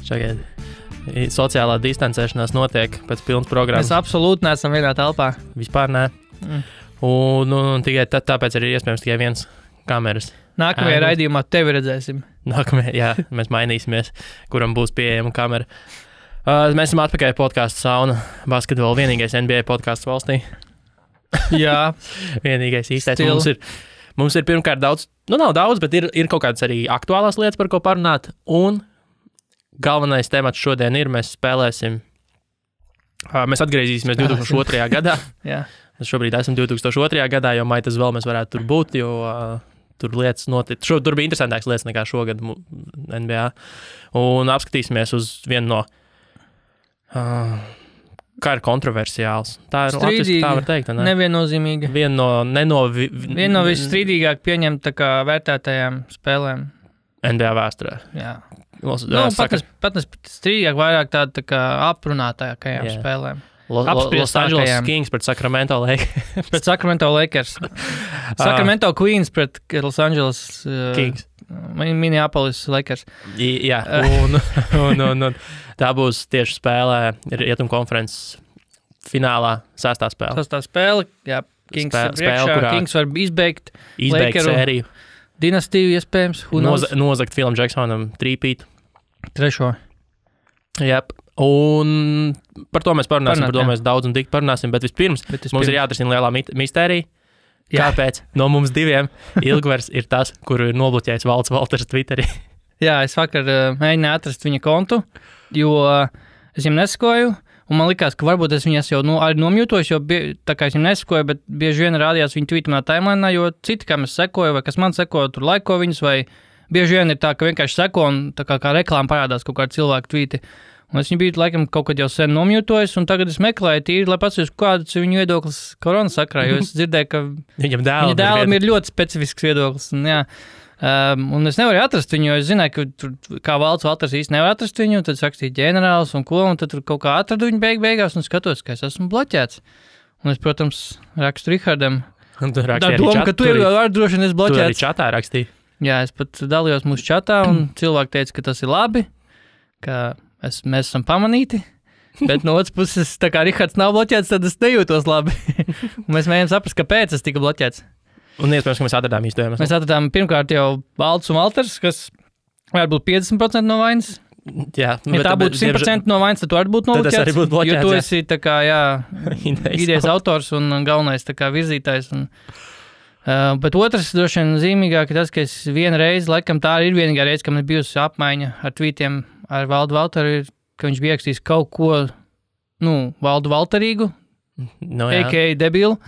Šagaid. Sociālā distancēšanās notiek pēc pilnas programmas. Mēs absolūti neesam vienā telpā. Vispār nē. Un tikai tāpēc arī iespējams tikai viens kameras. Nākamajā raidījumā tevi redzēsim. Jā, mēs mainīsimies, kuram būs pieejama kamera. Mēs esam atpakaļ podcastu Sauna basketbolu, vienīgais NBA podcasts valstī. Jā. Vienīgais īstais. Mums ir pirmkārt daudz, nav daudz, bet ir kaut kādas arī aktuālās lietas, par ko parunāt. Un galvenais temats šodien ir, mēs spēlēsim, mēs atgriezīsimies 2002. gadā. Jā. Mēs šobrīd esam 2002. gadā, jo maitas vēl mēs varētu tur būt, jo tur lietas notiek. Tur bija interesantāks lietas nekā šogad NBA. Un apskatīsimies uz vienu no, kā ir kontroversiāls. Tā ir latviski, tā var teikt, ne? Neviennozīmīga. Viena no visstrīdīgāk pieņemt tā kā vērtētajām spēlēm. NBA vēsturē. Jā. Pat strīdīgāk vairāk tā kā aprunātākajām spēlēm. Los Angeles Kings pret Sacramento Lakers. Pret Sacramento Lakers. Sacramento Queens pret Los Angeles Kings. Minneapolis Lakers. Jā, un tā būs tieši spēlē Rietumu konferences finālā sastā spēle. Sastā spēle, jā, Kings priekšā, Kings var izbeigt sēriju. Dinastiju iespējams. Nozagt Filam Jacksonam trīpīt. Trešo. Jā. Un par to mēs parunāsim, par to mēs daudz un tik parunāsim, bet vispirms mums ir jāatrisina lielā mistērija. Kāpēc no mums diviem Ilgvers ir tas, kuru ir nobloķējis Valds Valters Twitterī? Jā, es vakar mēģināju atrast viņa kontu, jo es viņam nesakoju, un man likās, ka varbūt es viņas jau arī nomjūtojos, jo tā kā es viņam nesakoju, bet bieži vien rādījās viņa tweetamā timelinā, jo citi, kam es sekoju, vai kas man sekoju, tur laiko viņus, vai bieži vien ir tā, ka vienkārši seko, un tā kā reklāma parādās kaut kādi cilvēku tweeti. Un es viņu biju laikam kaut kad jau sen nomjūtojis, un tagad es meklēju tīri, lai pasakas, kāds ir viņu viedoklis korona sakrā, jo es dzirdēju, ka viņa dēlam ir ļoti specifisks viedoklis. Un es nevaru atrast viņu, jo es zināju, ka tur, kā Valds Valters īsti nevar atrast viņu, tad rakstīja ģenerālis un ko, un tad tur kaut kā atradu viņu beigās, un skatos, ka es esmu bloķēts. Un es, protams, rakstu Rihardam. Tā doma, ka tu ir droši vien es bloķēts. Tu arī čatā rakstīji. Jā, es pat dalījos mūsu čatā, un cilvēki teica, ka tas ir labi, ka mēs esam pamanīti, bet no otras puses, tā kā Rihards nav bloķēts, tad es nejūtos labi. Un mēs mēģinām saprast, kāpēc es tika bloķēts. Un iespējams, ka mēs atradām īstojumus. Mēs atradām pirmkārt jau Valds un Valters, kas varētu būt 50% no vainas. Jā, ja tā būtu 100% no vainas, tad tu arī būtu nobloķēts. Tad es arī būtu bloķēts, jo tu esi tā kā, idejas autors un galvenais tā kā virzītājs. Bet otrs droši vien zīmīgāk ir tas, ka es vienu reizi, laikam tā ir vienīgā reize, ka man ir bijusi apmaiņa ar tweetiem ar Valdu Valteru, ka viņš bija rakstījis kaut ko, Valdu Valterīgu, a.k.a. debilu.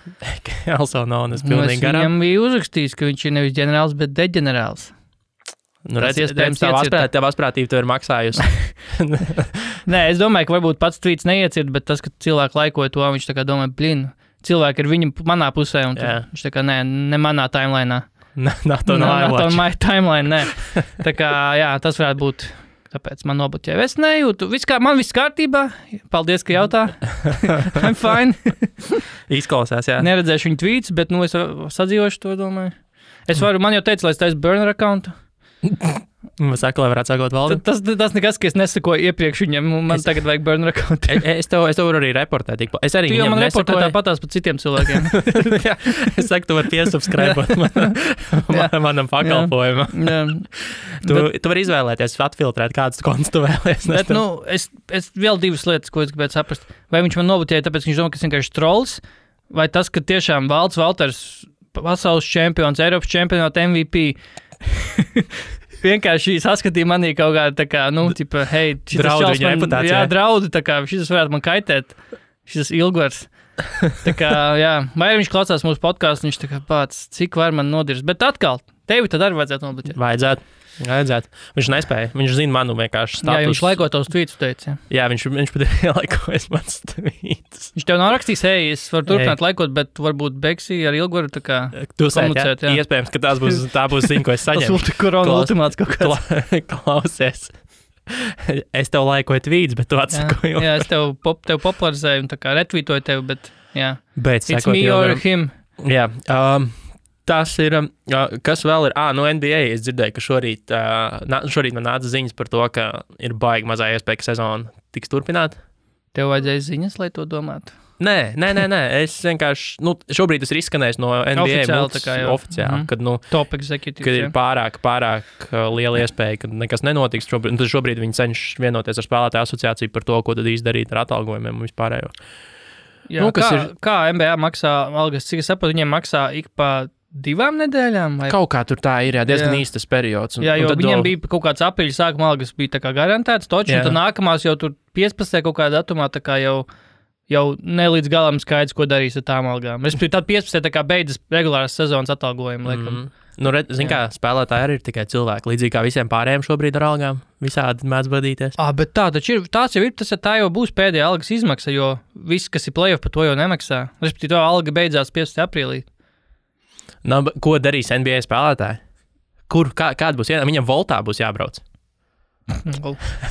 Also known as pilnīgi garām. Viņam bija uzrakstījis, ka viņš ir nevis ģenerāls, bet deģenerāls. Redz, tev asprātība tev ir maksājusi. Nē, es domāju, ka varbūt pats tweets neiecird, bet tas, ka cilvēki laikoja to, viņš tā kā domāja, cilvēki ir viņa manā pusē, un viņš tā kā, ne manā timelainā. Not on my timeline, nē. Tā kā, tas varētu būt, tāpēc man nobloķēja. Es nejūtu, man viss kārtībā, paldies, ka jautā. I'm fine. Izklausās, jā. Neredzēšu viņu tweets, bet, es sadzīvošu to, domāju. Man jau teica, lai es taisu burner accountu. Saka, lai varētu sakot Valdam. Tas nekas, ka es nesakoju iepriekš viņam, man tagad vajag burner account. Es tev varu arī reportēt. Es arī viņam man reportēju tāpatās par citiem cilvēkiem. Jā, es saku, tu vari piesubscribot manam pakalpojumam. Tu vari izvēlēties, atfiltrēt, kādas kontus tu vēlies. Bet, es vēl divas lietas, ko es gribētu saprast. Vai viņš man nobloķēja, tāpēc, ka viņš domā, ka es vienkārši trolls, vai tas, ka tiešām Valds Valters, pasaules čempions, Eiropas čempionāta MVP, vienkārši saskatīja manī kaut kādā tā kā, tipa, hei, draudu viņa reputācijā. Jā, draudu, tā kā, šis varētu man kaitēt, šis Ilgvers. Tā kā, vai viņš klausās mūsu podcastu, viņš tā kā pats, cik var man nodirst. Bet atkal, tevi tad arī vajadzētu nobloķēt. Vajadzētu. Viņš nespēja. Viņš zina manu vienkārši status. Jā, viņš laiko tavus tweetus teica. Jā, viņš pat ir laikojas mans tweetus. Viņš tev nav rakstījis, es varu turpināt laikot, bet varbūt Beksī ar Ilgvaru tā kā komunicēt. Jā. Iespējams, ka tā būs ziņa, ko es saņemu. Tas korona ultimāts kaut kāds. Klausies. Es tev laikoju tweets, bet tu atsakoju. Jā, es tev popularizēju un tā kā retvītoju tev, bet jā. Bet it's me or him. Jā. Tas ir, kas vēl ir, no NBA es dzirdēju, ka šorīt man nāca ziņas par to, ka ir baigi mazā iespēja, ka sezona tiks turpināt. Tev vajadzēja ziņas, lai to domātu? Nē, es vienkārši, šobrīd tas ir izskanējis no NBA oficiāli, kad, top executive, kad ir pārāk liela iespēja, ka nekas nenotiks. Šobrīd viņi cenšas vienoties ar spēlētāju asociāciju par to, ko tad īsti darīt ar atalgojumiem un vispārējo. Jā, kā NBA maksā algas, cik es saprotu, viņiem maksā ik pa 2 nedēļām? Vai? Kaut kā tur tā ir, diezgan īstas periods. Jo viņiem bija kaut kāds aprīļa sākuma algas, bija tā kā garantēts, un tad nākamās jau tur 15. kaut kādā datumā tā kā jau ne līdz galam skaidrs, ko darīs ar tām algām. Respektīvi, tad 15. tā kā beidzas regulāras sezonas atalgojumi, laikam. Kā spēlētāji arī ir tikai cilvēki, līdzīgi kā visiem pārējiem šobrīd ar algām, visādi mēdz vadīties. Bet tā jau būs pēdējā algas izmaksa, jo viss, kas ir playoff, par to jau nemaksā. Respektīvi, to alga beidzās 15. aprīlī. Ko darīs NBA spēlētāji? Kāda būs ienākuma? Viņam voltā būs jābrauc.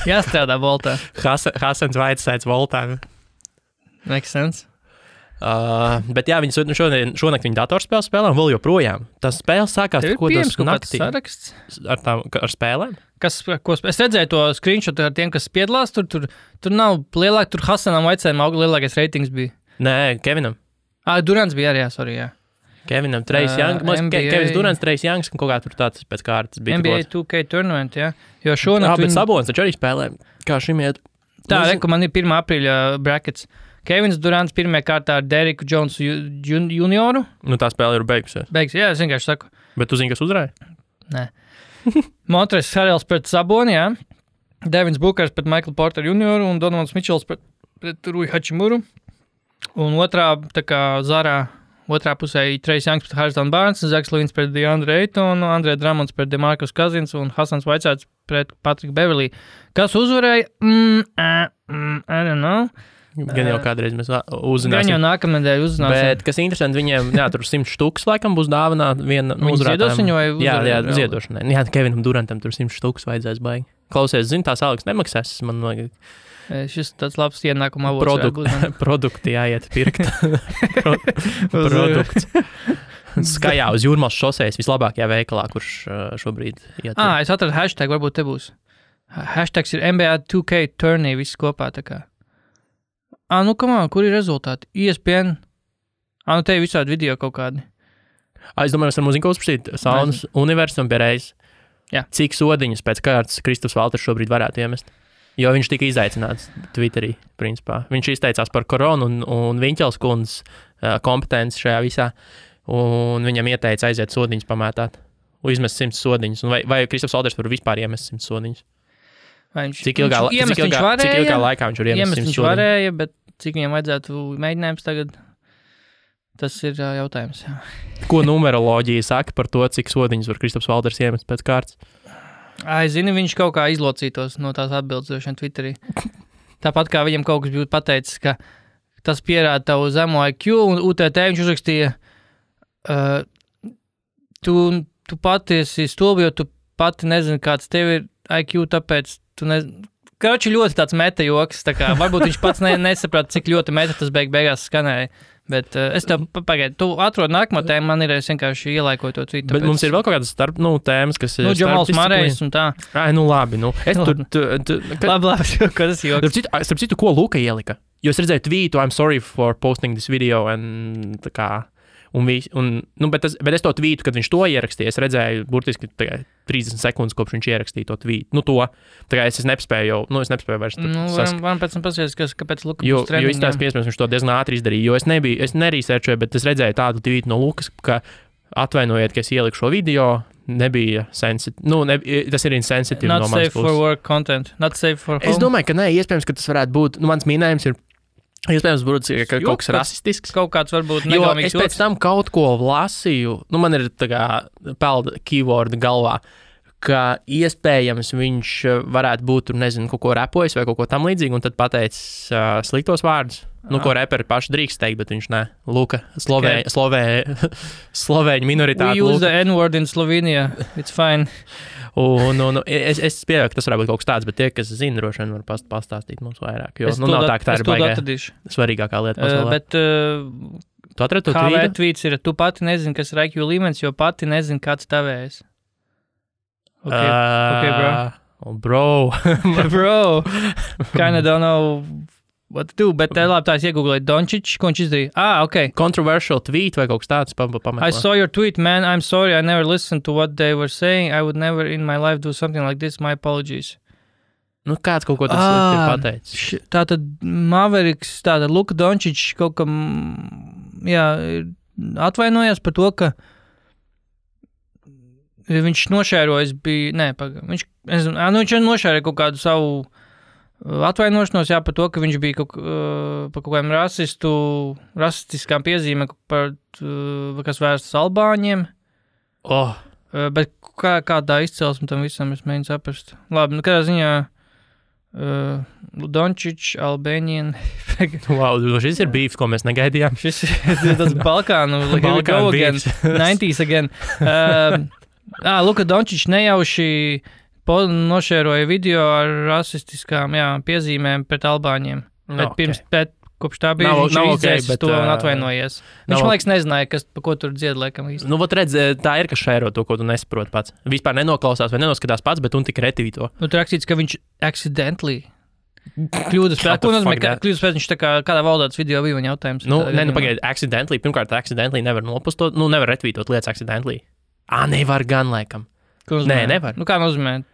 Jāstrādā voltā. Hasans Vaitsēts voltā. Makes sense. Bet jā, viņi šonakt viņa datorspēles spēlē un vēl joprojām. Tas spēles sākās ko tas naktī. Saraksts? Ar spēlēm? Es redzēju to screenshot ar tiem, kas piedalās. Tur nav lielāk, tur Hasanam Vaitsētam lielākais ratings bija. Nē, Kevinam. Durants bija arī, jā. Kevinam, Trace Young, Kevins Durants, Trace Youngs, un kaut kā tur tāds pēc kārtas bija. NBA 2K tournament, jā. Jo šonakt bet Sabonis taču arī spēlē, kā šim iet. Tā, man ir 1. aprīļa brackets. Kevins Durants pirmajā kārtā ar Deriku Jonesu junioru. Tā spēle ir beigusies. Jā, es vienkārši saku. Bet tu zini, kas uzvarēja? Nē. Montrezl Harrells pret Saboni, jā. Devins Bookers pret Michael Porter junioru un Donovans Mitchells pret Rui Hachimuru. Un otrā, tā kā Zarā, otrā pusē Trace Youngs pret Harrison Barnes, Zaks Levins pret DeAndre Aytonu, Andre Drummonds pret DeMarcus Cousins un Hasans Vaitsēts pret Patrick Beverley. Kas uzvarēja? I don't know. Gan jau kādreiz mēs uzzināsim. Gan jau nākamnedēļ uzzināsim. Bet, kas interesanti, viņiem, tur 100 štuks laikam būs dāvanā viena uzvarētājiem. Ziedos viņu vai uzvarēja? Jā, ziedošanai. Jā, Kevinam Durantam tur 100 štuks vajadzēs baigi. Klausies, tās algas nemaksās, man vajag. Šis tāds labs ienākuma avots. Produkti jāiet pirkt. Produkts. Skajā uz Jūrmals šosejas vislabākajā veikalā, kurš šobrīd iet. Es atradu hashtag, varbūt te būs. Hashtags ir NBA 2K tourney, viss kopā tā kā. Kur ir rezultāti? ESPN. Te ir visādi video kaut kādi. Es domāju, mēs varam muziku uzprasīt Saunas universum pierreiz. Jā. Cik sodiņus pēc kārtas Kristaps Valters šobrīd varētu iemest? Jo viņš tika izaicināts Twitterī, principā. Viņš izteicās par koronu un Viņķels kundzes kompetenci šajā visā, un viņam ieteica aiziet sodiņus pamētāt, un izmest 100 sodiņus. Vai Kristaps Valters var vispār iemest 100 sodiņus? Cik ilgā laikā viņš var iemest 100 sodiņus? Viņš varēja, bet cik viņam vajadzētu mēģinājums tagad, tas ir jautājums. Jā. Ko numeroloģija saka par to, cik sodiņus var Kristaps Valters iemest pēc kārtas? Zini, viņš kaut kā izlocītos no tās atbildes Twitterī. Tāpat kā viņam kaut kas būtu pateicis, ka tas pierāda tavu zemo IQ, un UTT viņš uzrakstīja, tu pati esi stulbi, jo tu pati nezini, kāds tev ir IQ, tāpēc tu nezini. Kroči ļoti tāds meta joks, tā kā varbūt viņš pats nesaprata, cik ļoti meta tas beigās skanēja. Bet es tev pagaidu, tu atrod nākamo tēmu, man ir vienkārši ielaikoju to tweetu. Bet mums ir vēl kaut kādas tēmas, kas ir Džamals Marejs un tā. Labi, Es labi, ko tas joks. Starp citu, ko Luka ielika? Jo es redzēju tweetu, I'm sorry for posting this video, tā kā, bet es to tweetu, kad viņš to ierakstīja, es redzēju burtiski 30 sekundes, kopš viņš ierakstīja to tweetu. Tā kā es nespēju vairs varam pēc tam pasies, kāpēc Luka jo izstāst, ka iespējams viņš to diezgan ātri izdarīja, jo es nerīsērčoju, bet es redzēju tādu tweetu no Lukas, ka atvainojiet, ka es ieliku šo video, nebija sensitīvi, tas ir insensitīvi no manas puses. Not safe for work content, not safe for home. Es domāju, ka iespējams, ka tas varētu būt, mans minējums ir, iespējams, būtu kaut kas rasistisks. Kaut kāds varbūt negalmīgs. Jo es pēc tam kaut ko lasīju, man ir tā kā pelda keyword galvā, ka iespējams viņš varētu būt, kaut ko repojis vai kaut ko tam līdzīgi, un tad pateicis sliktos vārdus. Ko reperi paši drīkst teikt, bet viņš ne. Luka, slovēņu minoritāte. We use the N-word in Slovenia, it's fine. Es pieļauju, ka tas varētu būt kaut kas tāds, bet tie, kas zina, droši vien var pastāstīt mums vairāk. Jo nav tā, ka tā ir baigā svarīgākā lieta pasaulē. Bet Tu atradi to KV tvītu? tweets ir, tu pati nezini, kas ir IQ līmenis, jo pati nezini, kāds tavējs. Okay, bro. Bro, kinda don't know what to do, bet labi, tā es iegooglēju Doncic, ko viņš izdarīja. Ok. Controversial tweet vai kaut kas tāds pameklē. I saw your tweet, man. I'm sorry, I never listened to what they were saying. I would never in my life do something like this. My apologies. Nu, kāds kaut ko tas ir pateicis. Tātad Mavericks, tātad Luka Doncic kaut kam, atvainojās par to, ka viņš nošērojas bija, viņš nošēroja kaut kādu savu atvainošanos, par to, ka viņš bija par kaut kādiem rasistiskām piezīmēm, kas vērstas albāņiem. Bet kādā izcelsme tam visam es mēģinu saprast. Labi, kādā ziņā Doncic, Albanian. Wow, šis ir beefs, ko mēs negaidījām. Šis ir tas Balkānu, here we go again, 90s again. Luka Doncic nejauši nošēroja video ar rasistiskām piezīmēm pret albāņiem. Bet kopš tā bija viņš izdzēsis to un atvainojies. Viņš, man liekas, nezināja, pa ko tur dzied, laikam īsti. Nu, vot redz, tā ir, kas šēro to, ko tu nesaproti pats. Vispār nenoklausās vai nenoskatās pats, bet un tik retīto. Nu, tur rakstīts, ka viņš accidentally kļūdas pēc. Ko nozīmē, kļūdas pēc viņš tā kā kādā valodā tas video bija viņa jautājums? Pagaidi, accidentally. Pirmkārt, accidentally nevar nopostot, nevar retvītot lietas accidentally. Nevar gan, laikam. Nē, nevar. Nu, kā nozīmē?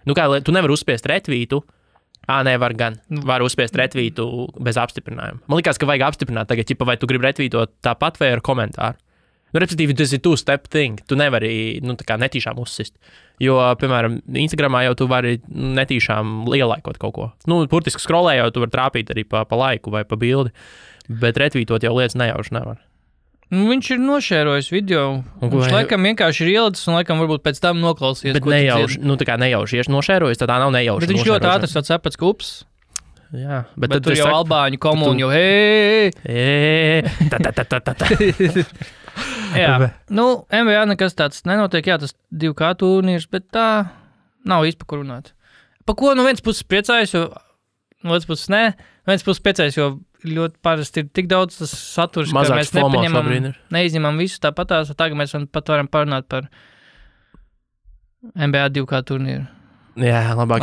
Tu nevar uzspiest retvītu. Nevar gan. Var uzspiest retvītu bez apstiprinājuma. Man liekas, ka vajag apstiprināt tagad, vai tu gribi retvītot tāpat vai ar komentāru. Nu, respektīvi, tas ir two-step thing. Tu nevari, tā kā netīšām uzsist. Jo, piemēram, Instagramā jau tu vari netīšām lielaikot kaut ko. Burtiski scrollējot, tu vari trāpīt arī pa laiku vai pa bildi, bet retvītot jau lietas nejauši nevar. Viņš ir nošērojis video. Viņš laikam vienkārši ir ielicis un laikam varbūt pēc tam noklausījies. Bet nejauši, tā kā nejauši nošērojis, tad tā nav nejauši. Bet viņš ļoti ātri saprats, ka ups. Jā, bet tur jau albāņu komūni jau hei. Jā, NBA nekas tāds nenotiek, tas 2K turnīrs, bet tā nav īsti pa ko runāt. Pa ko no vienas puses priecājas, jo no otras puses nē, no vienas puses priecājas, jo ļoti parasti ir tik daudz tas saturs, ka mēs neizņemam visu tāpatās, tagad mēs pat varam parunāt par NBA 2K turnīru. Jā, labāk.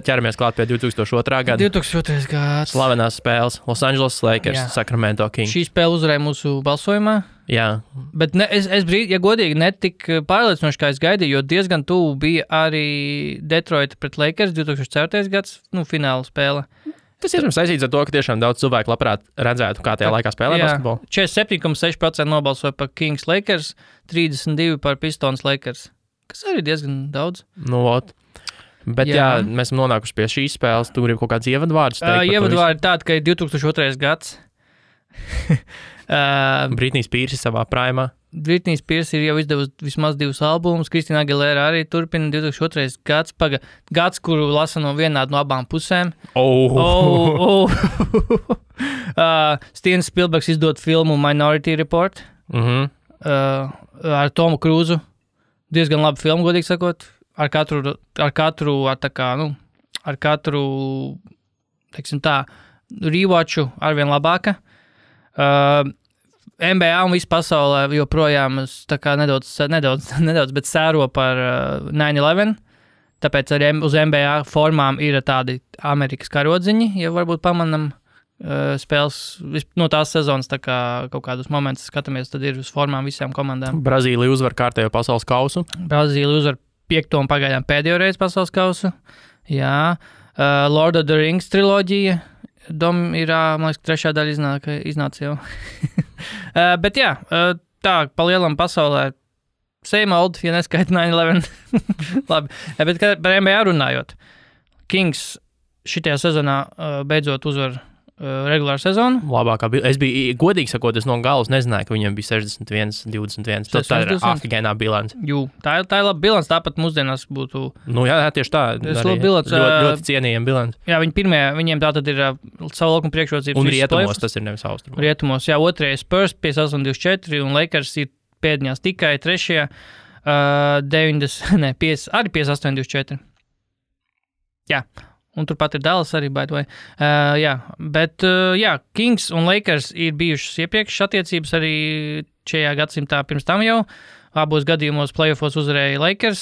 Ķeramies klāt pie 2002. gada. 2002. gads. Slavenās spēles. Los Angeles Lakers, Sacramento Kings. Šī spēle uzvarēja mūsu balsojumā. Jā. Bet godīgi, netik pārliecinoši, kā es gaidīju, jo diezgan tuvu bija arī Detroit pret Lakers 2004. gads, fināla spēle. Tas ir saistīts ar to, ka tiešām daudz cilvēku labprāt redzētu, kā tajā laikā spēlē basketbolu. 47,6% nobalsoja par Kings Lakers, 32% par Pistons Lakers. Kas arī diezgan daudz. Bet mēs esam nonākuši pie šīs spēles. Tu gribi kaut kāds ievadvārdus teikt? Ievadvārdi tādi, ka ir 2002. gads. Britney Spears savā prāmā. Britney Spears ir jau izdevusi vismaz 2 albumus. Kristīna Aguilera arī turpina 2002. gads. Gads, kuru lasa vienādi no abām pusēm. Steven Spielbergs izdod filmu Minority Report. Ar Tomu Krūzu. Diezgan labi filmu, godīgi sakot. Ar katru, teiksim tā, rewatchu arvien labāka. NBA un visu pasaulē joprojām tā kā nedaudz, bet sēro par 9/11. Tāpēc arī uz NBA formām ir tādi Amerikas karodziņi, ja varbūt pamanam spēles no tās sezonas, tā kā kaut kādus momentus skatāmies, tad ir uz formām visām komandām. Brazīlija uzvar kārtējo pasaules kausu. Brazīlija uzvar 5. un pagaidām pēdējo reizi pasaules kausu. Jā. Lord of the Rings triloģija. Man liekas, 3. daļa iznāca jau. Bet jā, tā pa lielam pasaulē same old, ja neskaita 9/11. Labi, bet par NBA runājot. Kings šitajā sezonā beidzot uzvar regulāru sezonu. Labākā bilance. Es biju, godīgi sakot, es no galas nezināju, ka viņam bija 61-21. Tā ir afigēnā bilance. Jū, tā ir laba bilance, tāpat mūsdienās būtu. Jā, tieši tā. Ļoti cienījama bilance. Jā, viņiem tā tad ir savu laukumu priekšrocības. Un rietumos tas ir nevis austrumos. Rietumos, jā, otrajā Spurs 58-24 un Lakers ir pēdņās tikai trešajā 58-24. Jā. Un turpat ir Dallas arī, by the way. Jā, bet, Kings un Lakers ir bijušas iepriekšas attiecības arī šajā gadsimtā pirms tam jau. Abos gadījumos playoffos uzvarēja Lakers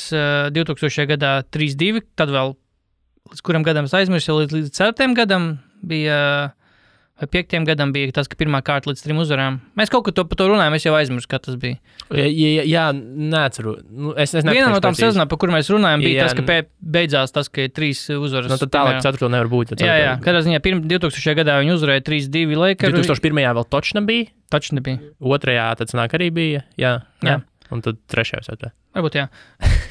2000. gadā 3-2, tad vēl līdz kuram gadam es aizmirsu, jau līdz 4. gadam bija, vai 5. gadam bija tas, ka pirmā kārta līdz 3 uzvarām. Mēs kaut ko par to runājam, es jau aizmirsu, kā tas bija. Jā, neatceru. Es Viena no tām sezonām, par kur mēs runājam, bija tas, ka beidzās tas, ka ir 3 uzvaras. Tad tālāk 4. nevar būt. Jā, kādā ziņā 2000. gadā viņi uzvarēja 3-2 Lakers. 2001. vēl točna bija. 2. tad sanāk arī bija, jā. Un tad 3. jau. Varbūt, jā.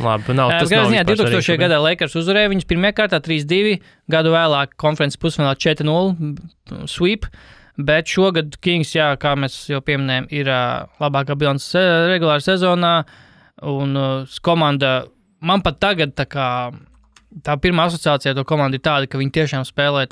Labi, nav tas. Kādā ziņā 2000. gadā Lakers uzvarēja viņus pirmajā kārtā 3-2, gadu vēlāk konferences pusfinālā 4-0 sweep, bet šogad Kings, jā, kā mēs jau pieminējam, ir labākā bilants regulāra sezonā, un komanda, man pat tagad tā pirmā asociācija to komandu ir tāda, ka viņi tiešām spēlē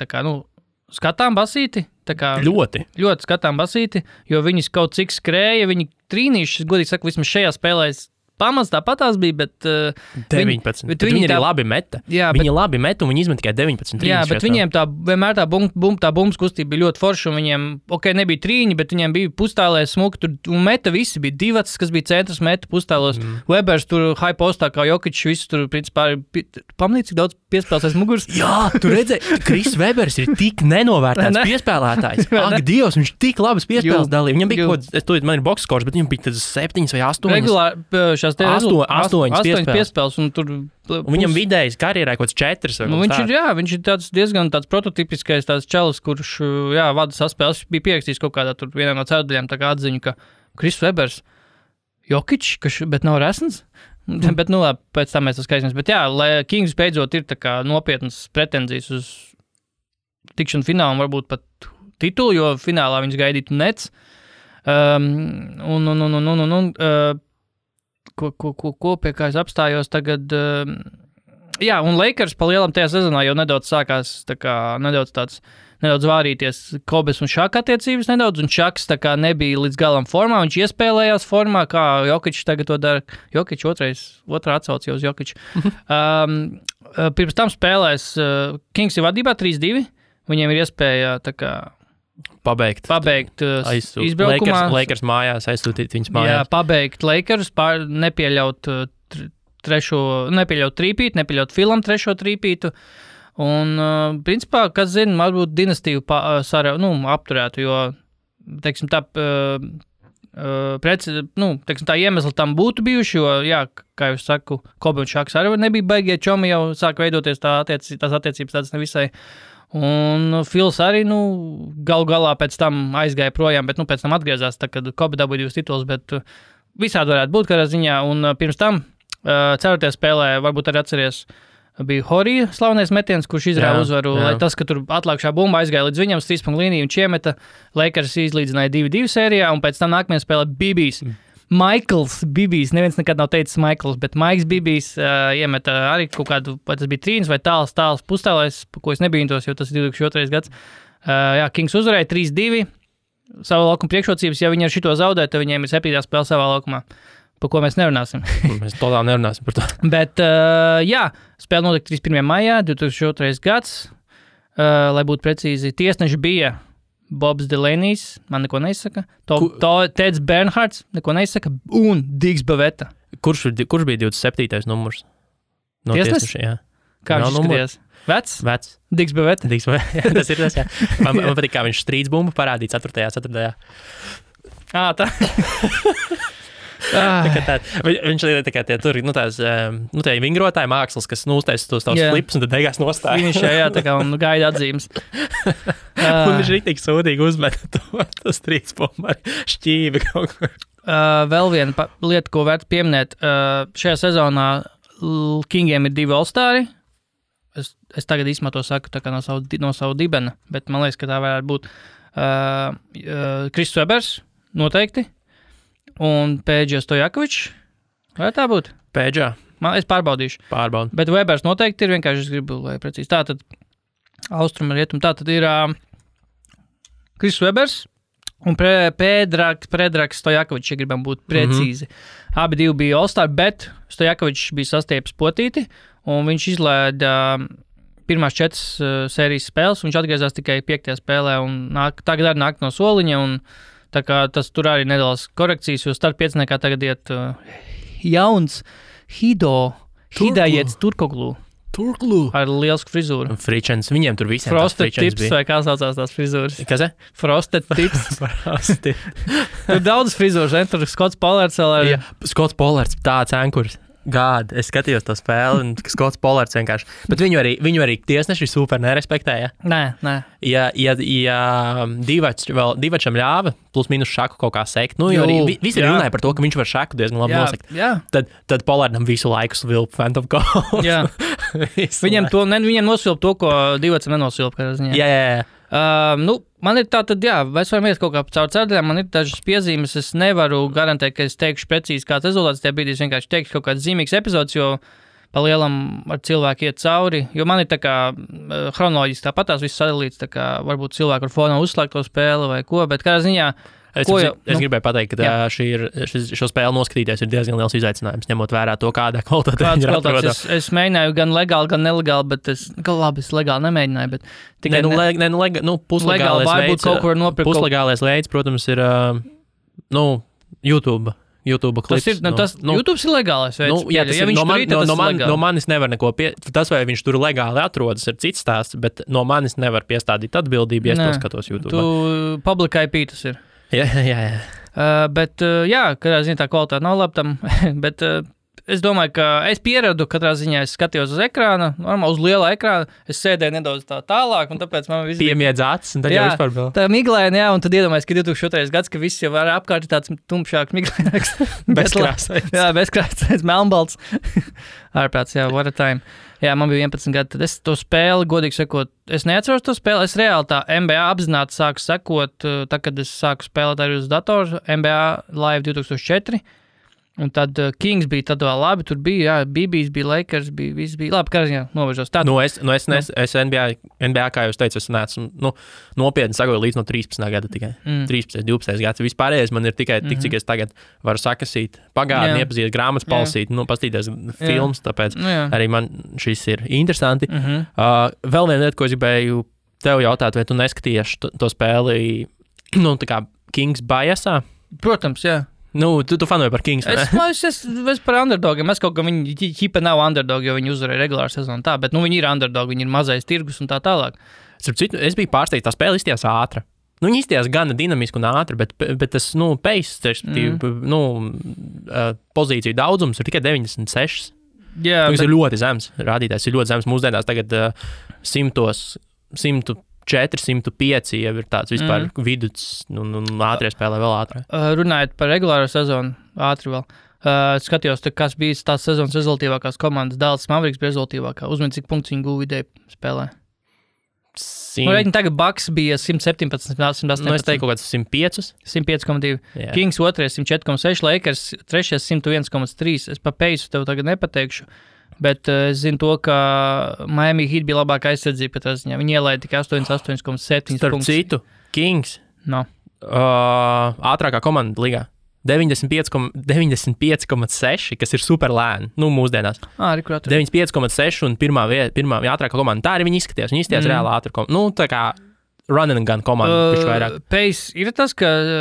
skatām basīti. Ļoti skatām basīti, jo viņi kaut cik skrēja, viņi trīnīši, godīgi saka, vismaz šajā spēlē pamats tāpatās bija, bet 19. Bet viņi arī labi meta. Jā, viņi labi meta un viņi izmet tikai 19. Jā, bet viņiem vienmēr tā bumbas kustība bija ļoti forša un viņiem, nebija trīņi, bet viņiem bija pustālē smuki tur un meta visi bija Divats, kas bija centrs meta pustālos. Webers tur high postā kā Jokičs, visu tur principā pamanīt, cik daudz piespēlēs aiz muguras. Jā, tu redzēji, Kris Webers ir tik nenovērtēts piespēlētājs. Ak, Dievs, viņš tik labas piespēles dalīja. Viņam bija man ir boxskors, bet viņam bija 7 vai 8. Regulāri 8 piespēles, un tur... Un viņam vidējais karjerā kaut kāds 4. Viņš ir diezgan tāds prototipiskais tāds čalis, kurš, vada saspēles. Bija pierakstījis kaut kādā tur vienā no ceturdaļām tā kā atziņu, ka Kris Webers, Jokičs, bet nav resns. Bet, labi, pēc tam mēs tas skaidrs. Bet lai Kings beidzot ir tā kā nopietnas pretenzijas uz tikšanu finālu un varbūt pat titulu, jo finālā viņus gaidītu Nets. Ko pie kā es apstājos tagad. Un Lakers pa lielam tajā sezonā jau nedaudz sākās nedaudz vārīties Kobes un Šaka attiecības nedaudz, un Šaks nebija līdz galam formā, viņš iespēlējās formā, kā Jokičs tagad to dara. Jokičs otrā atsauc jau uz Jokiču. Pirms tam spēlēs Kings ir vadībā 3-2, viņiem ir iespēja pabeigt izbraukumā. Lakers mājās, aizsūtīt viņus mājās. Jā, pabeigt Lakers, nepieļaut trīpītu, nepieļaut Filam 3. trīpītu. Un, principā, kas zina, varbūt dinastīvu apturētu, jo, teiksim, tā iemesli tam būtu bijuši, jo, kā jūs saku, Kobe un Šaks arī nebija baigie čomi, jau sāk veidoties tās attiecības tādas nevisai. Un Fils arī, galu galā pēc tam aizgāja projām, bet, pēc tam atgriezās, kad Kobe dabūja 2 titulus, bet visādi varētu būt kādā ziņā. Un pirms tam, 4. spēlē, varbūt arī atceries, bija Horija slavenais metiens, kurš izrāva uzvaru, lai tas, ka tur atlākšā bumba aizgāja līdz viņam uz 3. līniju un iemeta, Lakers izlīdzināja 2-2 sērijā, un pēc tam nākamajā spēlē Bibijs. Michaels Bibijs, neviens nekad nav teicis Michaels, bet Maiks Bibijs iemeta arī kaut kādu, vai tas bija trīns vai tāls pustālais, ko es nebīntos, jo tas ir 2002. gads. Kings uzvarēja 3-2, savu laukumu priekšrocības, ja viņi ar šito zaudē, tad viņiem ir 7. spēle savā laukumā, par ko mēs nerunāsim. Mēs totāli nerunāsim par to. Bet, spēle notika 31. maijā, 2002. gads, lai būtu precīzi, tiesneši bija Bobs Delaney's, man neko neizsaka, Teds Bernhards, neko neizsaka, un Digs Bavetta. Kurš bija 27. numurs? No tiesneša, jā. Kā viņš izskatījās? Vecs? Digs Bavetta. Jā, tas ir tas, jā. Man patīk, kā viņš strīds bumbu parādīja 4. Tā. Viņš ir tur, tie vingrotāji mākslas, kas uztaisa tos tavus flipus un tad beigās nostāja. Viņš un gaida atzīmes. Un viņš rītīgi sūdīgi uzmeta to strīds bumbu ar šķīvi kaut ko. Vēl viena lieta, ko vērts pieminēt. Šajā sezonā Kingiem ir 2 All-Stari. Es tagad īsumā to saku no savu dibena, bet man liekas, ka tā varētu būt Kris Webers, noteikti. Un Pēdža Stojakovičs. Vai tā būtu? Pēdžā. Es pārbaudīšu. Bet Webers noteikti ir, vienkārši es gribu, lai precīzi. Tātad austruma rietum. Tātad ir Kris Webers un Predrags Stojakovičs, ja gribam būt precīzi. Abi 2 bija All-Star, bet Stojakovičs bija sastiepis potīti, un viņš izlēda pirmās 4 sērijas spēles, viņš atgriezās tikai 5. spēlē un tagad arī nāk no soliņa, un tā kā tas tur arī nedaudz korekcijas, jo starp 5 tagad iet jauns Hidājets Turkoglu. Ar lielsku frizūru. Fričens, viņiem tur visiem Frosted tips, vai kā saucās tās frizūras? Kas? Frosted tips. Tur daudz frizūras, ne? Tur Skots Pollards vēl ar... Jā, Skots Pollards, tāds ankurs. Gād, es skatījos to spēli, un Skots Pollards vienkārši. Bet viņu arī tiesneši super nerespektēja. Nē. Ja Divačam ļāva, plus mīnus šaku kaut kā sekt, nu, jo arī visi runāja par to, ka viņš var šaku diezgan labi nosekt. Tad Pollardam visu laiku svilp Phantom Cold. Jā. Viņiem nosilp to, ko Divacam nenosilp. Jā. Man ir tā tad, mēs varam iet kaut kā caur cērdaļām, man ir dažas piezīmes, es nevaru garantēt, ka es teikšu precīzi kāds rezultāts, tajā brīdī es vienkārši teikšu kaut kāds zīmīgs epizods, jo pa lielam ar cilvēku iet cauri, jo man ir tā kā chronoloģiski tāpatās viss sadalīts, tā kā varbūt cilvēku ar fonā uzslēgt to spēli vai ko, bet kādā ziņā... Es gribēju pateikt, ka šo spēli noskatīties ir diezgan liels izaicinājums, ņemot vērā to, kādā kvalitātē viņi ir atrodami. Es mēģināju gan legāli, gan nelegāli, bet es legāli nemēģināju. Bet tikai puslegālais veids, protams, ir YouTube klips. YouTube ir legālais veids. No manis nevar neko tas, vai viņš tur legāli atrodas, ir cits stāsts, bet no manis nevar piestādīt atbildību, ja es to skatos YouTube. Tu public IP tas ir. Jā. Bet, kādā ziņā tā kvalitāte nav laba tam, bet es domāju, ka es pieradu, katrā ziņā es skatījos uz ekrāna, normāli uz liela ekrāna, es sēdēju nedaudz tālāk, un tāpēc man viss piemiedz acis, un tad jau vispār vēl. Tā miglēna, un tad iedomājies, ka 2002. gads, ka viss jau var apkārt tāds tumšāks miglēnāks. Bezkrāsains. Jā, bezkrāsains, melnbalts. Ārprāts, what a time. Jā, man bija 11 gadi, tad es to spēli, godīgi sakot, es neatceros to spēli, es reāli tā NBA apzināti sāku sekot, tā, kad es sāku spēlēt arī uz datoru, NBA Live 2004, un tad Kings bija tad vēl labi, tur bija, BBs bija, Lakers bija, viss bija labi, kā ziņā novežos. Es NBA, kā jūs teicu, es neesmu, nopietni sagoju līdz no 13. gada tikai, 13, 12 gads, vispārējais man ir tikai tik, cik es tagad varu sakasīt, pagātni, iepazīt grāmatas palasīt, pastīties filmas, tāpēc arī man šis ir interesanti. Vēl viena lieta, ko es gribēju tev jautāt, vai tu neskatījies to spēli, tā kā Kings Biasā? Protams, jā. Tu fanoji par Kings, ne? Es par underdogiem. Es kaut kā viņi ķipa nav underdogi, jo viņi uzvarēja regulāru sezonu tā, bet viņi ir underdogi, viņi ir mazais tirgus un tā tālāk. Es biju pārsteigts, tā spēle izstījās ātra. Viņi izstījās gana dinamiski un ātri, bet tas, pace, pozīciju daudzums ir tikai 96. Jā, tas ir ļoti zems. Rādītājs ir ļoti zems. Mūsdienās tagad 104, 105 jau ir tāds vispār viduts un ātrie spēlē vēl ātrāk. Runājot par regulāro sezonu, ātri vēl. Skatījos, kas bija tās sezonas rezultīvākās komandas. Dallas Mavericks bija rezultīvākā. Uzmini, cik punktus viņi guva vidēji spēlē. Tagad Bucks bija 117, 118. Es teiktu kaut kāds 105. 105,2. Kings 2, 104,6, Lakers 3, 101,3. Es pa peisu tev tagad nepateikšu. Bet es zinu to, ka Miami Heat bija labāka aizsardzība pēc ziņā. Viņi ielaida tikai 88,7 punktus. Starp citu, Kings ātrākā komanda ligā. 95,6, kas ir super lēni, mūsdienās. 95,6 un pirmā ātrākā komanda. Tā arī viņi izskatījās. Viņi izskatījās reāli ātrā komanda. Tā kā run and gun komanda. Pace ir tas, ka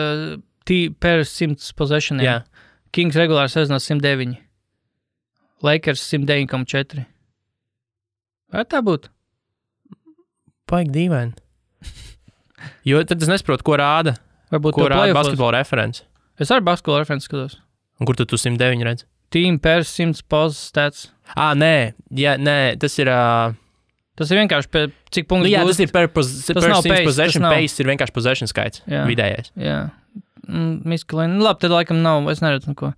per 100 possessioniem. Jā. Kings regulāri sezonā 109. Lakers 109,4. Vai tā būtu? Paigi dīvaini. Jo tad es nesaprotu, ko rāda. Varbūt ko rāda basketbola referents. Es arī basketbola referents skatos. Un kur tu 109 redz? Team per 100 pos stats. Nē, tas ir... Tas ir vienkārši cik punktus gūst. Tas ir per 100 possession, pace ir vienkārši possession skaits, vidējais. Jā. Miskalēni. Labi, tad laikam nav, es neredzu neko.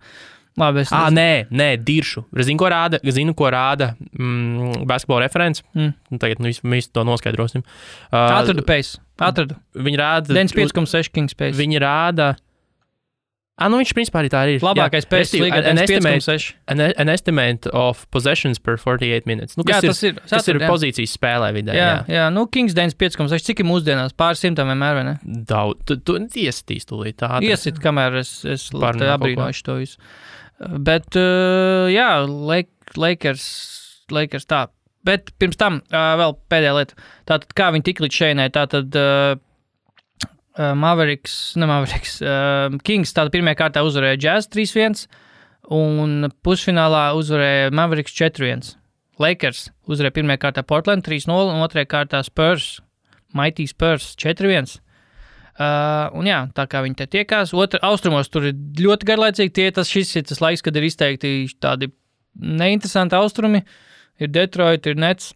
Labi, nē, diršu. Zinu, ko rāda basketbola referents. Tagad visu to noskaidrosim. Atradu pace. Viņi rāda... 95,6 Kings pace. Viņi rāda... viņš principā arī tā ir. Labākais pace līgā 95,6. An estimate of possessions per 48 minutes. Tas ir pozīcijas spēlē vidē. Jā. Kings 95,6. Cik ir mūsdienās? Pāris simtam vienmēr, vai ne? Daudz. Tu iesitīs tūlīt tādu. Iesit, kamēr es abrīnošu to visu. Bet, Lakers tā. Bet pirms tam vēl pēdējā lieta. Tātad, kā viņi tik līdz šeinai, tātad Kings tātad pirmajā kārtā uzvarēja Jazz 3-1 un pusfinālā uzvarēja Mavericks 4-1. Lakers uzvarēja pirmajā kārtā Portland 3-0 un otrajā kārtā Spurs, Mighty Spurs 4-1. Un jā, tā kā viņi te tiekās. Austrumos tur ir ļoti garlaicīgi. Šis ir tas laiks, kad ir izteikti tādi neinteresanti austrumi. Ir Detroit, ir Nets.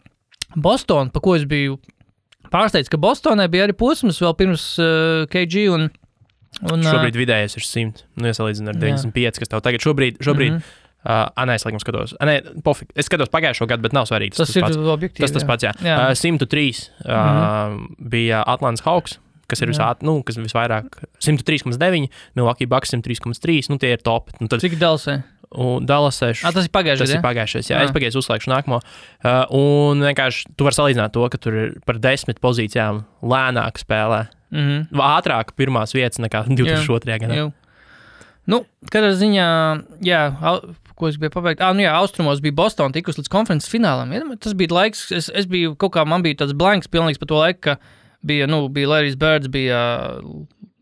Boston, pa ko es biju pārsteigts, ka Bostonai bija arī posms vēl pirms KG un šobrīd vidējais ir 100. Iesalīdzinu ar 95, kas tev tagad šobrīd es laikam skatos. Pofik. Es skatos pagājušo gadu, bet nav svarīgi. Tas ir objektīvi. Tas pats, jā. 103 bija Atlantas Hawks, kas ir kas visvairāk 103,9, Milwaukee Bucks 103,3, tie ir top. Cik Dallasai? Dallasai. Tas ir pagājušais. Tas ir pagājušais, jā. Es pagaidu uzslēgšu nākamo. Un vienkārši tu vari salīdzināt to, ka tur ir par 10 pozīcijām lēnāk spēlē. Ātrāk pirmās vietas nekā 2002. gadā. Kādā ziņā, ko es biju pabeigt? Austrumos bija Boston tikus līdz konferences finālam. Tas bija laiks, es biju man bija tāds blanks pilnīgs par to laiku, ka bija Larry's Birds, bija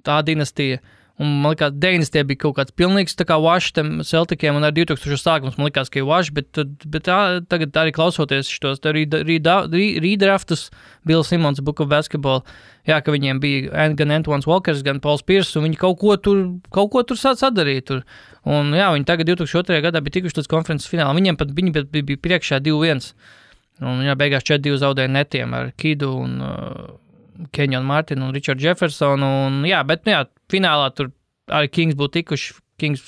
tā dinastija. Un man likās, 90. bija kaut kāds pilnīgs tā kā wash tiem Celticiem, un ar 2000 sākums man likās, ka ir wash, bet tagad arī klausoties šitos redraftus, Bill Simmons, Book of Basketball, ka viņiem bija gan Antoine Walkers, gan Pauls Pierce, un viņi kaut ko tur sadarīja tur. Un viņi tagad 2002. gadā bija tikuši līdz konferences finālam. Viņi bija priekšā 2-1. Un beigās 4-2 zaudēja netiem ar Kidu un Kenyon Martin un Richard Jefferson. Finālā tur arī Kings būtu tikuši. Kings,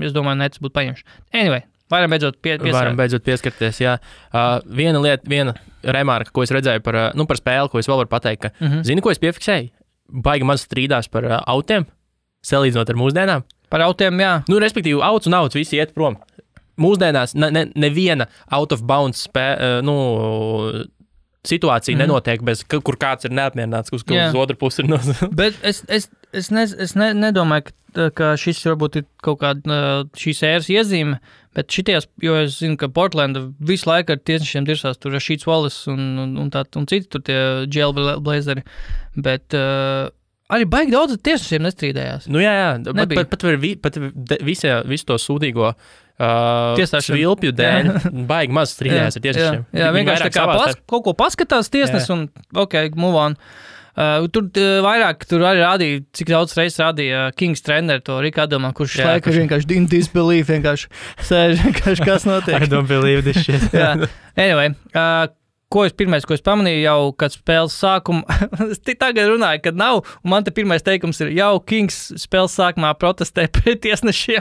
es domāju, Nets būtu paņemši. Anyway, varam beidzot pieskarties, jā. Viena lieta, viena remarka, ko es redzēju par spēli, ko es vēl varu pateikt, ka, zini, ko es piefiksēju? Baigi maz strīdās par autiem, salīdzinot ar mūsdienām. Par autiem, jā. Respektīvi, auts un auts visi iet prom. Mūsdienās neviena out of bounds situācija nenotiek, kur kāds ir neapmierināts, uz otru pusi ir Bet es nedomāju, ka šis varbūt ir kaut kāda šīs ēras iezīme, bet šities, jo es zinu, ka Portlanda visu laiku ar tiesnešiem dirsās, tur Rashīds Wallace un citi tur tie jailblazeri, bet arī baigi daudz tiesnešiem nestrīdējās. Pat visu to sūdīgo svilpju dēļ baigi maz strīdējās ar tiesnešiem. Jā, vienkārši tā kā kaut ko paskatās tiesnes un move on. Tur arī rādīja, cik daudz reizes rādīja Kings treneru to Riku Adamā, kurš laiku vienkārši didn't disbelieve, vienkārši sēž, vienkārši kas notiek. I don't believe this shit. Anyway, ko es pamanīju jau, kad spēles sākuma, es tagad runāju, kad nav, un man te pirmais teikums ir, jau Kings spēles sākumā protestē pret tiesnešiem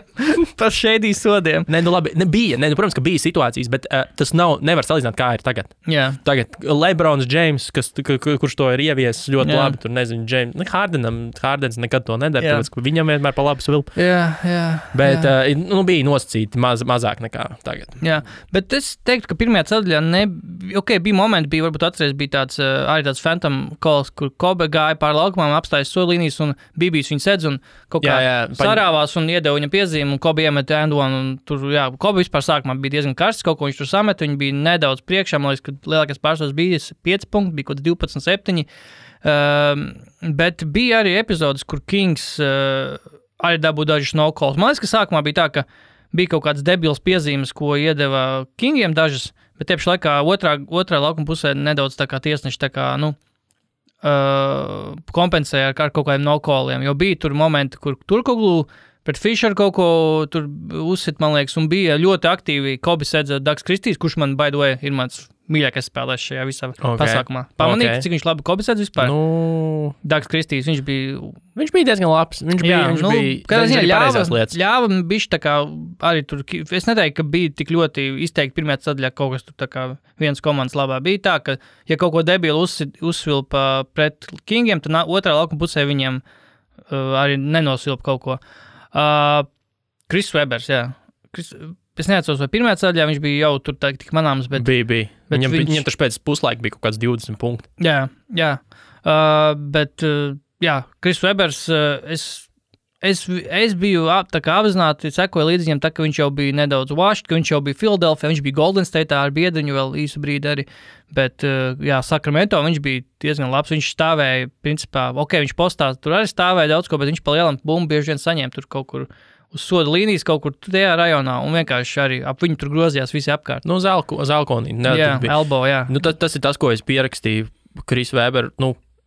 par šēdī sodiem. Protams, ka bija situācijas, bet tas nevar salīdzināt, kā ir tagad. Jā. Tagad LeBrons James, kurš to ir ieviesis ļoti labi, tur nezinu, Hardens nekad to nedara, tāpēc, ka viņam vienmēr pa labu svilpu. Jā. Bet bija nosacīti mazāk nekā tagad. Jā, bet es teiktu, ka pirmajā ceļā bija momenti, varbūt atceries, bija arī tāds phantom calls, kur Kobe gāja pār laukumām, apstājas solīnijas un Bībijs viņu sedz un kaut kā sarāvās un iedeva viņam piezīmi un Kobe iemet Andonu un tur, Kobe vispār sākumā bija diezgan karsts, kaut ko viņš tur samet, viņi bija nedaudz priekšā, man liekas, ka lielākais pārsvars bija 5 punkti, bija kaut 12-7, bet bija arī epizodes, kur Kings arī dabūja dažus no calls. Man liekas, ka sākumā bija tā, ka bija kaut kāds debils piezīmes, ko iedeva Kingiem dažas, bet tieši laikā otrā laukuma pusē nedaudz tā kā tiesneši tā kā, kompensēja ar kaut kādiem no-calliem, jo bija tur momenti, kur Turkoglu pret Fisher kaut ko tur uzsit, man liekas, un bija ļoti aktīvi Kobe sedza Dags Kristīs, kurš man, by the way, ir mans mīļākais spēlēs šajā visā pasākumā. Pamanīt, cik viņš labi Kobe sedz vispār? Dags Kristīs, viņš bija diezgan labs. Viņš bija ļāva bišķi tā kā arī tur, es neteiktu, ka bija tik ļoti izteikti pirmajā ceļā kaut kas tur tā kā viens komandas labā. Bija tā, ka ja kaut ko debilu uzsvilpa pret Kingiem, tad otrā laukuma pusē viņiem arī nenosilpa kaut ko. Chris Webers, jā. Es neatceros, vai pirmajā ceļā viņš bija jau tur tik manāms, bet... Bija. Viņam taču pēc puslaika bija kaut kāds 20 punkti. Jā. Bet Chris Webers, es Es biju tā kā apzināti, sekoju līdz viņam, tā ka viņš jau bija nedaudz washed, ka viņš jau bija Philadelphia, viņš bija Golden State ar biedriņu vēl īsu brīdi arī, bet, jā, Sacramento viņš bija diezgan labs, viņš stāvēja, principā, viņš postā, tur arī stāvēja daudz ko, bet viņš pa lielam bumbu bieži vien saņēma tur kaut kur uz soda līnijas, kaut kur tajā rajonā, un vienkārši arī ap viņu tur grozījās visi apkārt. Nu, Zelkonī. Jā, elbow, jā. Nu, tas ir tas, ko es pierakstīju Chris Webber,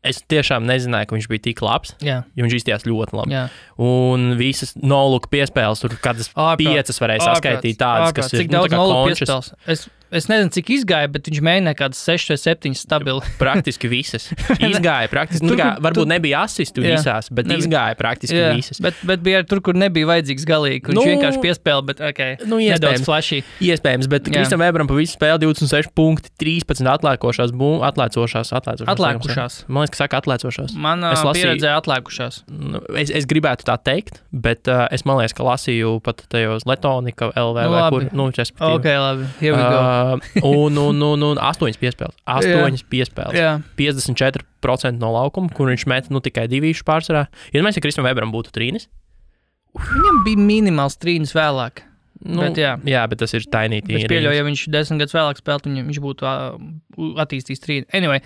es tiešām nezināju, ka viņš bija tik labs, jo viņš izstījās ļoti labi. Jā. Un visas no-look piespēles, tur kādas 5 varēja saskaitīt tādas, kas ir, cik daudz no-look piespēles? Es nezinu, cik izgāja, bet viņš mēģināja kādas 6 vai 7 stabili. Praktiski visas. Izgāja praktiski, varbūt nebija asistu visās, bet izgāja praktiski visas. Bet bija tur, kur nebija vajadzīgs galīgi, kur viņš vienkārši piespēla, bet nedaudz flashy. Iespējams, bet Kristam Webberam pa visu spēli 26 punkti, 13 atlēkošās. Atlēkušās. Man liekas, ka saka atlēcošās. Man pieredzēja atlēkušās. Es gribētu tā teikt, bet es man liekas, ka lasīju pat tajos Letonika LV vai kur, respektīvi. Ok, labi, here we go. Un 8 piespēles. 8 piespēles. Jā. 54% no laukuma, kur viņš met tikai 2 pārsvarā. Ja Kristam Webberam būtu trīnis? Viņam bija minimāls trīnis vēlāk. Bet, bet tas ir tiny trīnis. Es pieļauju, ja viņš 10 gadus vēlāk spēlētu, viņš būtu attīstījis trīni. Anyway,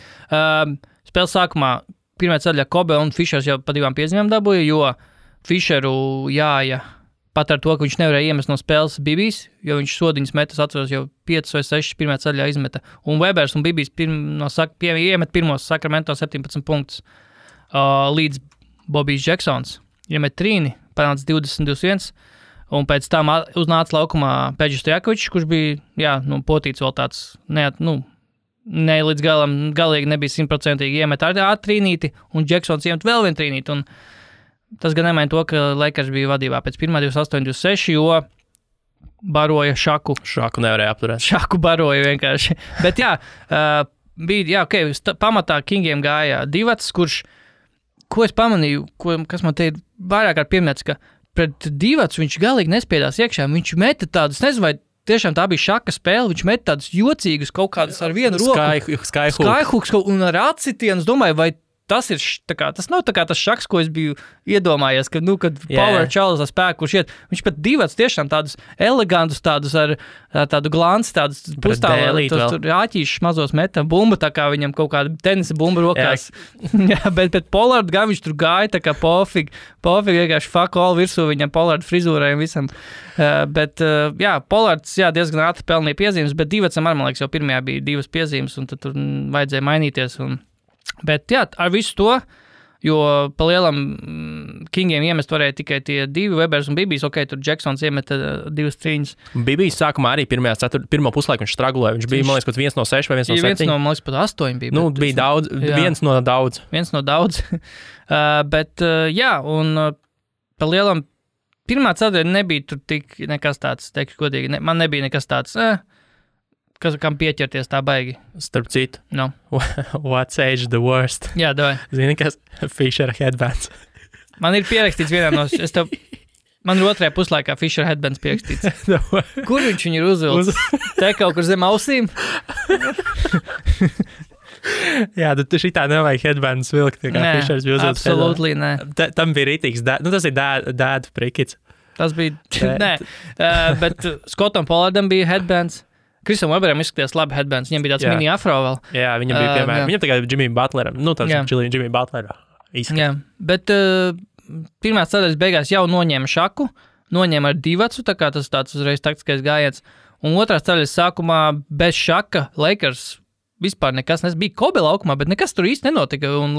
spēles sākumā pirmā ceļā Kobe un Fišers jau pa 2 piezīmēm dabūja, jo Fišeru jāja pat ar to, ka viņš nevarēja iemest no spēles Bibijs, jo viņš sodiņas metas, atceros, jau 5 vai 6 pirmā ceļā izmeta. Un Webers un Bibijs iemet pirmos Sacramento 17 punktus līdz Bobijs Jacksons. Iemet trīni, panāca 20-21, un pēc tam uznāca laukumā Peģis Stojakovičs, kurš bija, potīts vēl tāds, ne līdz galam, galīgi nebija 100% iemet ar trīnīti, un Jacksons iemet vēl vienu trīnīti, un tas gan nemaina to, ka Lakers bija vadībā pēc pirmā 28-26, jo baroja Šaku. Šaku nevarēja apturēt. Šaku baroja vienkārši. Bet bija, pamatā Kingiem gāja Divats, kurš, ko es pamanīju, kas man te ir vairāk kārt pieminēts, ka pret Divats viņš galīgi nespiedās iekšā, viņš meta tādus, nezinu, vai tiešām tā bija Šaka spēle, viņš meta tādus jocīgus kaut kādus ar vienu roku. Skyhooks un ar acitienu, es domāju, vai tas ir, tas nav tas Šaks, ko es biju iedomājies, kad Power Charles ar spēku, kurš iet, viņš pat Divats tiešām tādus elegantus, tādus ar tādu glanci, tādus pustāvus, tur āķīšus mazos meta, bumba, tā kā viņam kaut kāda tenisa bumba rokās. bet Pollard gan viņš tur gāja, tā kā pofīgi vienkārši fuck all virsū viņam Pollard frizūrai un visam. Pollards, diezgan ātri pelnīja piezīmes, bet Divatsam man liekas, jau pirmajā bija 2 piezīmes, un tad tur vajadzēja mainīties, Bet ar visu to, jo pa lielam Kingiem iemest varēja tikai tie 2, Webers un Bibijs, tur Jacksons iemeta 2 trīņas. Bibijs sākumā arī pirmo puslaiku viņš stragulēja, viņš bija, man liekas, 1 no 6 vai 1 no 7. 1 no, man liekas, pat 8 bija. Bija daudz, 1 no daudz. 1 no daudz. Un pa lielam pirmā ceturtdiena nebija tur tik nekas tāds, teikšu godīgi, man nebija nekas tāds, kam pieķerties tā baigi. Starp citu. No. What's age the worst? Jā, davai. Zini, kas Fisher headbands? Man ir pierakstīts vienā no... Man ir otrajā puslaikā Fisher headbands pierakstīts. Kur viņš viņu ir uzvilcis? Te kaut kur zem ausīm? Jā, tu šitā nevajag headbands vilkt, kā Fishers bija uzvilcis. Absolutely, nē. Tam bija rītīgs, tas ir dad prikits. Tas bija... Nē, bet Scottam Pollardam bija headbands. Kristam Webberam izskatījās labi headbands, viņam bija tāds mini afro vēl. Jā, viņam bija piemēram, viņam tagad Jimmy Butleram, tāds Jimmy Butlerā izskatījās. Jā, bet pirmās ceļas beigās jau noņēma Šaku, noņēma ar Divatsu, tā kā tas tāds uzreiz taktiskais gājiens, un otrās ceļas sākumā bez Šaka Lakers vispār nekas, bija Kobe laukumā, bet nekas tur īsti nenotika, un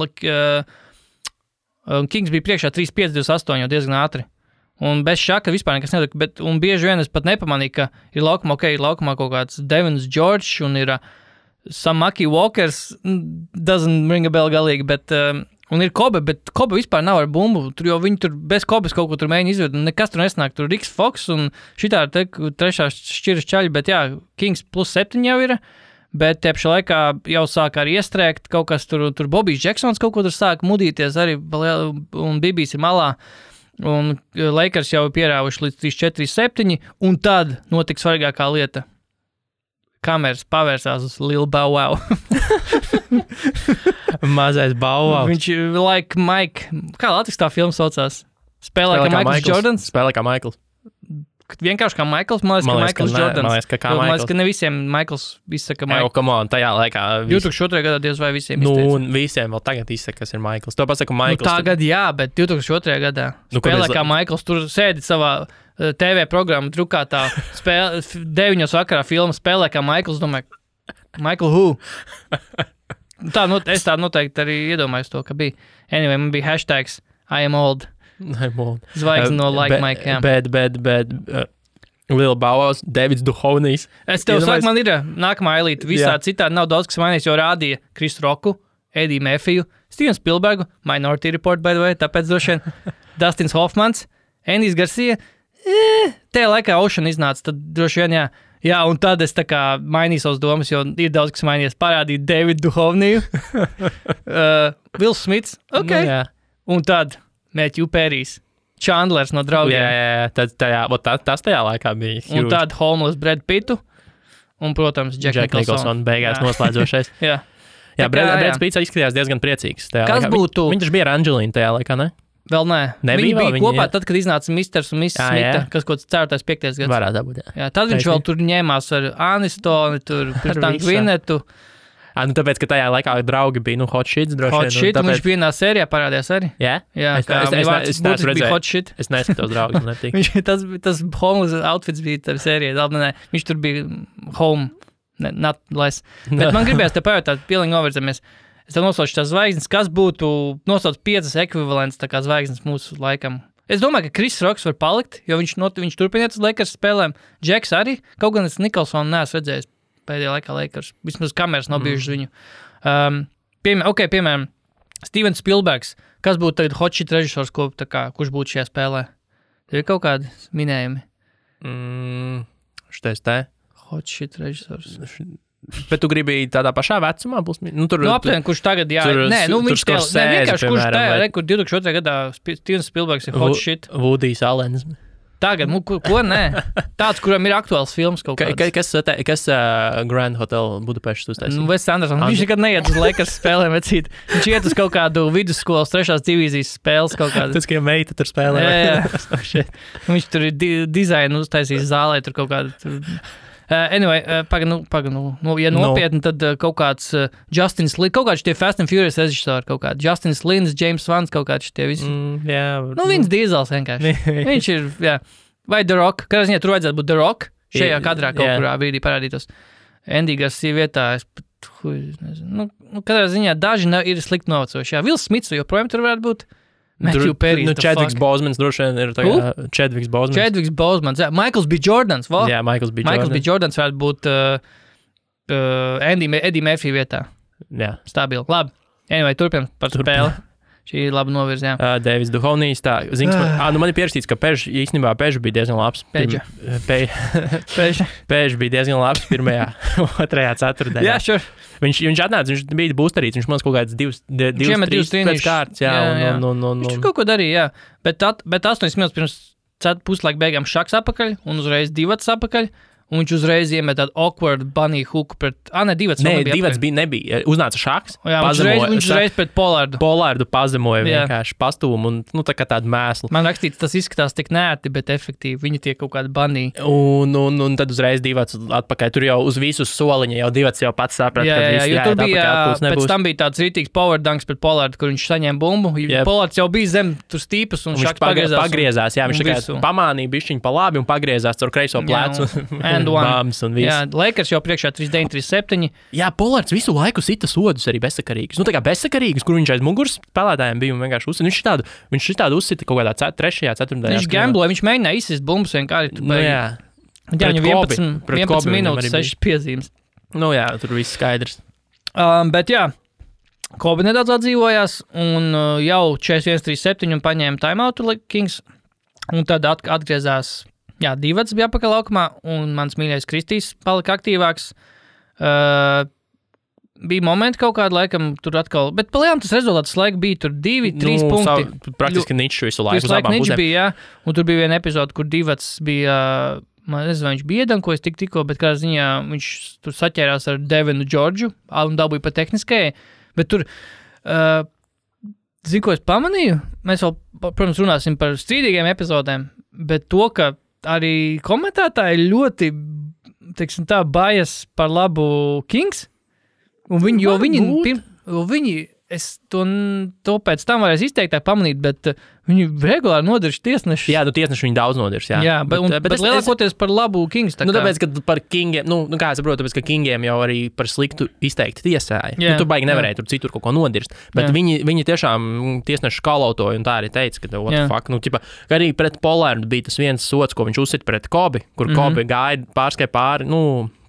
Kings bija priekšā 3-5-2-8 jau diezgan ātri. Un bez Šaka vispār nekas netika, un bieži vien es pat nepamanīju, ka ir laukumā kaut kāds Devins George un ir Samaki Walkers, doesn't ring a bell galīgi, bet, un ir Kobe, bet Kobe vispār nav ar bumbu, jo viņi tur bez Kobes kaut ko tur mēģina izved, un nekas tur nesnāk, tur Riks Fox un šitā trešā šķiras čaļi, bet Kings +7 jau ir, bet tepša laikā jau sāk arī iestrēgt kaut kas tur Bobijs Jacksons kaut ko tur sāk mudīties arī, un Bibijs ir malā. Un Lakers jau pierāvuši līdz 3-4-7, un tad notika svarīgākā lieta. Kameras pavērsās uz Lil Bow Wow. Mazais Bow Wow. Viņš like Mike, kā Latvijas tā filma saucās? Spēlē kā Maikls Jordans? Spēlē kā Maikls. Vienkārši kā Maikls, man liekas, ka Jordans. Man liekas, ka Man liekas, ka ne visiem Maikls izsaka Maikls. Come on, tajā laikā. 2002. gadā diez vai visiem izteica. Nu, un visiem vēl tagad izsaka, kas ir Maikls. To pasaku Maikls. Tagad jā, bet 2002. gadā spēlē kā Maikls. Tur sēdi savā TV programmu drukātā 9 vakarā filmu spēlē kā Maikls. Domāju, Michael who? Es tā noteikti arī iedomājos to, ka bija. Anyway, man bija hashtags I am old. Zvaigzne no Like Mike, jā. Bet Lil Bauhaus, Davids Duhovnijs. Es tev saku, man ir nākamā elīte. Visā citādi nav daudz, kas mainīs, jo rādīja Chris Rocku, Eddie Murphyu, Steven Spielbergu, Minority Report, by the way, tāpēc droši vien Dustins Hoffmans, Andy's Garcia. Tajā laikā Ocean iznāca, tad droši vien, jā. Jā, un tad es tā kā mainīju savas domas, jo ir daudz, kas mainījies. Parādīja Davidu Duhovniju, Will Smits, ok. Nu, un tad Matthew Perrys, Chandlers no Draugiem. Jā, tas tajā laikā bija huge. Un tad Homeless Brad Pittu, un, protams, Jack Nicholson. Beigās noslēdzošais. Jā. Brad Pitts izskatījās diezgan priecīgs. Kas būtu? Viņš bija ar Angelīnu tajā laikā, ne? Vēl nē. Viņi bija kopā tad, kad iznāca Misters un Mrs. Smita, kas kaut 4. 5. gads. Varētu būt, jā. Tad viņš vēl tur ņēmās ar Anistoni, tur pēc tam Gvinetu. Tāpēc, ka tajā laikā draugi bija, Hot Shit droši vien. Hot Shit, un viņš vienā sērijā parādījās arī. Jā? Jā, es neesmu redzējis. Hot Shit. Es neskatos draugus. Tas homeless outfits bija tā sērijā. Viņš tur bija home, not less. Bet man gribējās te pajautāt, pilnīgi novirzamies. Es tev nosaucu tās zvaigznes, kas būtu nosauc 5 ekvivalents tā kā zvaigznes mūsu laikam. Es domāju, ka Chris Rocks var palikt, jo viņš turpiniet uz Lakers spēlēm. Džeks arī, kaut gan es Nikolsonu neesmu redzējis pēdējā laikā Lakers. Vismaz kameras nav bijušas viņu. Piemēram, Steven Spielbergs. Kas būtu tagad hot shit režisors, kurš būtu šajā spēlē? Tev ir kaut kādi minējumi? Šitais te. Hot shit režisors. Bet tu gribēji tādā pašā vecumā? Aptuveni, kurš tagad, jā. Viņš vienkārši, kurš tajā, kur 2002. gadā Stevens Spielbergs ir hot shit. Woodijs Allens. Tagad, ko nē? Tāds, kuram ir aktuāls films kaut kāds. Kas Grand Hotel Budapeštas uztaisīja? Wes Anderson. Viņš nekad neiet uz Lakers spēlēm, vecīt. Viņš iet uz kaut kādu vidusskolas 3. divīzijas spēles kaut kādu. Tas, ka meita tur spēlē. Jā. Viņš tur ir dizainu uztaisījis zālē, tur kaut kādu... Anyway, ja nopietni, tad kaut kāds Justins Lins, kaut kāds tie Fast and Furious režisori, kaut kāds Justins Lins, James Vans, kaut kāds tie visi. Vins Diesels vienkārši. Viņš ir, jā. Vai The Rock, kādā ziņā tur vajadzētu būt The Rock, šajā kadrā kaut kurā brīdī parādītos. Andy Garcia vietā, kādā ziņā daži ir slikti novecojuši. Jā, Will Smits joprojām tur varētu būt. Matthew Perry. Chadwicks Bosemans droši vien ir tagad. Chadwicks Bosemans. Jā, Michaels B. Jordans. Jā, Michaels B. Jordans varētu būt Eddie Murphy vietā. Jā. Stabili. Labi. Anyway, turpinām par spēli. Šī ir laba novirza, jā. Davids Duhovnijs, tā. Man ir pierakstīts, ka Pež bija diezgan labs. Pež bija diezgan labs 1., 2. ceturtdienā. Jā, sure. Viņš atnāca, viņš bija būsterīts, viņš man kaut kāds 2-3 pēc kārtas, jā. Viņš kaut ko darīja, jā. Bet 8 minūtes pirms puslaika beigām šaks apakaļ un uzreiz 2 apakaļ. Un viņš uzreiz iemet tādu awkward bunny hooku pret... Divas nebija. Uznāca šaks. Jā, viņš uzreiz pret Polārdu. Polārdu pazemoja vienkārši pastūmu un tā kā tādu mēslu. Man rakstīts, tas izskatās tik nērti, bet efektīvi. Viņi tie kaut kādi bunny. Un tad uzreiz 2 atpakaļ. Tur jau uz visu soliņa jau 2 jau pats saprata, ka viss jo tur bija, pēc tam bija tāds rītīgs power dunks pret Polārdu, kur viņš saņēma bumbu. Polārds jau bija zem tur stīpas un šaks pagriezās. Jā, viņš tā pamānīja bišķiņu pa labi un pagriezās caur kreiso plecu. Jā, Lakers jau priekšā 3-9-3-7. Jā, Polārds visu laiku sita sodus arī bezsakarīgus. Tā kā bezsakarīgus, kur viņš aiz muguras spēlētājiem bija un vienkārši uzsita. Viņš tādu uzsita kaut kādā 3. 4. Viņš gambloja, viņš mēģināja izsist bumbas vienkārši. Jā, viņam 11 minūtes, 6 piezīmes. Jā, tur viss skaidrs. Bet jā, Kobe nedaudz atdzīvojās un jau 41-37 un paņēma timeoutu Kings. Un tad atgriezās. Jā, 2 bija apakaļ laukumā, un mans mīļais Kristīs palika aktīvāks. Bija momenti kaut kādu laikam tur atkal, bet palējām tas rezultāts laika bija tur 2-3 punkti. Praktiski ničs visu laiku. Visu laiku ničs bija, jā, un tur bija viena epizode, kur 2 bija, man nezinu, viņš bija iedankojis tikko, bet kādā ziņā viņš tur saķērās ar Devinu Džordžu, un dabūja pa tehniskajai, bet tur... Zinu, ko es pamanīju? mēs vēl, protams, runāsim par strīdīgiem epizodēm, bet to, ka arī komentētāji ļoti, teiksim tā, bajas par labu Kings, un viņi es to pēc tam varēs izteiktāk pamanīt, bet viņi regulāri nodirš tiesneši. Jā, tiesneši viņi daudz nodirš, jā. Jā, bet lielākoties par labu Kings. Tāpēc, ka par Kingiem, kā es saprotu, tāpēc, ka Kingiem jau arī par sliktu izteikti tiesāja. Tur baigi nevarēja tur citur kaut ko nodirst. Bet viņi tiešām tiesneši kalautoja un tā arī teica, ka what the fuck. Ka arī pret Polārdu bija tas viens sots, ko viņš uzsita pret Kobi, kur Kobi gāja pārskai pāri,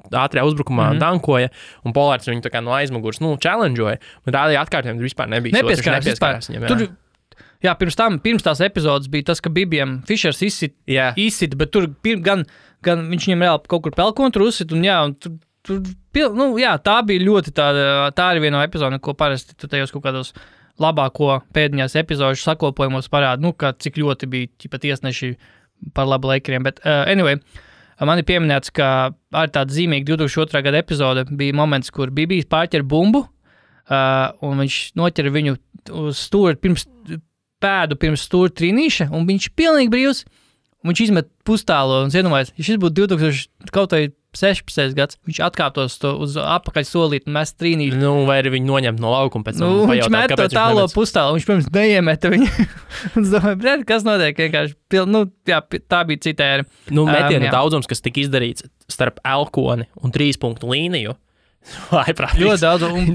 ātrajā uzbrukumā dankoja, un Polārds viņu tā kā no aizmugurs, challengeoja, bet rādīja atkārtojumi, tur vispār nebija nepieskārās viņam. Jā, pirms tās epizodes bija tas, ka Bibijam Fišers izsit, bet tur gan viņš viņam reāli kaut kur pelkontru uzsit, un tā bija ļoti tā arī viena no epizodēm, ko parasti tu tajos kaut kādos labāko pēdiņās epizodu sakopojumos parāda, ka cik ļoti bija tiesneši par labu Lakeriem, bet anyway, man ir pieminēts, ka ar tādu zīmīgu 2002. Gada epizode bija moments, kur Bibijs pārķer bumbu, un viņš noķer viņu uz stūri pirms stūra trīnīša, un viņš pilnīgi brīvs, un viņš izmet pustālo, un iedomājies, ja šis būtu 2016. gads, viņš atkāptos uz apakaļ solīt un mest trīnīšu. Vai arī viņu noņemt no laukuma pēc tam viņš met to tālo pustālo, viņš, pirms neiemeta viņu. Un es domāju, kas notiek, vienkārši, tā bija cita ēra. Metienu daudzums, kas tika izdarīts starp Elkoni un 3 punktu līniju, ļoti daudz, un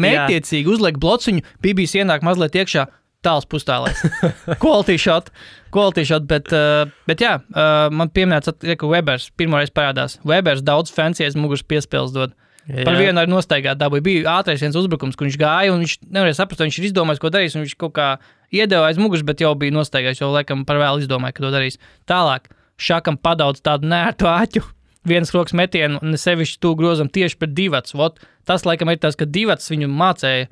mērķtiecīgi uzliek blociņu, Bibijs ienāk mazliet iekšā, tāls pustālēs. Quality shot, bet jā, man pieminēts, ka Webers pirmoreiz parādās. Webers daudz fancies muguras piespēles dod. Par vienu arī nostaigāt dabūja. Bija ātrais viens uzbrukums, kur viņš gāja, un viņš nevarēja saprast, viņš ir izdomājis, ko darīs, un viņš kaut kā iedeva aiz muguras, bet jau bija nostaigājis, jau laikam par vēlu izdomāja, ka to darīs. Tālāk, Šakam padaudz tādu nērtu āķu, vienas rokas metienu, un sevišķi tu grozam tieši pret Divats. Tas laikam ir tas, ka Divats viņu mācēja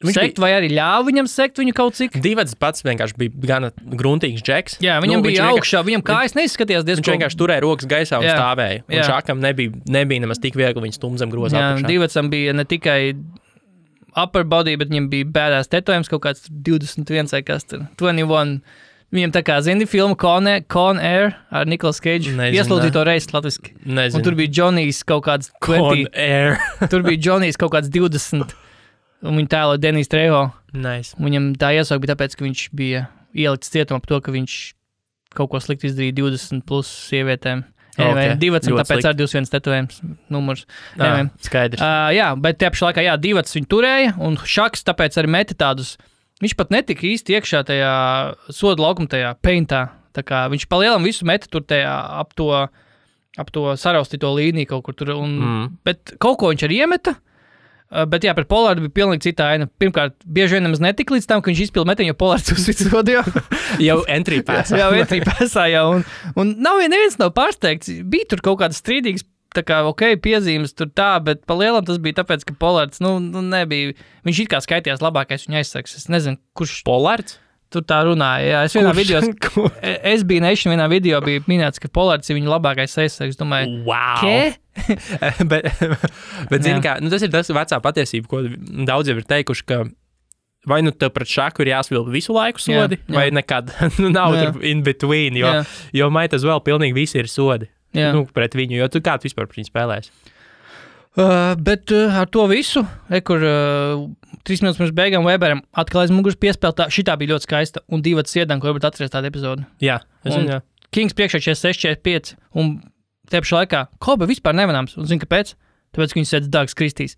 sekt, vai arī ļāva viņam sekt viņu kaut cik? Divats pats vienkārši bija gana gruntīgs džeks. Jā, viņam bija augšā, viņam kājas neizskatījās diezgan. Viņš vienkārši turēja rokas gaisā un stāvēja. Un Šakam nebija nemaz tik viegli viņu stumzam grozā apakšā. Divatsam bija ne tikai upper body, bet viņam bija bēdās tetojums kaut kāds 21 vai kas tur, 21. Viņam tā kā, zini, filmu Con Air ar Nicolas Cage. Ieslūdzīja to reizi latviski. Nezinu. Un tur bija Johnny's kaut kāds 20. Con Air. Tur bija Johnny's kaut kāds 20. Un viņu tēlo Denis Trejo. Nice. Viņam tā iesauka bija tāpēc, ka viņš bija ielikts cietumā par to, ka viņš kaut ko slikti izdarīja 20 plus sievietēm. Divats, un tāpēc ar 21 tetojums numurs. Skaidrs. Jā, bet tie pašā laikā, Divats viņu turēja, un Šaks tāpēc arī meta tādus. Viņš pat netika īsti iekšā tajā soda laukuma tajā paintā. Tā kā viņš palielam visu meta tur tajā ap to saraustīto līniju kaut kur tur. Bet kaut ko viņš arī iemeta. Bet jā, par Polārdu bija pilnīgi cita aina. Pirmkārt, bieži vien nemaz netika līdz tam, ka viņš izpilda metienu, jo Polārds uzsvits sodu jau entry passā. jau entry passā, jā. Un neviens nav pārsteigts. Bija tur kaut kādas strīdīgas, tā kā, piezīmes tur tā, bet pa lielam tas bija tāpēc, ka Polārds, nebija. Viņš it kā skaitījās labākais viņa aizsargs. Es nezinu, kurš. Polārds? Tur tā runāja, jā. Es vienā video, vienā video bija minēts, ka Polārds ir viņa labākais aizsargs. Domāju, wow! Kē? bet zini kā, tas ir tas vecā patiesība, ko daudz jau ir teikuši, ka vai tev pret Šaku ir jāsvilpa visu laiku sodi, vai nekad nav tur in between, jo might as well pilnīgi visi ir sodi. Pret viņu, jo tu kā tu vispār par viņu spēlēsi? Bet ar to visu, kur 3 minūtes pirms beigām Weberam atkal aiz muguras piespēltā, šitā bija ļoti skaista, un Divats iedan, ko varbūt atceries tādu epizodu. Jā, es zinu, jā. Kings priekšā 46-45, un te pašā laikā Kobe vispār nemanāms, un zini, kāpēc? Tāpēc, ka viņš sēdz Dags Kristīs.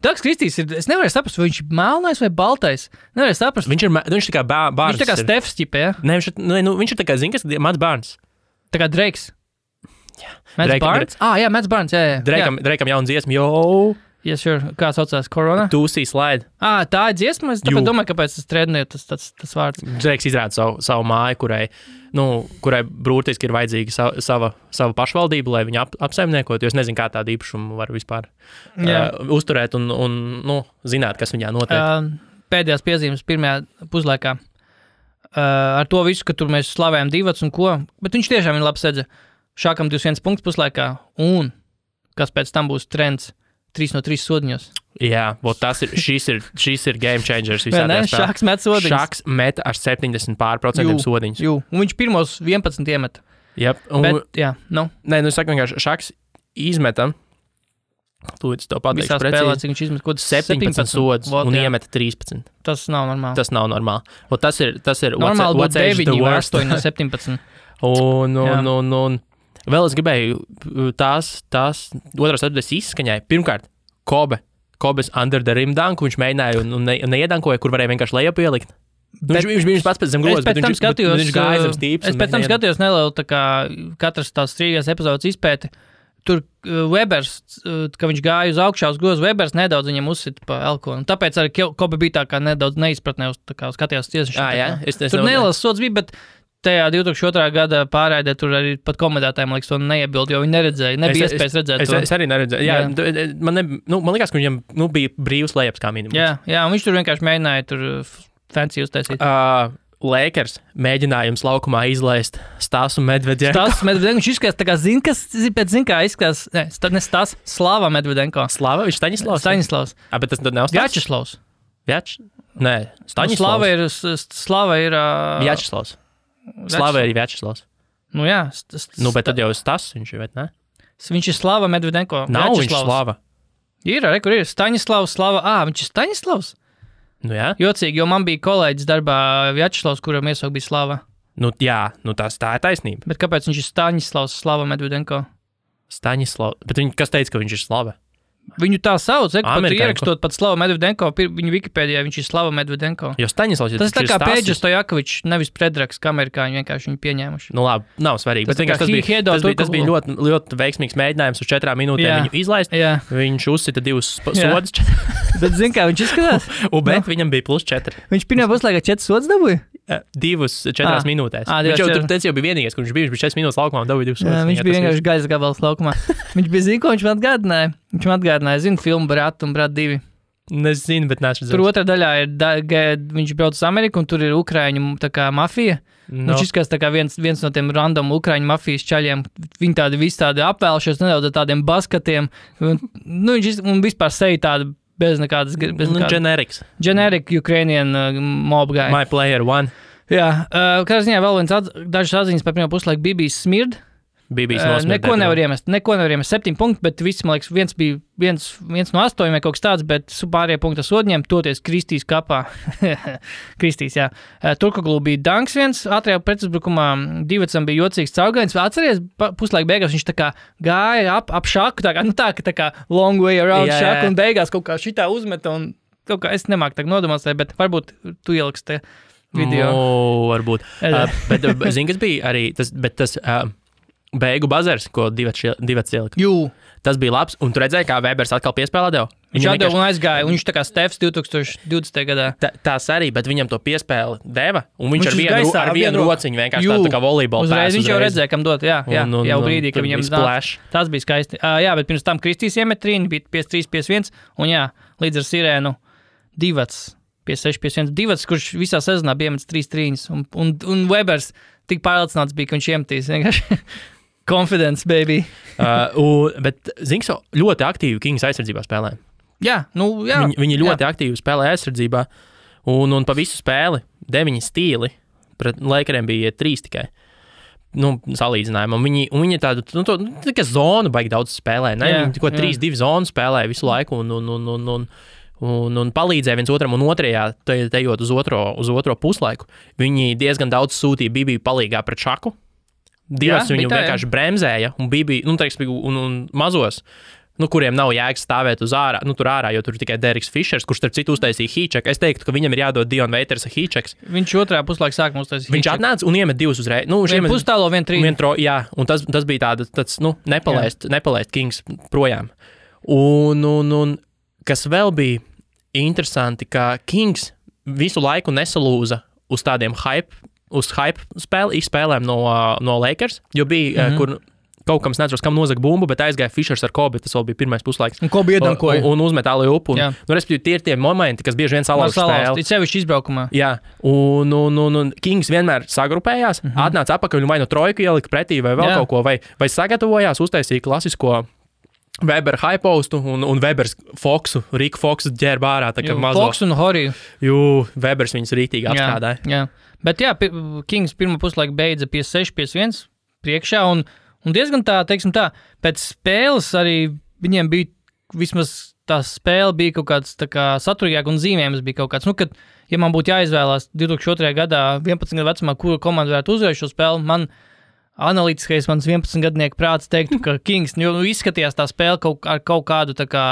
Dags Kristīs ir, es nevarēju saprast, vai viņš ir melnais vai baltais. Nevarēju saprast. Viņš tā kā bārns. Viņš tā kā Stefs ķipa, ja? Ne, viņš ir tā kā, zini, kas Mats Barnes. Tā kā Drakes. Mats Barnes? Jā, Mats Barnes, jā. Drakam jauna dziesma, Yes, sure. Kā saucās Corona? Tūsī slide. Tā ir dziesma, es tāpēc domāju, kāpēc tas trendē tas vārds. Drake izrāda savu māju, kurai brūtiski ir vajadzīga sava pašvaldība, lai viņu apsaimniekot, jo es nezinu, kā tādu īpašumu var vispār uzturēt un zināt, kas viņā notiek. Pēdējās piezīmes pirmajā puslaikā. Ar to visu, ka tur mēs slavējam Divats un ko, bet viņš tiešām ir labi sedza. Šākam 21 punkts puslaikā, un kas pēc tam būs trends 3 no 3 sodiņos. Jā, šis ir game changers visā tajā spēlē. Šaks met sodiņus. Šaks met ar 70% sodiņus. Jū, un viņš pirmos 11 iemet. Yep. Bet, jā, nu. Nē, es saku vienkārši, Šaks izmetam, tūlīt to pateikšu visā spēlē, cik viņš izmet, 17 sodus un iemeta 13. Tas nav normāli. Tas nav normāli. Un tas ir normāli what's age the worst. 8 no 17. un vēl es gribēju tās otrās atbildēs izskaņai. Pirmkārt, Kobes under the rim dunk, viņš mēģināja un neiedankoja, kur varēja vienkārši lejup ielikt. Viņš bija pats pēc zem grozas, bet viņš gāja zem stīps. Es pēc tam skatījos nelielu, tā kā katras tās strīgās epizodes izpēti. Tur Webers, ka viņš gāja uz augšā uz grozu, Webers nedaudz viņam uzsita pa elkonu. Tāpēc arī Kobe bija tā kā nedaudz neizpratnē uz tā kā skatījās tiesas. Tur nelielas sods bija, bet tajā 2002. gada pārraidē tur arī pat komendētājiem, liekas, to neiebild, jo viņi neredzēja, nebija iespējas redzēt to. Es arī neredzēju. Jā. Man liekas, ka viņam bija brīvs lejups kā minimums. Jā, un viņš tur vienkārši mēģināja tur fancy uztaisīt. Lakers mēģinājums laukumā izlaist Stasu Medvedenko. Viņš izskatās tā kā izskatās, ne Stas, Slava Medvedenko. Slava, viņš Staņislavs. Bet tas tad nav Vjačeslavs. Nē, Staņislavs. Slava ir... Vjačeslavs. Slava ir Vjačeslavs. Nu jā. Bet tad jau Stas viņš ir, vai ne? Viņš ir Slava Medvedenko. Nav viņš Slava. Ir, kur ir Staņislavs, Slava. Viņš ir Staņislavs? Nu jā. Jocīgi, jo man bija kolēģis darbā Vjačeslavs, kuram iesaukt bija Slava. Nu jā, tā ir taisnība. Bet kāpēc viņš ir Staņislavs, Slava Medvedenko? Staņislavs, bet kas teica, ka viņš ir Slava? Viņu tā sauc, pat ierakstot pat Slava Medvedenko, viņu Wikipēdijā viņš ir Slava Medvedenko. Jo Staņislavs tas tā kā Pēģis Stojakovičs, nevis Predraks, kā amerikāņi vienkārši viņu pieņēmuši. Nu labi, nav svarīgi. Tas bija ļoti, ļoti veiksmīgs mēģinājums uz 4 minūtēm viņu izlaist. Jā. Viņš uzsita 2 sodus. Bet zin kā viņš izskatās? Bet viņam bija +4. Viņš pirmā puslaikā 4 sodus dabūja? 4 minūtēs. Viņš jau bija vienīgais, kurš bija 4 minūtes laukumā un dabūja 2 sodus. Viņš bija vienkārši gaisa gabals laukumā. Viņš bija zina, ko viņš man atgādināja. Viņš man atgādināja, zinu, filmu Brat un Brat 2. Nezinu, bet neesmu redzējis. Tur otrā daļā ir, viņš brauc uz Ameriku un tur ir Ukraiņu tā kā mafija. No. Viņš izskatās tā kā viens no tiem random Ukraiņu mafijas čaļiem. Viņi tādi visi tādi apvēlšies nedaudz ar tādiem baskatiem. Un vispār seja tāda bez nekādas... Generics. Generic Ukrainian mob guy. My player one. Jā, kā ziņā vēl dažas atziņas par pirmo puslaiku Bibijas smird. Neko nevar iemest. 7 punkti, bet viss, man liekas, viens bija viens no 8 vai kaut kas tāds, bet pārējie punkti sodņiem, toties Kristīs kapā. Kristīs, jā. Turkoglu bija danks viens, ātrajā pretuzbrukumā Divacam bija jocīgs caugains. Atceries, puslaika beigās viņš tā kā gāja ap šaku, tā kā long way around šaku, un beigās kaut kā šitā uzmeta, un kaut kā es nemāku tā nodemonstrēt, bet varbūt tu ieliks te video. Varbūt. Bet zini, kas bija arī, tas beigu bazars, ko Divats ielika. Tas bija labs, un tu redzēji, kā Webers atkal piespēlē devu? Viņš atdeva un aizgāja, un viņš tā kā Stefs 2020. gadā. Tās arī, bet viņam to piespēli deva, un viņš ar vienu rociņu vienkārši tā kā volejbola pēs. Viņš jau redzēja, kam dot, jau brīdī, ka viņam tas bija skaisti. Jā, bet pirms tam Kristīs iemet trīni, bija 5-3-5-1, un jā, līdz ar sirēnu Divats 5-6-5-1. Divats, kurš visā sezonā bija iemetis 3 trīņus, un Webers tik pārliecināts bija, ka viņš iemetīs vienkārši. Confidence, baby. Bet Zinks ļoti aktīvi Kings aizsardzībā spēlē. Jā. Viņi ļoti aktīvi spēlē aizsardzībā, un pa visu spēli 9 stīli, pret Lakeriem bija 3 tikai. Salīdzinājumā. Viņi tādu, tikai zonu baigi daudz spēlē, ne? Viņi 3-2 zonu spēlē visu laiku, un palīdzēja viens otram, un otrajā, tejot uz otro puslaiku, viņi diezgan daudz sūtīja Bibiju palīgā pret Šaku. Divas viņu vienkārši bremzēja, un Bibija, un mazos, kuriem nav jēgas stāvēt uz ārā, tur ārā, jo tur tikai Deriks Fišers, kurš starp citu uztaisīja hīčeku. Es teiktu, ka viņam ir jādod Dion Waiters hīčeks. Viņš otrā puslaika sākumā uztaisīja hīčeku. Viņš atnāca un iemet 2 uzreiz. Viņš pustālo 1-3. Jā, un tas bija tāds nepalaist Kings projām. Un kas vēl bija interesanti, ka Kings visu laiku nesalūza uz tādiem hype spēlēm no Lakers, jo bija, kur kaut kam neatceros, kam nozaga bumbu, bet aizgāja Fišers ar Kobe, tas vēl bija pirmais puslaiks. Un Kobe iedankoja. Un uzmet ālēju upu. Respektīvi, tie ir tie momenti, kas bieži vien salauž spēli. Ir sevišķi izbraukumā. Jā, un Kings vienmēr sagrupējās, atnāca apakaļ un vai no trojku ielika pretī vai vēl kaut ko, vai sagatavojās, uztaisīja klasisko Weber hypostu un Webers Riku Foksu ģērba ārā, tā kā mazo. Foks un Horiju. Webers viņus rītīgi apstrādāja. Jā. Bet jā, Kings pirmā puslaika beidza 56-51 priekšā, un diezgan teiksim tā, pēc spēles arī viņiem bija, vismaz tā spēle bija kaut kāds tā kā saturīgāk un zīmējums bija kaut kāds, kad, ja man būtu jāizvēlās 2002. gadā 11 gadu vecumā, kura komanda varētu uzvarēt šo spēli, man analītiskais mans 11-gadnieku prāts teiktu, ka Kings, izskatījās tā spēle ar kaut kādu tā kā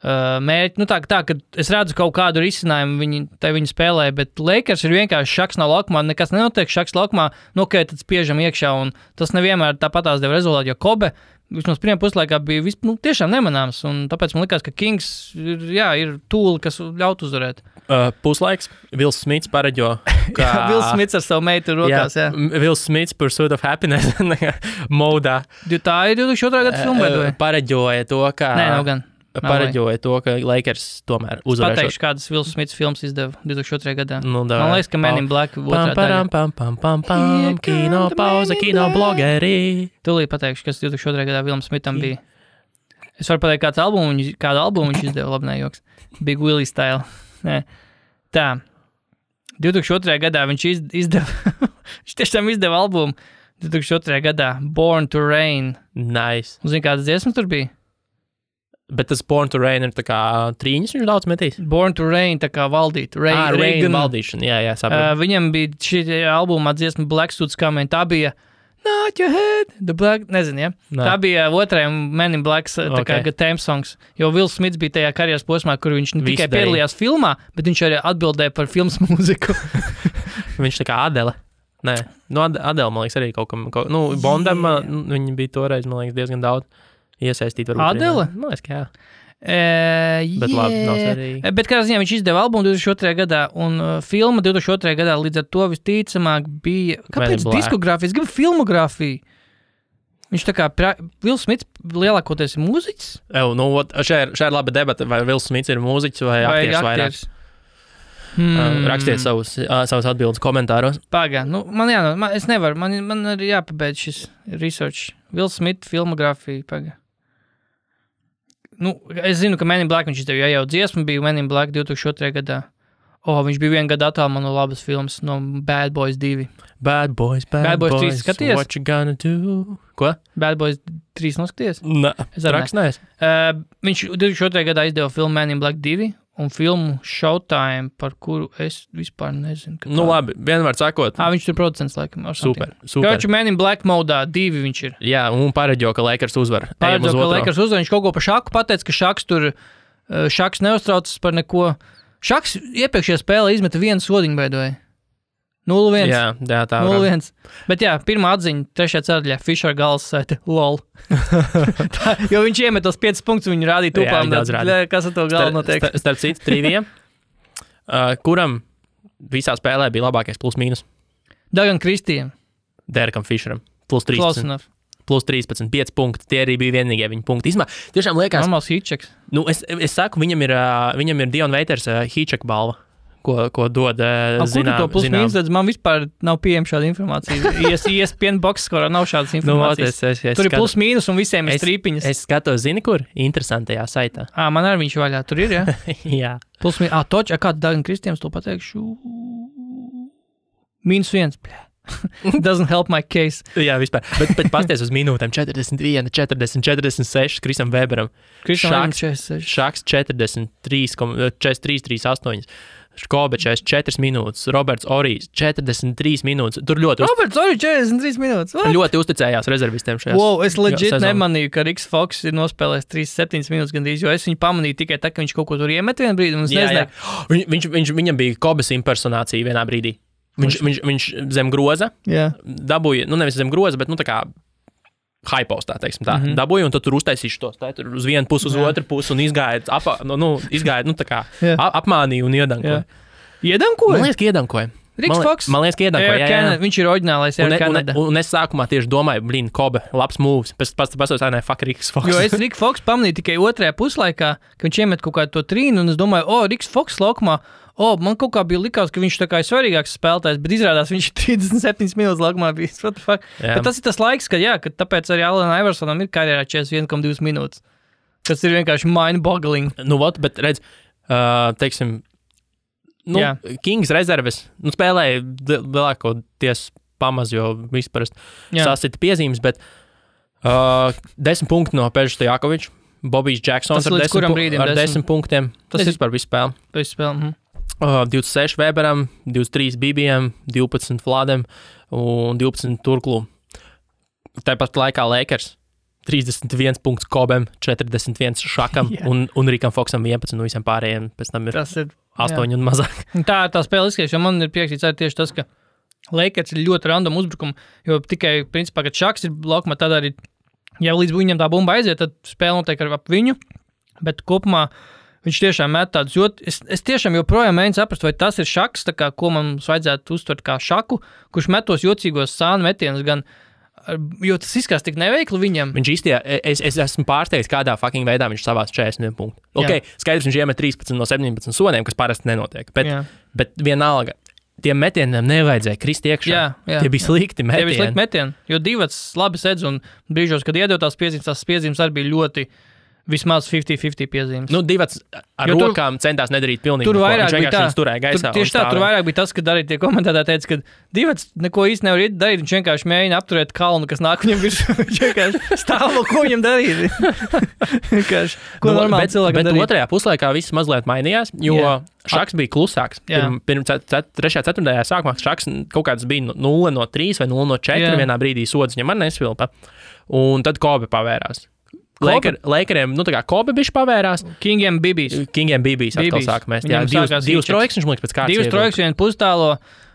mērķi, tā, ka es redzu kaut kādu risinājumu viņi spēlē, bet Lakers ir vienkārši šaks nav laukumā, nekas nenotiek šaks laukumā, tad spiežam iekšā, un tas nevienmēr tāpatās deva rezultātu, jo Kobe vismaz pirmā puslaikā bija tiešām nemanāms, un tāpēc man likās, ka Kings ir tūli, kas ļaut uzvarēt. Puslaiks, Vils Smits pareģo, ka... Vils Smits ar savu meitu rokās, jā. Vils Smits Pursuit of Happiness modā. Tā ir 2002. Gada filma, vai? Pareģoja to, ka... Nē, nav gan. Pareģoja to, ka Lakers tomēr uzvarēšot. Pateikšu, kādas Vils Smits filmas izdeva 2002. gadā. Man liekas, ka Men in Black otrā daļa. Kino pauze, kino blogeri. Tūlīt pateikšu, kas 2002. gadā Vilm Smitam bija. Es varu pateikt, kādu albumu viņš izdeva, labi nejoks. Big Willie style. Nē. Tā. 2002. gadā viņš izdeva, viņš tiešām izdeva albumu 2002. gadā Born to Rain. Nice. Un zini, kādas dziesmas tur bija? Bet tas Born to Rain ir tā kā trīņas viņš daudz metīs? Born to Rain, tā kā valdīt. Rain valdīšana, jā, sapratu. Viņam bija šī albumā dziesma Black Suits Coming, tā bija Not Your Head, The Black, nezinu, ja? Nā. Tā bija otrajam Men in Black theme songs, jo Vils Smits bija tajā karjeras posmā, kur viņš ne tikai piedalījās filmā, bet viņš arī atbildēja par filmas mūziku. Viņš tā kā Adele. Nē, Adele, man liekas, arī kaut kam, Bondam, viņi bija toreiz, man liekas, diezgan daudz. Iesaistīt varbūt. Adele? Man liekas, ka jā. Bet labi, nav svarīgi. Bet kādā ziņā viņš izdeva albumu 2002. gadā, un filma 2002. gadā līdz ar to visticamāk bija... Kāpēc diskogrāfija? Es gribu filmogrāfiju. Viņš tā kā... Vils Smits lielākoties ir mūziķis? Šā ir laba debata, vai Vils Smits ir mūziķis vai aktieris vairāk. Rakstiet savus atbildes komentāros. Pagā, es nevaru, man ir jāpabeidz šis research. Vils Smits filmogrāfija, pagā. Es zinu, ka Men in Black viņš izdeva, jau dziesma bija Men in Black 2002. gadā. Viņš bija vienu gadu attālumā no labas filmas, no Bad Boys 2. Bad Boys 3 skaties? What you gonna do? Ko? Bad Boys 3 noskaties? Nē, rakstnēs. Viņš 2002. gadā izdeva filmu Men in Black 2 un filmu Showtime, par kuru es vispār nezinu. Labi, vienmēr sakot. Viņš tur producents, laikam. Super. Kāpēc Men in Black modā 2 viņš ir? Jā, un pareģo, ka Lakers uzvar. Pareģo, ka Lakers uzvar. Viņš kaut ko par šaku pateica, ka šaks neuztraucas par neko. Šaks iepriekšējā spēlē izmeta vienu sodiņu beidoja. 0-1. Jā, tā. 0-1. Bet jā, pirmā atziņa, 3. ceturtajā Fisher galvas sēta lol. Jo viņš iemet tos 5 punktus, viņu rādīja tupām. Kas ar to galvu notiek? Starp citu, trivija. Kuram visā spēlē bija labākais plus mīnus? Dagan Kristijam. Derekam Fisheram. Plus 13. Plus 13, 5 punkti. Tie arī bija vienīgie viņa punkti. Tiešām liekas... Normāls Hitcheks. Es saku, viņam ir Dion Waiters Hitchek balva. Ko dod zinām. To plus mīnus, man vispār nav pieejama šāda informācija. ESPN box skorā nav šādas informācijas. Tur ir plus mīnus un visiem ir strīpiņas. Es skatos, zini, kur? Interesantajā saitā. Man arī viņš vaļā. Tur ir, ja? Jā. Plus mīnus. Toč, kādu Dagan Kristijams to pateikšu? -1. Doesn't help my case. Jā, vispār. Bet pasties uz minūtēm. 41, 40, 46 Krisam Weberam. Šaks 43, 38. Kobe 44 minūtes, Roberts Orijs 43 minūtes. Tur ļoti Roberts Orijs 43 minūtes. What? Ļoti uzticējās rezervistiem šajā. Es legit nemanīju, ka Riks Foks ir nospēlējis 37 minūtes gandrīz, jo es viņu pamanīju tikai tā, ka viņš kaut ko tur iemet vienā brīdī, un es nezināju. Viņam bija Kobes impersonācija vienā brīdī. Viņš zem groza dabūja, nevis zem groza, bet tā kā hypostā, teiksim tā, dabūja, un tad tur uztaisīšu tos, tur uz vienu pusi, uz otru pusi, un izgāja, tā kā apmānīja un iedankoja. Iedankoja? Man liekas, ka iedankoja. Riks Foks? Man liekas, ka iedankoja, jā. Viņš ir oriģinālais Air Canada. Un es sākumā tieši domāju, Kobe, labs moves, pēc fuck Riks Foks. Jo es Riks Foks pamanīju tikai otrajā puslaikā, ka viņš iemet kaut kādu to trīnu, un es domāju, Riks Foks laukumā, man kaut kā bija likās, ka viņš tā kā ir svarīgāks spēlētājs, bet izrādās viņš 37 minūtes laukumā bija. What the fuck? Bet tas ir tas laiks, kad tāpēc arī Allen Iversonam ir karjerā 41,2 minūtes. Tas ir vienkārši mind-boggling. Nu, ot, bet redz, teiksim, Kings rezerves, spēlēja lielākoties pamaz, jo vispār sasita piezīmes, bet 10 punkti no Peža Stojakoviča, Bobijs Džeksons ar 10 punktiem. Tas vispār visu spēli. 26 Weberam, 23 Bibijam, 12 Vladam un 12 Turklu. Tāpat laikā Lakers 31 punkts Kobem, 41 Šakam un Rikam Foksam 11 un visiem pārējiem. Pēc tam ir 8 un mazāk. Tā ir tā spēle izskaties, jo man ir priekšīts arī tieši tas, ka Lakers ir ļoti random uzbrukumu, jo tikai, principā, kad Šaks ir laukumā, tad arī, ja līdz viņam tā bumba aiziet, tad spēle notiek ap viņu, bet kopumā viņš tiešām met tādus, jo es tiešām joprojām mēģinu saprast, vai tas ir Šaks, tā kā, ko mums vajadzētu uztvert kā Šaku, kurš metos jocīgos sānu metienus gan, jo tas izskatās tik neveikli viņam. Viņš īstajā, es esmu pārsteigts, kādā fucking veidā viņš savās 41 punktu. Ok, skaidrs, viņš iemet 13 no 17 sodiem, kas parasti nenotiek, bet vienalga, tiem metieniem nevajadzēja krist iekšā. Tie bija slikti metieni. Tie bija slikti metieni, jo divas labi sedz un brīžos, kad iedod tās piezīmes arī bija ļoti vismaz 50-50 piezīmes. Divas ar rokām centās nedarīt pilnīgi tur vairāk bija tā. Turēja gaisā. Tieši tā, tur vairāk bija tas, kad arī tie komentētāji teica, ka divas neko īsti nevar darīt, viņš vienkārši mēģina apturēt kalnu, kas nāk viņam virsū. Viņš vienkārši stāv, ko viņam darīt. Ko normāli cilvēkam darīt. Bet otrajā puslaikā viss mazliet mainījās, jo Šaks bija klusāks. Pirms 3.4. sākumā Šaks kaut kāds bija 0-3 vai 0-4 vienā brīdī sods viņam arī nesvilpa. Un tad Kobe pavērās. Lakeriem, tā kā Kobe bišķi pavērās. Kingiem Bibijs atkal sāk mest. Divas trojkas, viņš liekas pēc kārtas. Divas trojkas, vienu pustālo.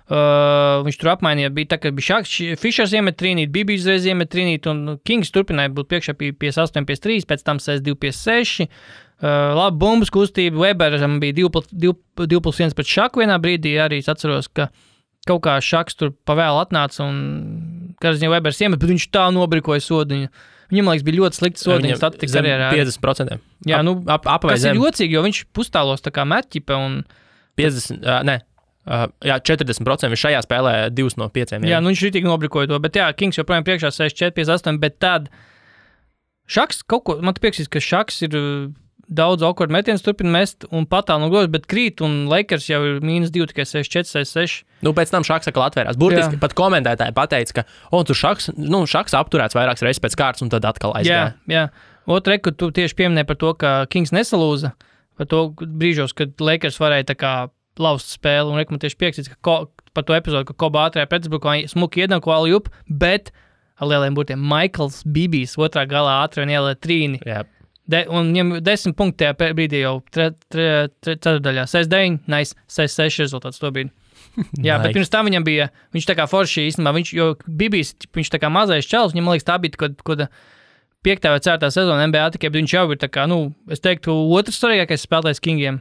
Viņš tur apmainīja, bija tā, ka bija Šaks, Fišers iemet trīnīt, Bibijs reiz iemet trīnīt, un Kings turpināja būt priekšā 58-53, pēc tam 62-56. Labi bumbas kustība, Weberam bija 2+1 pret Šaku vienā brīdī, arī es atceros, ka kaut kā Šaks tur pavēl atnāca, un kāds viņa Webers iemet, bet viņš tā nobrikoja sodiņu. Viņam, liekas, bija ļoti slikti sodiņas statistikas karjerā. 50%. Jā, kas ir jocīgi, jo viņš pustālos tā kā metķipe un... 40%. Viņš šajā spēlē 2 no 5. Jā, viņš ritīgi nobrikoja to, bet Kings joprojām priekšā 64-58, bet tad Šaks kaut ko... Man te pieksīs, ka Šaks ir daudz awkward metienus turpina mest un patāl no groza, bet krīt, un Lakers jau ir -2, tikai 64-66. Pēc tam Šaks atkal atvērās. Burtiski pat komentētāji pateica, ka tur Šaks apturēts vairākas reizes pēc kārtas, un tad atkal aizgāja. Jā. Otra, ka tu tieši pieminēji par to, ka Kings nesalūza, par to brīžos, kad Lakers varēja tā kā laust spēli, un man tieši pieksīts, ka par to epizodu, ka Koba ātrajā pretuzbrukumā smuki iedam ko alley-oop, bet ar lieliem burtiem Michaels Bibijs otrā galā ātri un ielē trīni. Jā. Un viņam 10 punkti tajā brīdī jau ceturdaļā. 6-9, nice, 6-6 rezultāts to brīdi. Jā, bet pirms tam viņam bija, viņš tā kā forši īstenībā, jo Bibijs, viņš tā kā mazais čels, viņam liekas tā bija kaut 5. vai 4. sezona NBA tikai, bet viņš jau ir tā kā, es teiktu, otrs svarīgākais spēlētājs Kingiem.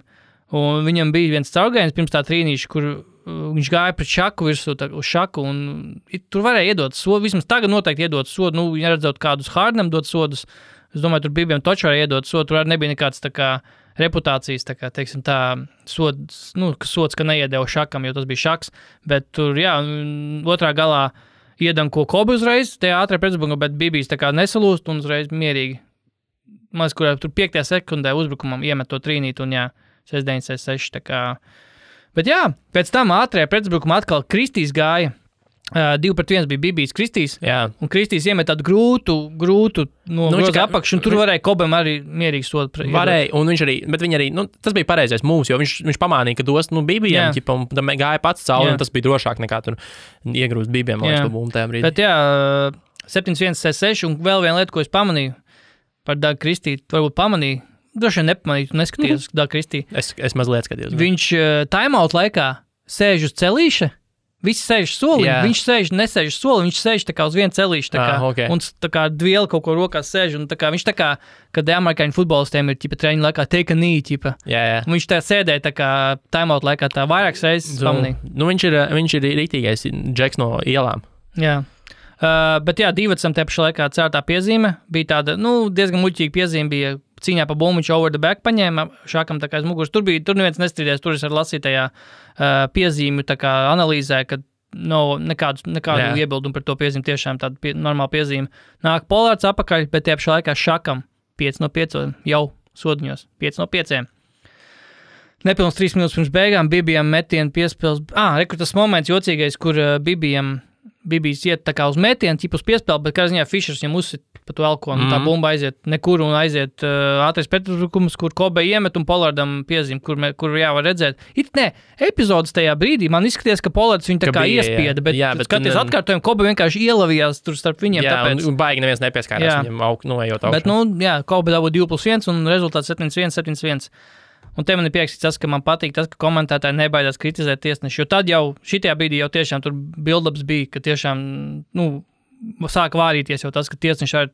Un viņam bija viens caurgājiens pirms tā trīnīša, kur viņš gāja pret Šaku virsū, uz Šaku, un tur varēja iedot sodu, vismaz tagad noteikti iedot sodu, ja redzot kādus Hardenam dot sodus. Es domāju, tur Bibijam toču varēja iedot sodu, tur arī nebija nekāds tā kā reputācijas, tā kā, teiksim, tā sods, ka neiedeva Šakam, jo tas bija Šaks, bet tur, otrā galā iedam ko Kobe uzreiz, tajā ātrā pretuzbrukumā, bet Bibijs tā kā nesalūst un uzreiz mierīgi. Maz, kurā tur 5. sekundē uzbrukumam iemet to trīnīt un 6-9-6, tā kā. Bet pēc tam ātrajā pretuzbrukumā atkal Kristīs gāja. 2-1 bija Bibijs Kristīs, un Kristīs iemet tādu grūtu no groza apakšu, un tur varēja Kobam arī mierīgi sodu. Varēja, un viņš arī, bet viņi arī, tas bija pareizais mūs, jo viņš pamānīja, ka dos, Bibijam, un tam gāja pats cauri, un tas bija drošāk nekā tur iegrūst Bibijam, lai to bumbu tajā brīdī. Bet 7-1-6, un vēl viena lieta, ko es pamanīju par Dagu Kristī, varbūt pamanīju, droši vien nepamanīju, tu neskaties Dagu Kristī. Es mazliet skatījos. Viņš timeout laikā sēž uz celīša, visi sēž soli, viņš nesēž soli, viņš sēž tā kā uz vienu celīšu, tā kā, un tā kā dvieli kaut ko rokās sēž, un tā kā viņš tā kā, kad amerikāņu futbolistiem ir, treniņu laikā take a knee, viņš tā sēdēja tā kā timeout laikā tā vairākas reizes pamanīja. Viņš ir rītīgais Džeks no ielām. Jā. Bet Divacam te pašā laikā cērtā piezīme bija tāda, diezgan muļķīga piezīme bija cīņā pa bumbu, viņš over the back paņēma Šakam tā kā aiz muguras. Tur neviens nestrīdēs, tur es ar lasītajā piezīmju tā kā analīzē, kad nekādu iebildumu par to piezīmi, tiešām tāda normāla piezīme. Nāk Polārds apakaļ, bet tie pašā laikā Šakam 5 no 5 jau sodiņos. 5 no 5. Nepilns 3 minūtes pirms beigām Bibijam metienu piespēles. Rekur tas moments jocīgais, kur Bibijs iet tā kā uz metienu, ķip uz piespēli, bet kā ziņā Fišers viņam uzsit pa to elkonu. Tā bumba aiziet nekur un aiziet ātrais pretuzbrukums, kur Kobe iemet un Pollardam piezīm, kur var redzēt. Epizodes tajā brīdī man izskaties, ka Pollards viņu tā kā iespieda, bet skaties atkārtojumu, Kobe vienkārši ielavījās tur starp viņiem. Tāpēc. Un baigi neviens nepieskārās viņam noejot augšu. Bet, Kobe dabū 2+1 un rezultāts 7-1. Un te man ir prieks tas, ka man patīk tas, ka komentētāji nebaidās kritizēt tiesneši, jo tad jau šitajā brīdī jau tiešām tur build-ups bija, ka tiešām, sāka vārīties jau tas, ka tiesneši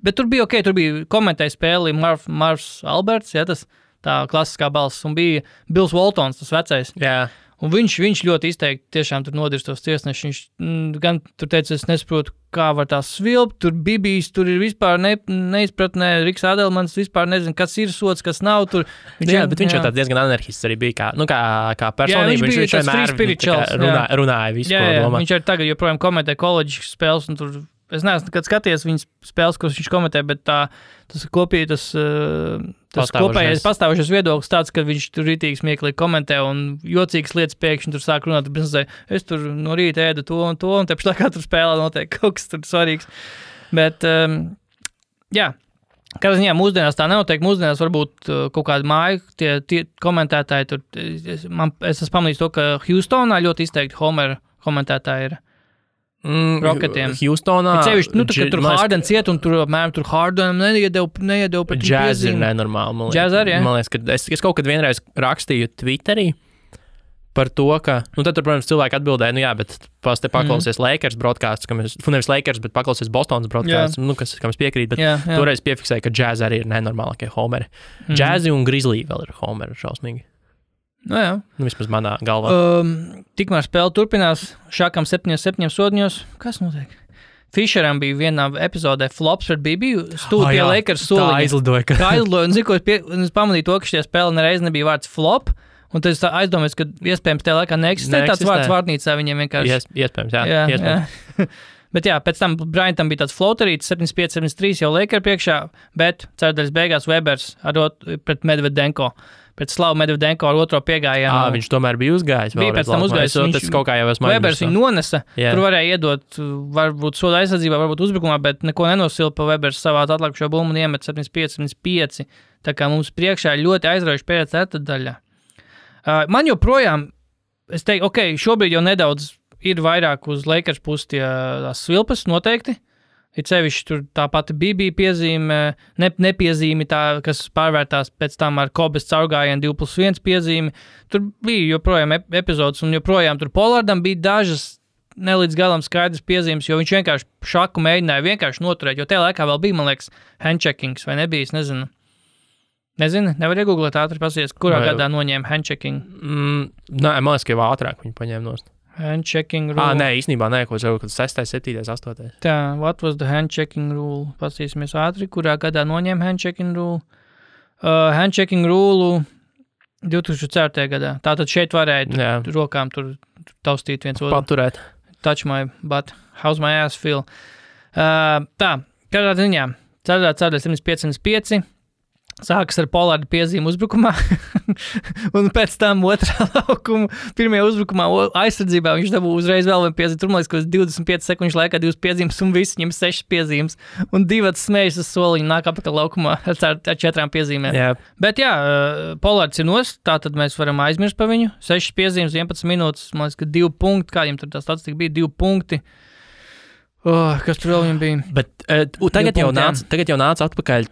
bet tur bija tur bija komentēja spēli Marvs Alberts, tas tā klasiskā balss, un bija Bills Waltons, tas vecais. Jā. Un viņš ļoti izteikti tiešām tur nodirstos tiesneši. Viņš gan tur teica, es nesaprotu, kā var tā svilpt, tur Bibijs, tur ir vispār neizpratnē, Riks Adelmans vispār nezinu, kas ir sots, kas nav tur. Bet viņš jau tāds diezgan anarchists arī bija, kā personība. Viņš vienmēr runāja visu, ko domā. Viņš arī tagad joprojām komentē koledžas spēles, un tur, es neesmu nekad skaties viņas spēles, kuras viņš komentē, bet tas kopējais pastāvošais viedoklis tāds, ka viņš tur rītīgi smieklīgi komentē un jocīgas lietas pēkšņi tur sāk runāt, es tur no rīta ēdu to un te pašā kā tur spēlē notiek kaut kas tur svarīgs. Bet, kādā ziņā mūsdienās tā nenotiek, mūsdienās varbūt kaut kāda māja, tie komentētāji tur, es esmu pamanījis to, ka Houstonā ļoti izteikti Homer komentētāji ir. Rocketiem. Houstonā. Kad tur Hardens iet un tur apmēram tur Hardenam neiedeva par tiem Jazz ir nenormāli. Jazz arī, Man liekas, ka es kaut kad vienreiz rakstīju Twitterī par to, ka, tad tur, protams, cilvēki atbildēja, bet paklausies Lakers broadcasts, nevis Lakers, bet paklausies Bostonas broadcasts, kam es piekrītu, bet toreiz piefiksēja, ka Jazz arī ir nenormālākie homeri. Jazzi un Grizzly vēl ir homeri šausmīgi. Vismaz manā galvā. Tikmēr spēle turpinās, Šakam 7 sodiņos. Kas notiek? Fišeram bija vienā epizodē flops pret Bibiju, pie Lakers soliņa. Tā aizlidoja. Un es pamanīju to, ka šajā spēlē nereiz nebija vārds flop, un tad es aizdomājos, ka iespējams tajā laikā neeksistē tāds vārds vārnīcā viņiem vienkārši. Iespējams, jā. Bet pēc tam Bryantam bija tāds floaterīts, 75-73 jau Lakers priekšā, bet ceturdaļas beigās Webers pret Medvedenko. Pēc Slavu Medvedenko ar otro piegājienu. Viņš tomēr bija uzgājis. Bija pēc tam uzgājis. Tas kaut kā jau esmu Webers viņu nonesa. Tur varēja iedot, varbūt soda aizsardzībā, varbūt uzbrukumā, bet neko nenosila Webers savā atlikušo bumbu un iemet 75-75. Tā kā mums priekšā ļoti aizraujuši pēc ceturtdaļā. Man joprojām, es teiktu, šobrīd jau nedaudz ir vairāk uz Lakers pusi tās svilpas noteikti. Ir sevišķi tur tā pati bija piezīme, nepiezīme tā, kas pārvērtās pēc tam ar Kobes caurgājienu 2+1 piezīme. Tur bija joprojām epizodes un joprojām tur Pollardam bija dažas nelīdz galam skaidrs piezīmes, jo viņš vienkārši šaku mēģināja vienkārši noturēt, jo tajā laikā vēl bija, man liekas, handcheckings vai nebija, es nezinu. Nevar iegooglēt ātri pasies, kurā gadā noņēma handchecking. Man liekas, ka jau ātrāk viņi paņēma nost. Handchecking rule. Nē, īstenībā nē, ko jau 6., 7., 8. Tā, what was the handchecking rule? Pasīsimies ātri, kurā gadā noņēma handchecking rule. Handchecking rule 2004. gadā. Tātad šeit varēja rokām tur taustīt viens otru. Paturēt. Touch my butt. How's my ass feel? Tā, kādā ziņā. Ceturtdaļa 75-5. Sākas ar Pollarda piezīmu uzbrukumā, un pēc tam otrā laukuma, pirmajā uzbrukumā aizsardzībā viņš dabū uzreiz vēl vienu piezīmi. Tur, man liekas, ka 25 sekundžu laikā 2 piezīmes, un viss viņam 6 piezīmes, un 2 smējas uz soliņu nāk apakaļ laukumā ar 4 piezīmēm. Yeah. Bet Pollards ir nost, tātad mēs varam aizmirst par viņu. 6 piezīmes, 11 minūtes, man liekas, ka 2 punkti, kādiem tur tā statistika bija, 2 punkti. Kas tur vēl viņam bija? Bet tagad jau nāca atpakaļ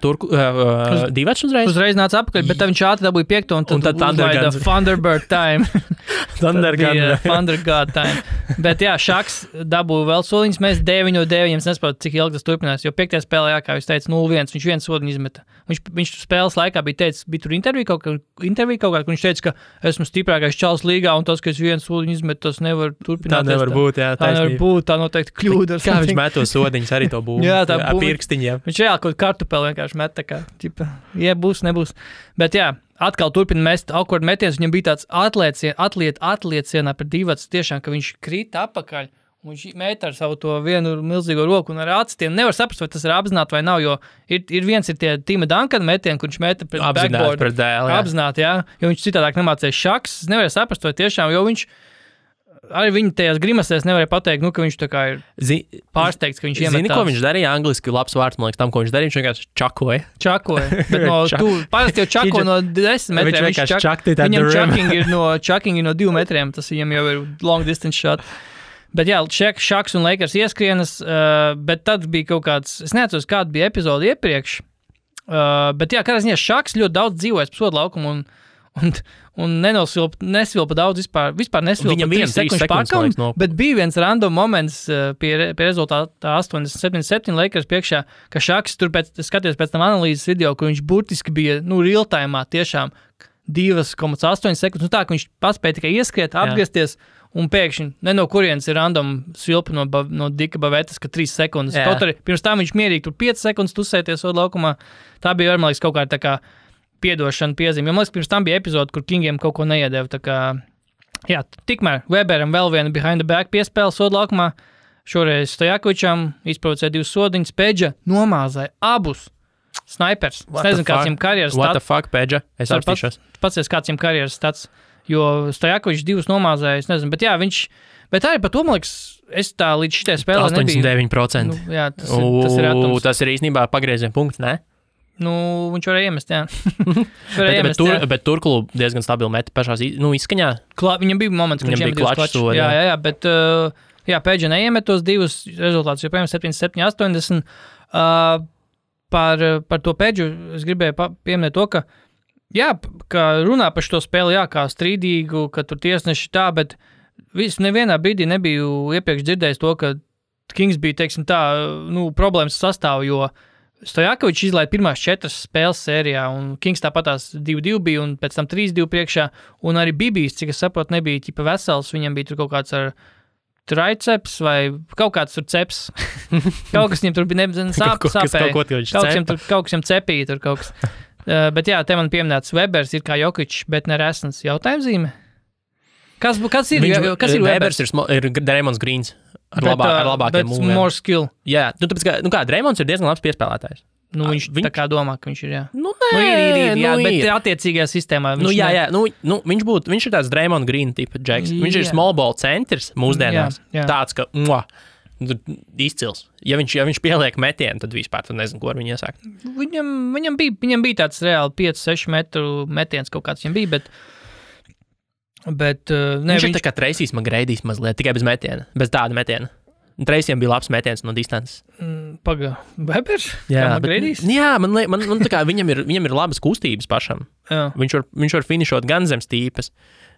Divačs uzreiz? Uzreiz nāca atpakaļ, bet viņš ātri dabūja 5. un tad uzlaida Thunderbird time. Thundergod time. Bet Šaks dabūja vēl soliņas, mēs 9-9, es nesaprotu, cik ilgi tas turpinās, jo 5. spēlē, kā jūs teicat, 0-1, viņš viens soliņu izmeta. Viņš spēles laikā bija tur intervija kaut kā, kur viņš teica, ka esmu stiprākais čals līgā, un tas, ka es viens soliņu izmetu, tas nevar turpināt. Tā nevar būt, tā nevar būt, tā noteikti kļūda. Kā viņš met tos sodiņus arī to būmu? Jā, tā ar pirkstiņiem. Viņš reāli kaut kartupeli vienkārši met, tā kā, būs, nebūs. Bet atkal turpina mest awkward metiens, viņam bija tāds atliecienā par Divats, tiešām, ka viņš krita apakaļ, Viņš mēta ar savu to vienu milzīgo roku un ar acitiem. Nevar saprast, vai tas ir apzināti vai nav, jo ir viens ir tie Tima Duncana metieni, kur viņš meta pret backboard. Pret dēlu, jā. Apzināti, jā. Jo viņš citādāk nemācēja šaks. Es nevarēju saprast, vai tiešām, jo viņš arī viņa tajās grimasēs nevarēja pateikt, nu, ka viņš tā kā ir pārsteigts, ka viņš iemetās. Zini, ko viņš darīja? Angliski labs vārds, man liekas, tam, ko viņš darīja. Viņš vienkārši čakoja. Bet parasti jau čako no 10 metriem. Viņam chucking ir no 2 metriem. Tas viņam jau ir long distance shot. Bet jā, Šaks un Lakers ieskrienas, bet tad bija kaut kāds, es neatceros, kāda bija epizode iepriekš, bet jā, kādā ziņā Šaks ļoti daudz dzīvojas pa sodu laukumu un nesvilpa daudz vispār nesvilpa 3 sekundes pārkaumu, bet bija viens random moments pie rezultātā 87 Lakers priekšā, ka Šaks tur skaties pēc tam analīzes video, ka viņš burtiski bija, real time'ā tiešām 2,8 sekundes, tā, ka viņš paspēja tikai ieskriet, apgriezties, un pēkšņi, no kurienes ir random svilpa no Dika Bavetas, ka 3 sekundes. Kaut arī pirms tam viņš mierīgi tur 5 sekundes tusēties sodu laukumā. Tā bija, man liekas, kaut kā tā kā piedošana piezīme. Jo, man liekas, pirms tam bija epizode, kur Kingiem kaut ko neiedeva. Tā kā, jā, tikmēr Weberam vēl viena behind the back piespēle sodu laukumā. Šoreiz Stojakovičam izprovocēja 2 sodiņas. Pedža nomāzāja abus snipers. Es nezinu, kāds viņam karjeras stats. What the fuck, Pedža? Es apstīšos. Pats kāds viņam karjeras stats. Jo Stojakovičs 2 nomāzāja, es nezinu, bet jā, bet arī par to, man liekas, es tā līdz šitai spēlē 89%. Jā, tas ir atums. Tas ir īstenībā pagrieziena punkts, ne? Viņš varēja iemest, jā. Bet Turklu diezgan stabili meta pašās, izskaņā. Viņam bija moments, ka viņam bija klačs sodi. Jā, bet, Pedža neiemet tos 2 rezultātus, joprojām 77-80. Par to Pedžu es gribēju pieminēt to, ka jā, ka runā par šo spēli, jā, kā strīdīgu, ka tur tiesneši tā, bet nevienā brīdī nebiju iepriekš dzirdējis to, ka Kings bija, teiksim tā, problēmas sastāv, jo Stojakovičs izlaida pirmās 4 spēles sērijā, un Kings tāpatās 2-2 bija, un pēc tam 3-2 priekšā, un arī Bibijs, cik es saprotu, nebija ķipa vesels, viņam bija tur kaut kāds ar triceps vai kaut kāds tur ceps. Kaut kas viņam tur bija sāpēja. Kaut kas viņam cepīja tur kaut kas. Bet jā, te man pieminēts Webers ir kā Jokičs, bet ne Resns. Jautājumzīme? Kas ir Webers? Ir Draymond Greens ar labākiem mūviem. Bet more skill. Jā, tāpēc kā Draymonds ir diezgan labs piespēlētājs. Viņš tā kā domā, ka viņš ir, jā. Ir, bet attiecīgajā sistēmā. Viņš ir tāds Draymond Green tipa džeks. Viņš ir small ball centrs mūsdienās. Jā. Tāds, ka izcils. Ja viņš pieliek metienu, tad vispār tu nezinu, ko ar viņu iesākt. Viņam bija tāds reāli 5-6 metru metiens kaut kāds viņam bija, bet viņš ir tā kā Tracy's McGrady's mazliet, tikai bez metiena, bez tāda metiena. Tracy'am bija labs metiens no distances. Webers? Jā, McGrady's? Jā, man tā kā viņam ir labas kustības pašam. Jā. Viņš var finišot gan zem stīpes,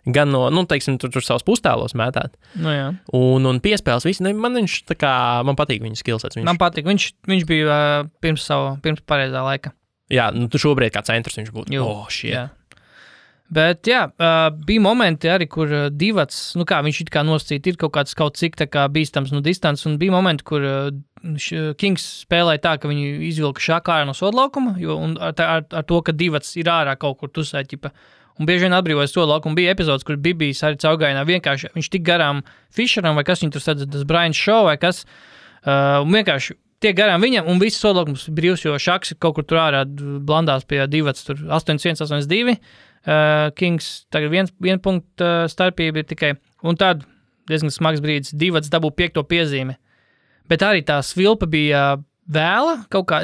gan no, teiksim, tur savus pustālos mētāt. Jā. Un piespēles visi, man viņš tā kā, man patīk viņa skillsets. Man patīk, viņš bija pirms pareizā laika. Jā, tu šobrīd kā centrs viņš būtu. Jā. Bet jā, bija momenti arī, kur Divats, viņš it kā nosacīt, ir kaut cik tā kā bīstams no distances, un bija momenti, kur Kings spēlēja tā, ka viņi izvilka Šaku ārā no sodlaukuma, un ar to, ka Divats ir ārā kaut kur tusēt, un bieži vien atbrīvojas sodlaukumu. Bija epizodes, kur Bibijs arī caurgājienā vienkārši, viņš tik garām Fisheram, vai kas viņu tur sadz, tas Brian Shaw, vai kas, un vienkārši tiek garām viņam, un viss sodlaukums brīvs, jo Šaks kaut kur tur ārā blandās pie Divats, tur 8-1, 8-2, Kings tagad viena punkta starpība ir tikai, un tad diezgan smags brīdis, Divats dabū 5. piezīme. Bet arī tā svilpa bija vēla kaut kā,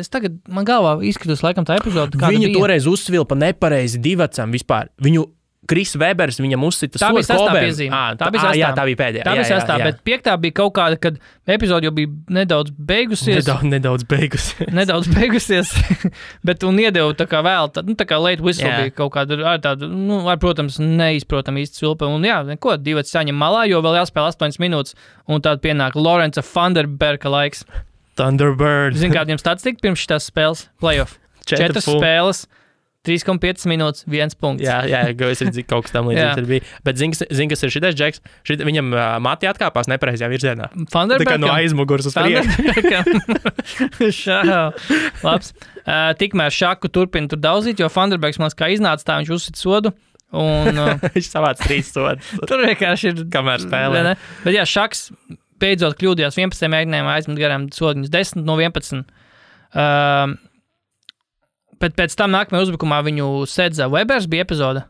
man galvā izskatās laikam tā epizode, kāda viņa bija. Toreiz uzsvilpa nepareizi Divatsam vispār. Kris Webers viņam uzsita tā bija 6. piezīme. Tā bija pēdējā. Tā bija 6. Bet 5. bija kaut kāda, kad epizode jau bija nedaudz beigusies. Nedaudz beigusies. Bet un iedeva tā kā vēl, tā kā late whistle bija kaut kāda, protams, neizprotam īsti svilpa. Un jā, neko, Divats saņem malā, jo vēl jāspēl 8 minūtes. Un tad pienāk Lorenza Thunderberga laiks. Thunderbird. Zini, kādiem statistika pirms šitās spēles? Playoff. 4 spēles. 3,5 minūtes, 1 punkts. Jā, es redzu, kaut kas tam līdzīgs ir bijis. Bet zini, kas ir šitais džeks? Viņam mati atkāpās nepareizajā virzienā. Tā kā no aizmugures uz priekšu. Labs. Tikmēr Šaku turpina tur daudzīt, jo Thunderbergs man kā iznāca tā, viņš uzsita sodu. Un, viņš savāc 3 sodus. Tur vienkārši ir... Kamēr spēlē. Bet jā, Šaks beidzot kļūdījās 11 mēģinājumā aizmet garām sodiņus 10 no 11. Bet pēc tam nākamajā uzbrukumā viņu sedza Webers bija epizode.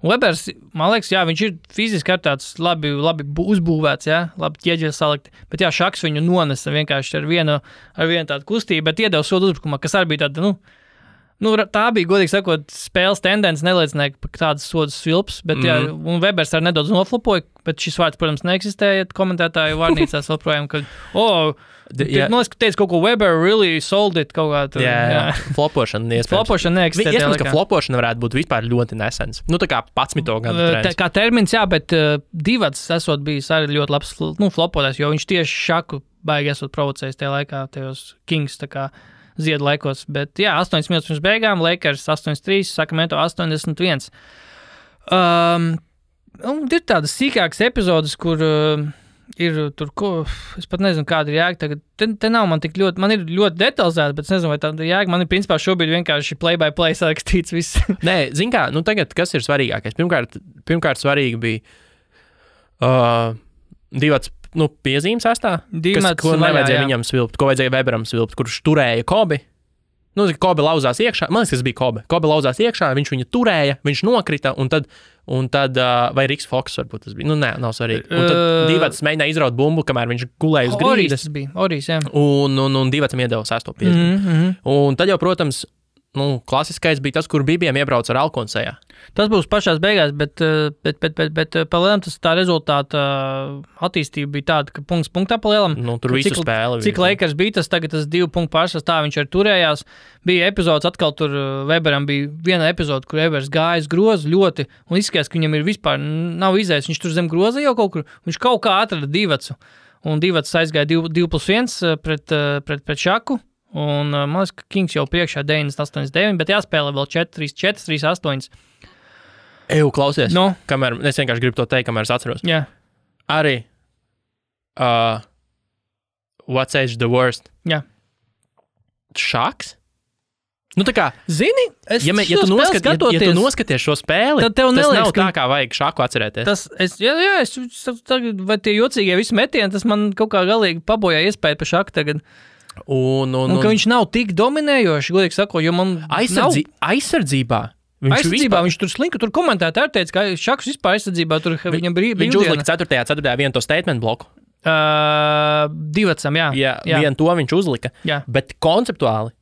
Webers, man liekas, jā, viņš ir fiziski ar tāds labi uzbūvēts, jā, labi ķieģeļi salikti. Bet jā, Šaks viņu nonesa vienkārši ar vienu tādu kustību, bet iedeva sodu uzbrukumā, kas arī bija tāda, tā bija, godīgi sakot, spēles tendence, neliecināja par tādas sodas svilps, bet jā, un Webers arī nedaudz noflopoja, bet šis vārds, protams, neeksistēja komentētāju vārnīcās vēl projām, kad, teica kaut ko Weber really sold it kaut kā. Jā. Flopošana iespējams. Flopošana neeksistē. Iespējams, ka flopošana varētu būt vispār ļoti nesens. Tā kā 11. gadu trends. Kā termins, jā, bet Divats esot bijis arī ļoti labs flopotājs, jo viņš tieši Šaku baigi esot provocējis tajā laikā, tajos Kings, tā kā ziedu laikos. Bet jā, 8 minūtes pirms beigām, Lakers 8-3, Sacramento 81. Ir tādas sīkākas epizodes, kur ir tur, es pat nezinu, kāda ir jēga tagad. Te nav man tik ļoti, man ir ļoti detalizēta, bet es nezinu, vai tāda jēga. Man ir principā šobrīd vienkārši play-by-play sarakstīts viss. Nē, zin kā, tagad kas ir svarīgākais? Pirmkārt svarīgi bija Divats, piezīmes astā, ko nevajadzēja viņam svilpt, ko vajadzēja Weberam svilpt, kurš turēja Kobi. Kobi lauzās iekšā, man liekas, tas bija Kobi. Kobi lauzās iekšā, viņš viņu turēja, viņš nokrita, un tad vai Riks Foks varbūt tas bija. Nav svarīgi. Un tad Divats mēģināja izraut bumbu, kamēr viņš gulēja uz grīdas. Tas bija, Orijs, jā. Un Divatsam iedeva 6. piezīmi. Un tad jau, protams, klasiskais bija tas, kur Bibiem iebrauca ar Alkonsejā. Tas būs pašās beigās, bet palielam tas tā rezultāta attīstība bija tāda, ka punkts punktā palielam. Tur visu spēli. Cik Lakers bija tas tagad, tas 2 punktu pārsvars, tā viņš arī turējās. Bija epizodes, atkal tur Weberam bija viena epizode, kur Webers gājas grozu ļoti, un izskatās, ka viņam ir vispār nav izējis. Viņš tur zem groza jau kaut kur, viņš kaut kā atrada Divatsu, un Divats aizgāja 2+1 pret Šaku. Un man liekas, ka Kings jau priekšā 9-8-9, bet jāspēlē vēl 4-3-4, 3-8. Klausies, kamēr, es vienkārši gribu to teikt, kamēr es atceros. Jā. Arī What's Age the Worst? Jā. Šaks? Tā kā, zini, ja tu noskaties šo spēli, tad tev tas neliekas, nav tā, kā vajag Šaku atcerēties. Vai tie jocīgie visi metieni, tas man kaut kā galīgi pabojā iespēju par Šaku tagad. Un ka viņš nav tik dominējoši, godīgi sakot, jo man aizsardzībā. Viņš tur slinka, tur komentētāji teica, ka Šaks vispār aizsardzībā tur viņam brīvdiena. Viņš uzlika 4. vienu to statement bloku. Divatsam, jā. Vienu to viņš uzlika. Jā. Bet konceptuāli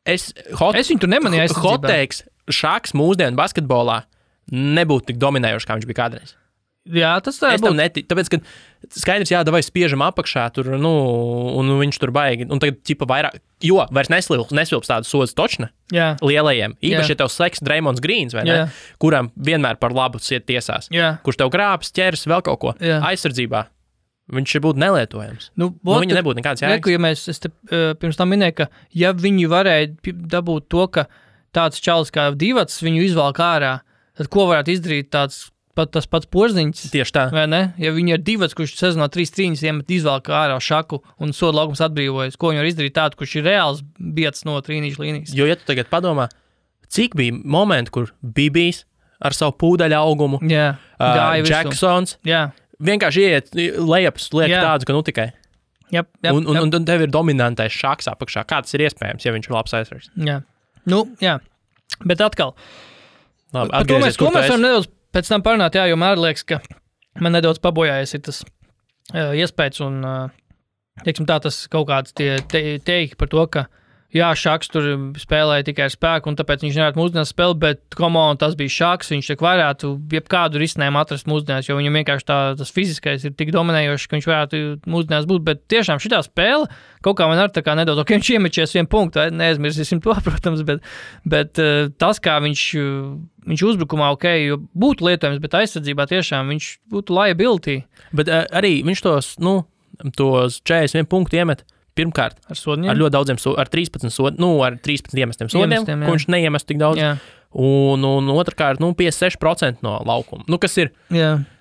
es viņu tur nemanīju aizsardzībā. Hot-teiks, Šaks mūsdienu basketbolā nebūtu tik dominējoši, kā viņš bija kādreiz. Jā, tas tā būtu. Tāpēc, ka skaidrs, vai spiežam apakšā tur, un viņš tur baigi, un tagad ķipa vairāk, jo vairs nesvilps tādu sodas točne lielajiem. Īpaši, ja tev slēgs Draymonds Greens, vai ne, kuram vienmēr par labu siet tiesās, kurš tev grābs, ķers, vēl kaut ko aizsardzībā. Viņš būtu nelietojams. Viņa nebūtu nekāds jēgas. Es te pirms tam minēju, ka ja viņi varēja dabūt to, ka tāds čalis kā Divats viņu izvalk ārā, tad ko varētu izdarīt tāds tas pats Porziņš. Tieši tā. Vai ne? Ja viņi ir Divats, kurš sezonā 3 trīņas iemet izvēlk ārā Šaku un soda laukums atbrīvojas, ko viņi var izdarīt tādu, kurš ir reāls biets no trīnīšu līnijas. Jo, ja tu tagad padomā, cik bija momenti, kur Bibijs ar savu pūdaļu augumu, Jacksons, vienkārši iet lejaps liek tādu, ka tikai. Un tev ir dominantais Šaks apakšā. Kā tas ir iespējams, ja viņš ir labs aizsargs? Jā. Bet atkal. Labi, par to mēs varam nedaudz pēc tam parunāt, jo man liekas, ka man nedaudz pabojājies ir tas iespējas un, teiksim tā, tas kaut kāds teiki par to, ka Šaks tur spēlēja tikai ar spēku, un tāpēc viņš nevarētu mūsdienās spēlēt, bet tas bija Šaks, viņš tik varētu jebkādu risinājumu atrast mūsdienās, jo viņam vienkārši tas fiziskais ir tik dominējošs, ka viņš varētu mūsdienās būt, bet tiešām šitā spēle kaut kā man ar tā kā nedaudz, viņš iemečies 1 punktu, neaizmirsīsim to, protams, bet tas, kā viņš uzbrukumā jo būtu lietojams, bet aizsardzībā tiešām viņš būtu liability. Bet arī viņš tos 41 punktu iemet. Pirmkārt, ar ļoti daudziem ar 13 ar 13 iemestiem sodiem, ko viņš neiemest tik daudz. Jā. Un otrkārt, 56% no laukuma.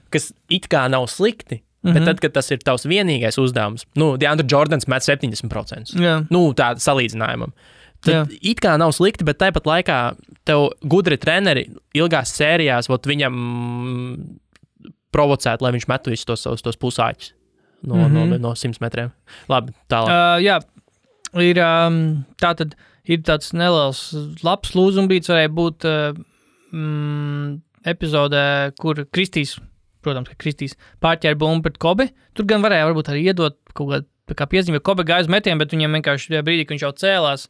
Kas it kā nav slikti, bet tad, kad tas ir tavs vienīgais uzdevums, DeAndre Jordans met 70%. Tāda salīdzinājumam. Tad it kā nav slikti, bet tāpat laikā tev gudri treneri ilgās sērijās viņam provocēt, lai viņš metu visus tos pusāķus. no 100 metriem. Labi, tālāk. Jā, ir tāds neliels labs lūzumbīts, varēja būt epizodē, kur Kristīs, protams, ka Kristīs pārķēra bumbu pret Kobi. Tur gan varēja varbūt arī iedot kaut kādu kā piezīme, jo Kobe gāja uz metienu, bet viņam vienkārši brīdī, kad viņš jau cēlās,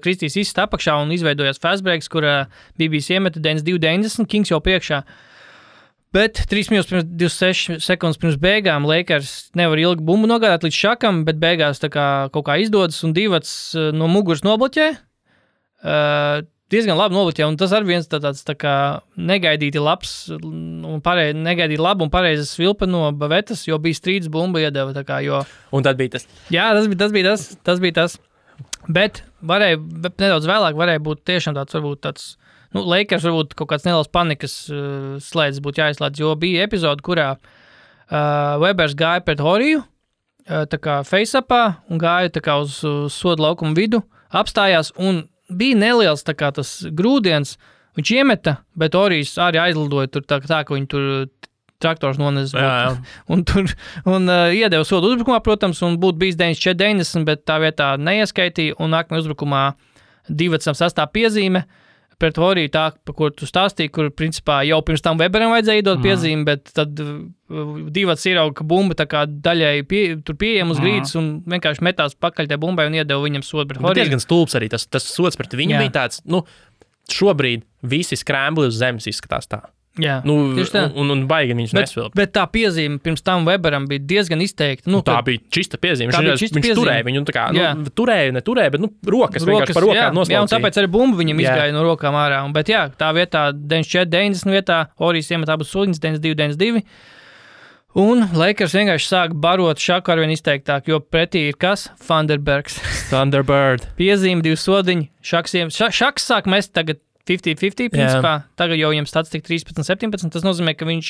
Kristīs izsita apakšā un izveidojās fast breaks, kur BBC iemeta 92-90, Kings jau priekšā. Bet 3 minūtes pirms 26 sekundes pirms beigām Lakers nevar ilgi bumbu nogādāt līdz šakam, bet beigās tā kā kaut kā izdodas un Divats no muguras nobloķē. Diezgan labi nobloķē, un tas arī viens tāds tā kā negaidīti labs un negaidīti labu un pareizes svilpe no Bavetas, jo bija strīds bumba iedeva tā kā, jo... Un tad bija tas. Jā, tas bija tas. Bet nedaudz vēlāk varēja būt tiešām tāds, Lakers varbūt kaut kāds neliels panikas slēdzis būtu jāizslēdz, jo bija epizode, kurā Webers gāja pret Horiju, tā kā face-upā, un gāja tā kā uz soda laukumu vidu, apstājās, un bija neliels tā kā tas grūdiens, viņš iemeta, bet Horijs arī aizlidoja tur tā, ka viņi tur traktors nonez. Un iedeva sodu uzbrukumā, protams, un būtu bijis 94-90, bet tā vietā neieskaitīja, un nākamajā uzbrukumā Divatsam sastā piezīme, pret Horiju tā, pa kur tu stāstīji, kur principā jau pirms tam Weberam vajadzēja iedot piezīmi, bet tad Divats ierauga, ka bumba tā kā daļai tur pieejam uz grīdas un vienkārši metās pakaļ tie bumbai un iedeva viņam sodu pret Horiju. Bet diezgan stulbs arī tas sods pret viņu bija tāds, šobrīd visi skrēmbli uz zemes izskatās tā. Jā, un baigi viņš nesvilp. Bet tā piezīme pirms tam Weberam bija diezgan izteikta. Tā bija čista piezīme. Viņš turēja viņu, neturēja, bet rokas vienkārši par rokām noslaucīja. Jā, un tāpēc arī bumba viņam izgāja no rokām ārā. Bet jā, tā vietā 94-90 vietā Horijs iemet abus soliņus 92-92. Un Lakers vienkārši sāk barot šaku arvien izteiktāk, jo pretī ir kas? Thunderbirds. Thunderbird. Piezīme, 2 sodiņi. Šaks sāk mest tagad 50-50 principā. Tagad jau viņam stats tik 13-17. Tas nozīmē, ka viņš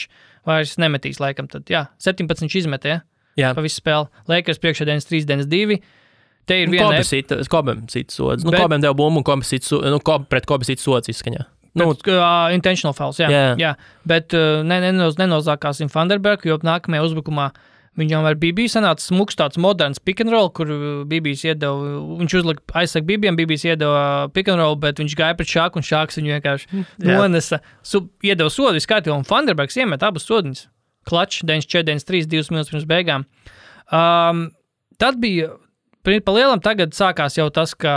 vairs nemetīs laikam. Tad, 17 viņš izmetē, pa visu spēli. Lakers priekšā 93-92. Te ir viena... Kobem sit sods. Kobem deva bumbu un pret Kobe sit sods izskaņā. Intentional fouls, jā. Bet nenozākāsim Thunderbergu, jo nākamajā uzbrukumā viņam ar BB sanāca smuks tāds moderns pick and roll, kur BBs iedeva, viņš uzlika aizsaka BBiem, BBs iedeva pick and roll, bet viņš gāja pret Šāku, un Šāks viņu vienkārši nonesa, iedeva sodu viskārtībā, un Thunderbergs iemet abus sodiņus. Klačs, 94-93, 2 minūtes pirms beigām. Tad bija, pa lielam tagad sākās jau tas, ka,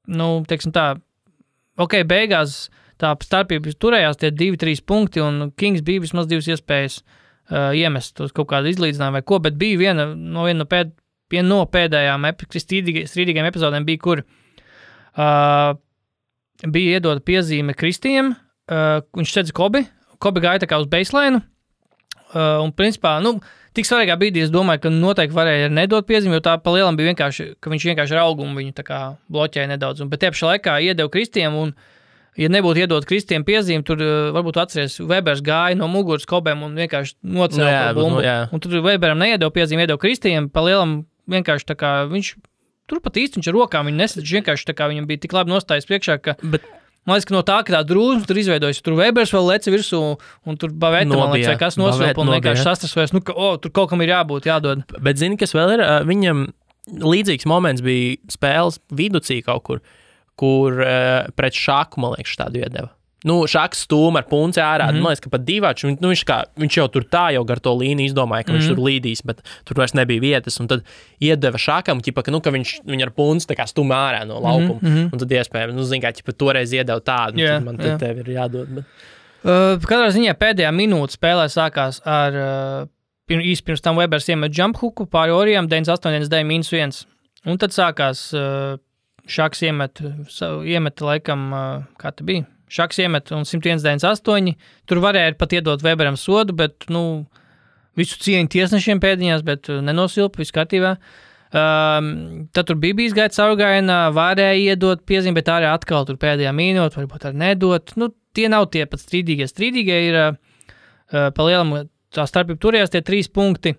teiksim tā, beigās tā starpība turējās tie 2-3 punkti, un Kings bija vismaz 2 iespējas iemest uz kaut kādu izlīdzinājumu vai ko, bet bija viena no pēdējām strīdīgajām epizodēm bija, kur bija iedota piezīme Kristiem, viņš sedz Kobi gāja tā kā uz baseline, un principā, tik svarīgā brīdī es domāju, ka noteikti varēja nedot piezīmi, jo tā pa lielam bija vienkārši, ka viņš vienkārši ar augumu viņu tā kā bloķēja nedaudz, bet tiepšā laikā iedeva Kristiem, un ja nebūtu iedot Kristiem piezīmi, tur varbūt atceries, Webers gāja no muguras Kobem un vienkārši nocēla to bumbu. Un tur Weberam neiedeva piezīmi, iedeva Kristiem, pa lielam vienkārši tā kā viņš, tur pat īsti viņš ar rokām viņu nesadz, vienkārši tā kā viņam bija tik labi nostājas priekšā, ka, man liekas, ka no tā, ka tā drūzma tur izveidojas, tur Webers vēl leci virsū, un tur Baveta, man liekas, kas nosvilpa un vienkārši sastrasvojas, tur kaut kam ir jābūt, jādod. Bet zini, kas vēl ir, viņam līdzīgs moments bija spēles viducī kaut kur pret Šaku, man liekas, tādu iedeva. Šaks stūma ar punci ārā, man liekas, ka pat Divačs, viņš jau tur tā jau gar to līniju izdomāja, ka viņš tur līdīs, bet tur vairs nebija vietas, un tad iedeva Šakam, ka viņš ar punci tā kā stūma ārā no laukuma, un tad iespējams, zin kā, toreiz iedeva tādu, tad man tev ir jādod. Bet... Katrā ziņā pēdējā minūte spēlē sākās ar, īsti pirms tam Webers iemet jump hooku pāri Orijam, 98-99-1, un tad sākās... Šaks iemet laikam, kā tā bija? Šaks iemet un 101-98. Tur varēja pat iedot Weberam sodu, bet, visu cieņu tiesnešiem pēdiņās, bet nenosilpa, viss kārtībā. Tad tur BBs gāja caurgājienā, varēja iedot piezīmi, bet arī atkal tur pēdējā minūte, varbūt arī nedot. Tie nav tie pat strīdīgie. Strīdīgie ir, pa lielam, tā starpība turējās tie 3 punkti.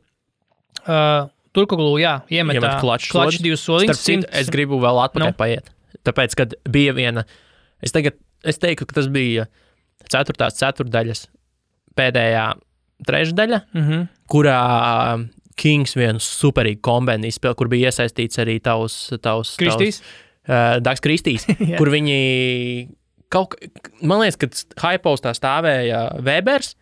Turkoglu, iemet klačs 2 soliņus. Starp citu, es gribu vēl atpakaļ paiet. Tāpēc, kad bija viena, es teiktu, ka tas bija 4. ceturdaļas pēdējā trešdaļa, kurā Kings vienu superīgu kombinu izspēli, kur bija iesaistīts arī tavs Kristīs? Dags Kristīs, kur viņi man liekas, kad Hypostā stāvēja Webers,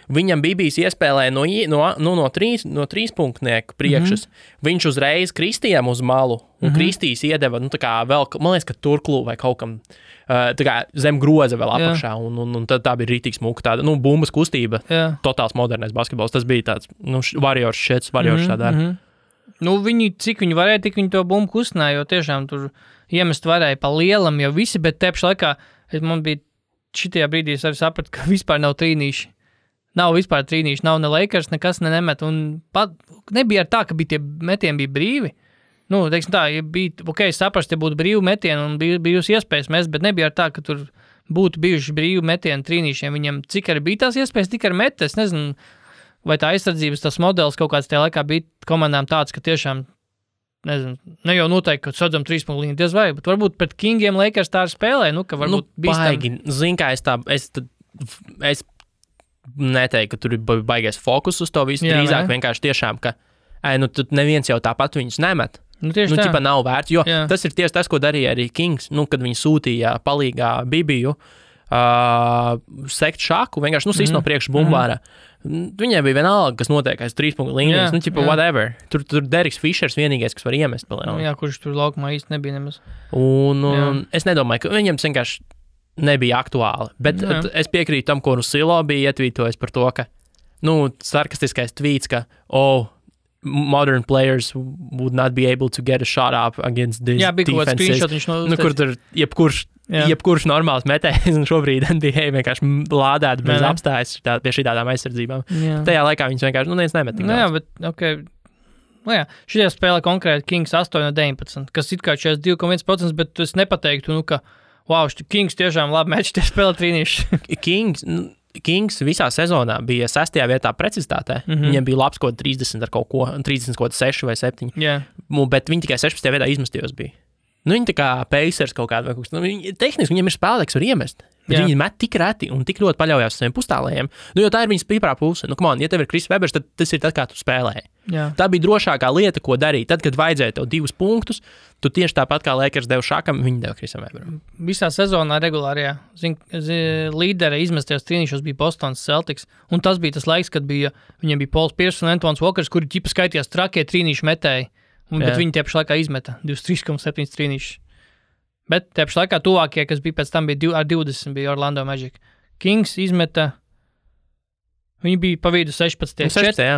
viņam bija bijis iespēlē no trīspunktnieku priekšas. Viņš uzreiz Kristijam uz malu, un Kristīs iedeva, tā kā vēl, man liekas, ka turklū vai kaut kam tā kā zem groza vēl apakšā, un tad tā bija rītīgs muka, tāda, bumbas kustība, totāls modernais basketbols. Tas bija tāds, Warriors tādā. Viņi, cik viņi varēja, tik viņi to bumbu kustināja, jo tiešām tur iemest varēja pa lielam jau visi, bet tepši laikā, man bija šitajā brīdī, es arī sapratu, ka vispār nav trīnīši. Nav vispār trīnīši, nav ne Lakers, nekas nemet, un pat nebija ar tā, ka tie metieni bija brīvi. Teiksim tā, ja bija, es saprastu, ja būtu brīvi metieni un bijusi iespējas mest, bet nebija ar tā, ka tur būtu bijuši brīvi metieni trīnīšiem. Viņam cik arī bija tās iespējas, tik arī met, es nezinu, vai tā aizsardzības tas modelis kaut kāds tajā laikā bija komandām tāds, ka tiešām, nezinu, ne jau noteikti, ka sadzam 3 punktu līniju diez vai, bet varbūt pret Kingiem Lakers tā arī spēlē, ka varbūt baigi, zin kā es neteiktu, ka tur ir baigais fokus uz to visu, drīzāk vienkārši tiešām, ka tad neviens jau tāpat viņus nemet. Ķipa nav vērts, jo tas ir tieši tas, ko darīja arī Kings, kad viņi sūtīja palīgā Bibiju sekt šaku, vienkārši sist no priekšu bumbāra. Viņai bija vienalga, kas notiek aiz 3 punktu līnijas, whatever. Tur Deriks Fišers vienīgais, kas var iemest palielinu. Kurš tur laukumā īsti nebija nemaz. Un es nedomāju, ka viņam vienkārši nebija aktuāli, bet es piekrītu tam, ko Rusilo bija ietvītojis par to, ka, sarkastiskais tvīts, ka, modern players would not be able to get a shot up against this defenses. Kur tur jebkurš normāls metējs, un šobrīd NBA vienkārši lādēt bez apstājas pie šitādām aizsardzībām. Tajā laikā viņus vienkārši, neviens nemet tik daudz. Bet, okay. Šitajā spēlē konkrēti Kings 8-19, kas it kā 42,1%, bet es nepateiktu, ka Kings tiešām labi meč tie spēlē trīnīši. Kings visā sezonā bija 6. vietā precizitātē. Viņiem bija labs kaut 30 ar kaut ko, 30 kaut 6 vai 7. Bet viņi tikai 16. vietā izmestījos bija. Viņi tā kā Pacers kaut kādā vai kaut kas. Tehniski viņiem ir spēlētāji, kas var iemest. Bet viņi met tik reti un tik ļoti paļaujās uz saviem pustālējiem. Jo tā ir viņas stiprā puse. Ja tev ir Kris Webers, tad tas ir tas, kā tu spēlēji. Tā bija drošākā lieta, ko darīt. Tad, kad vajadzēja tev 2 punktus, tu tieši tāpat kā Lakers deva Šakam, viņi deva Krisam Weberam. Visā sezonā regulārajā līdere izmestajos trīnīšos bija Bostonas Celtics, un tas bija tas laiks, kad viņiem bija Pauls Pierce un Antons Walkers, kuri ķipa skaitījās trakie trīnīšu metēji, bet viņi tie pašā laikā izmeta 23,7 trīnīšus. Bet tie pašā laikā tuvākie, kas bija pēc tam, bija ar 20, bija Orlando Magic. Kings izmeta. Viņi bija pa vidu 16.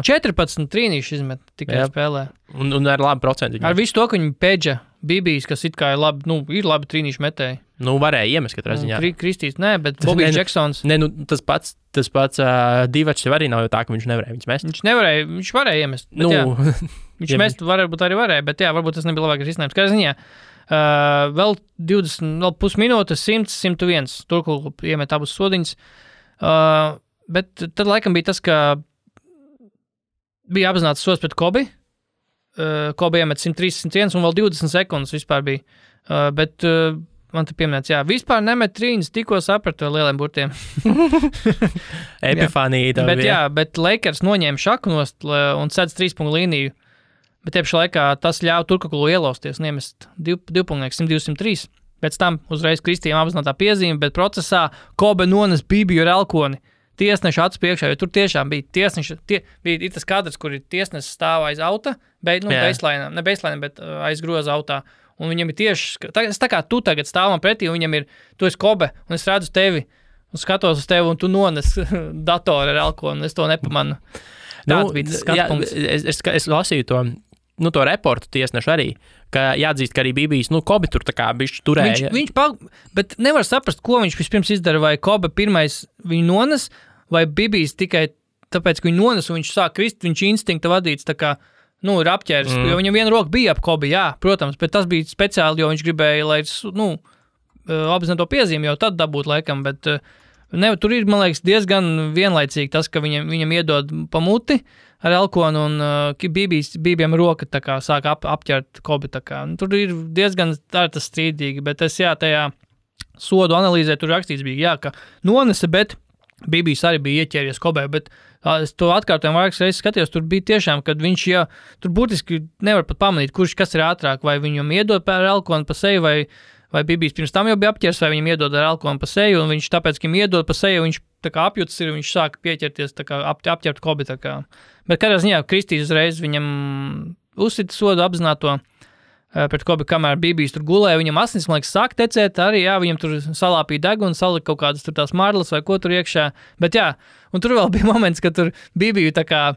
14 trīnīši izmet tikai spēlē. Un ar labu procentu. Ar visu to, ka viņi pēdža Bibijs, kas it kā ir labi, ir labi trīnīši metēji. Varēja iemest katrā ziņā. Kristīs, bet Bobijs Jacksons. Tas pats Divačs arī nav jau tā, ka viņš nevarēja viņus mest. Viņš varēja iemest. Viņš mest varbūt arī varēja, bet varbūt tas nebija labākais risinājums. Kā ziņā, vēl 20, vēl pusminūtes, 100, 101. Turklū iemet abus sodiņus. Bet tad laikam bija tas, ka bija apzināts sods pret Kobi. Kobi iemet 103, 101 un vēl 20 sekundes vispār bija. Bet man te pieminēts, vispār nemet trīņas, tikko sapratu ar lieliem burtiem. Epifānija tā bija. Bet Lakers noņēma šaku nost un sedz 3 punktu līniju. Bet tiepšā laikā tas ļauj Turkakulu ielausties un iemest 2 punktu 102-103. Pēc tam uzreiz Kristījām apzinātā piezīme, bet procesā Kobe nones Bibiju ar elkoni. Tiesneša acu priekšā, jo tur tiešām bija tiesneša, bija tas kadrs, kur ir tiesnesis stāv aiz auta, baseline, bet aiz groza autā. Un viņam ir tieši, tā kā tu tagad stāvam pretī, un viņam ir, tu esi Kobe, un es redzu tevi, un skatos uz tevi, un tu nones datoru ar elkonu, un es to nepamanu. Tāds bija tas skatpunkts. Es lasīju to reportu tiesnešu arī, ka jāatzīst, ka arī Bibijs, Kobe tur tā kā bišķi turēja. Bet nevar saprast, ko viņš vispirms izdara, vai Kobe pirmais viņu nones, vai Bibijs tikai tāpēc, ka viņu nones, un viņš sāk krist, viņš instinkta vadīts, tā kā, ir apķēris, jo viņam viena roka bija ap Kobe, protams, bet tas bija speciāli, jo viņš gribēja, lai, apzināto piezīmi jau tad dabūt laikam, bet tur ir, man liekas, diezgan vienlaicīgi tas, ka viņam iedod pa muti ar elkonu, un Bībiem roka tā kā sāk apķert Kobe, tā kā. Tur ir diezgan tas strīdīgi, bet es, tajā sodu analīzē tur rakstīts bija, ka nonese, bet Bībijs arī bija ieķēries Kobē, bet es to atkārtojumu vairākas reizes skatījos, tur bija tiešām, kad viņš jau, tur būtiski nevar pat pamanīt, kas ir ātrāk, vai viņam iedod ar elkonu pa seju, vai Bībijs pirms tam jau bija apķers, vai viņam iedod ar elkonu pa seju, un viņš tāpēc, ka viņam iedod pa seju, viņš tā kā apjūtas ir, viņš sāk pieķerties, tā kā apķert Kobi, tā kā. Bet kādā ziņā Kristīs uzreiz viņam uzsita sodu apzināto pret Kobi, kamēr Bībijs tur gulēja, viņam asins, man liekas, sāk tecēt, arī, jā, viņam tur salāpīja degunu, salika kaut kādas tur tās marlas vai ko tur iekšā, bet jā, un tur vēl bija moments, ka tur Bībiju tā kā,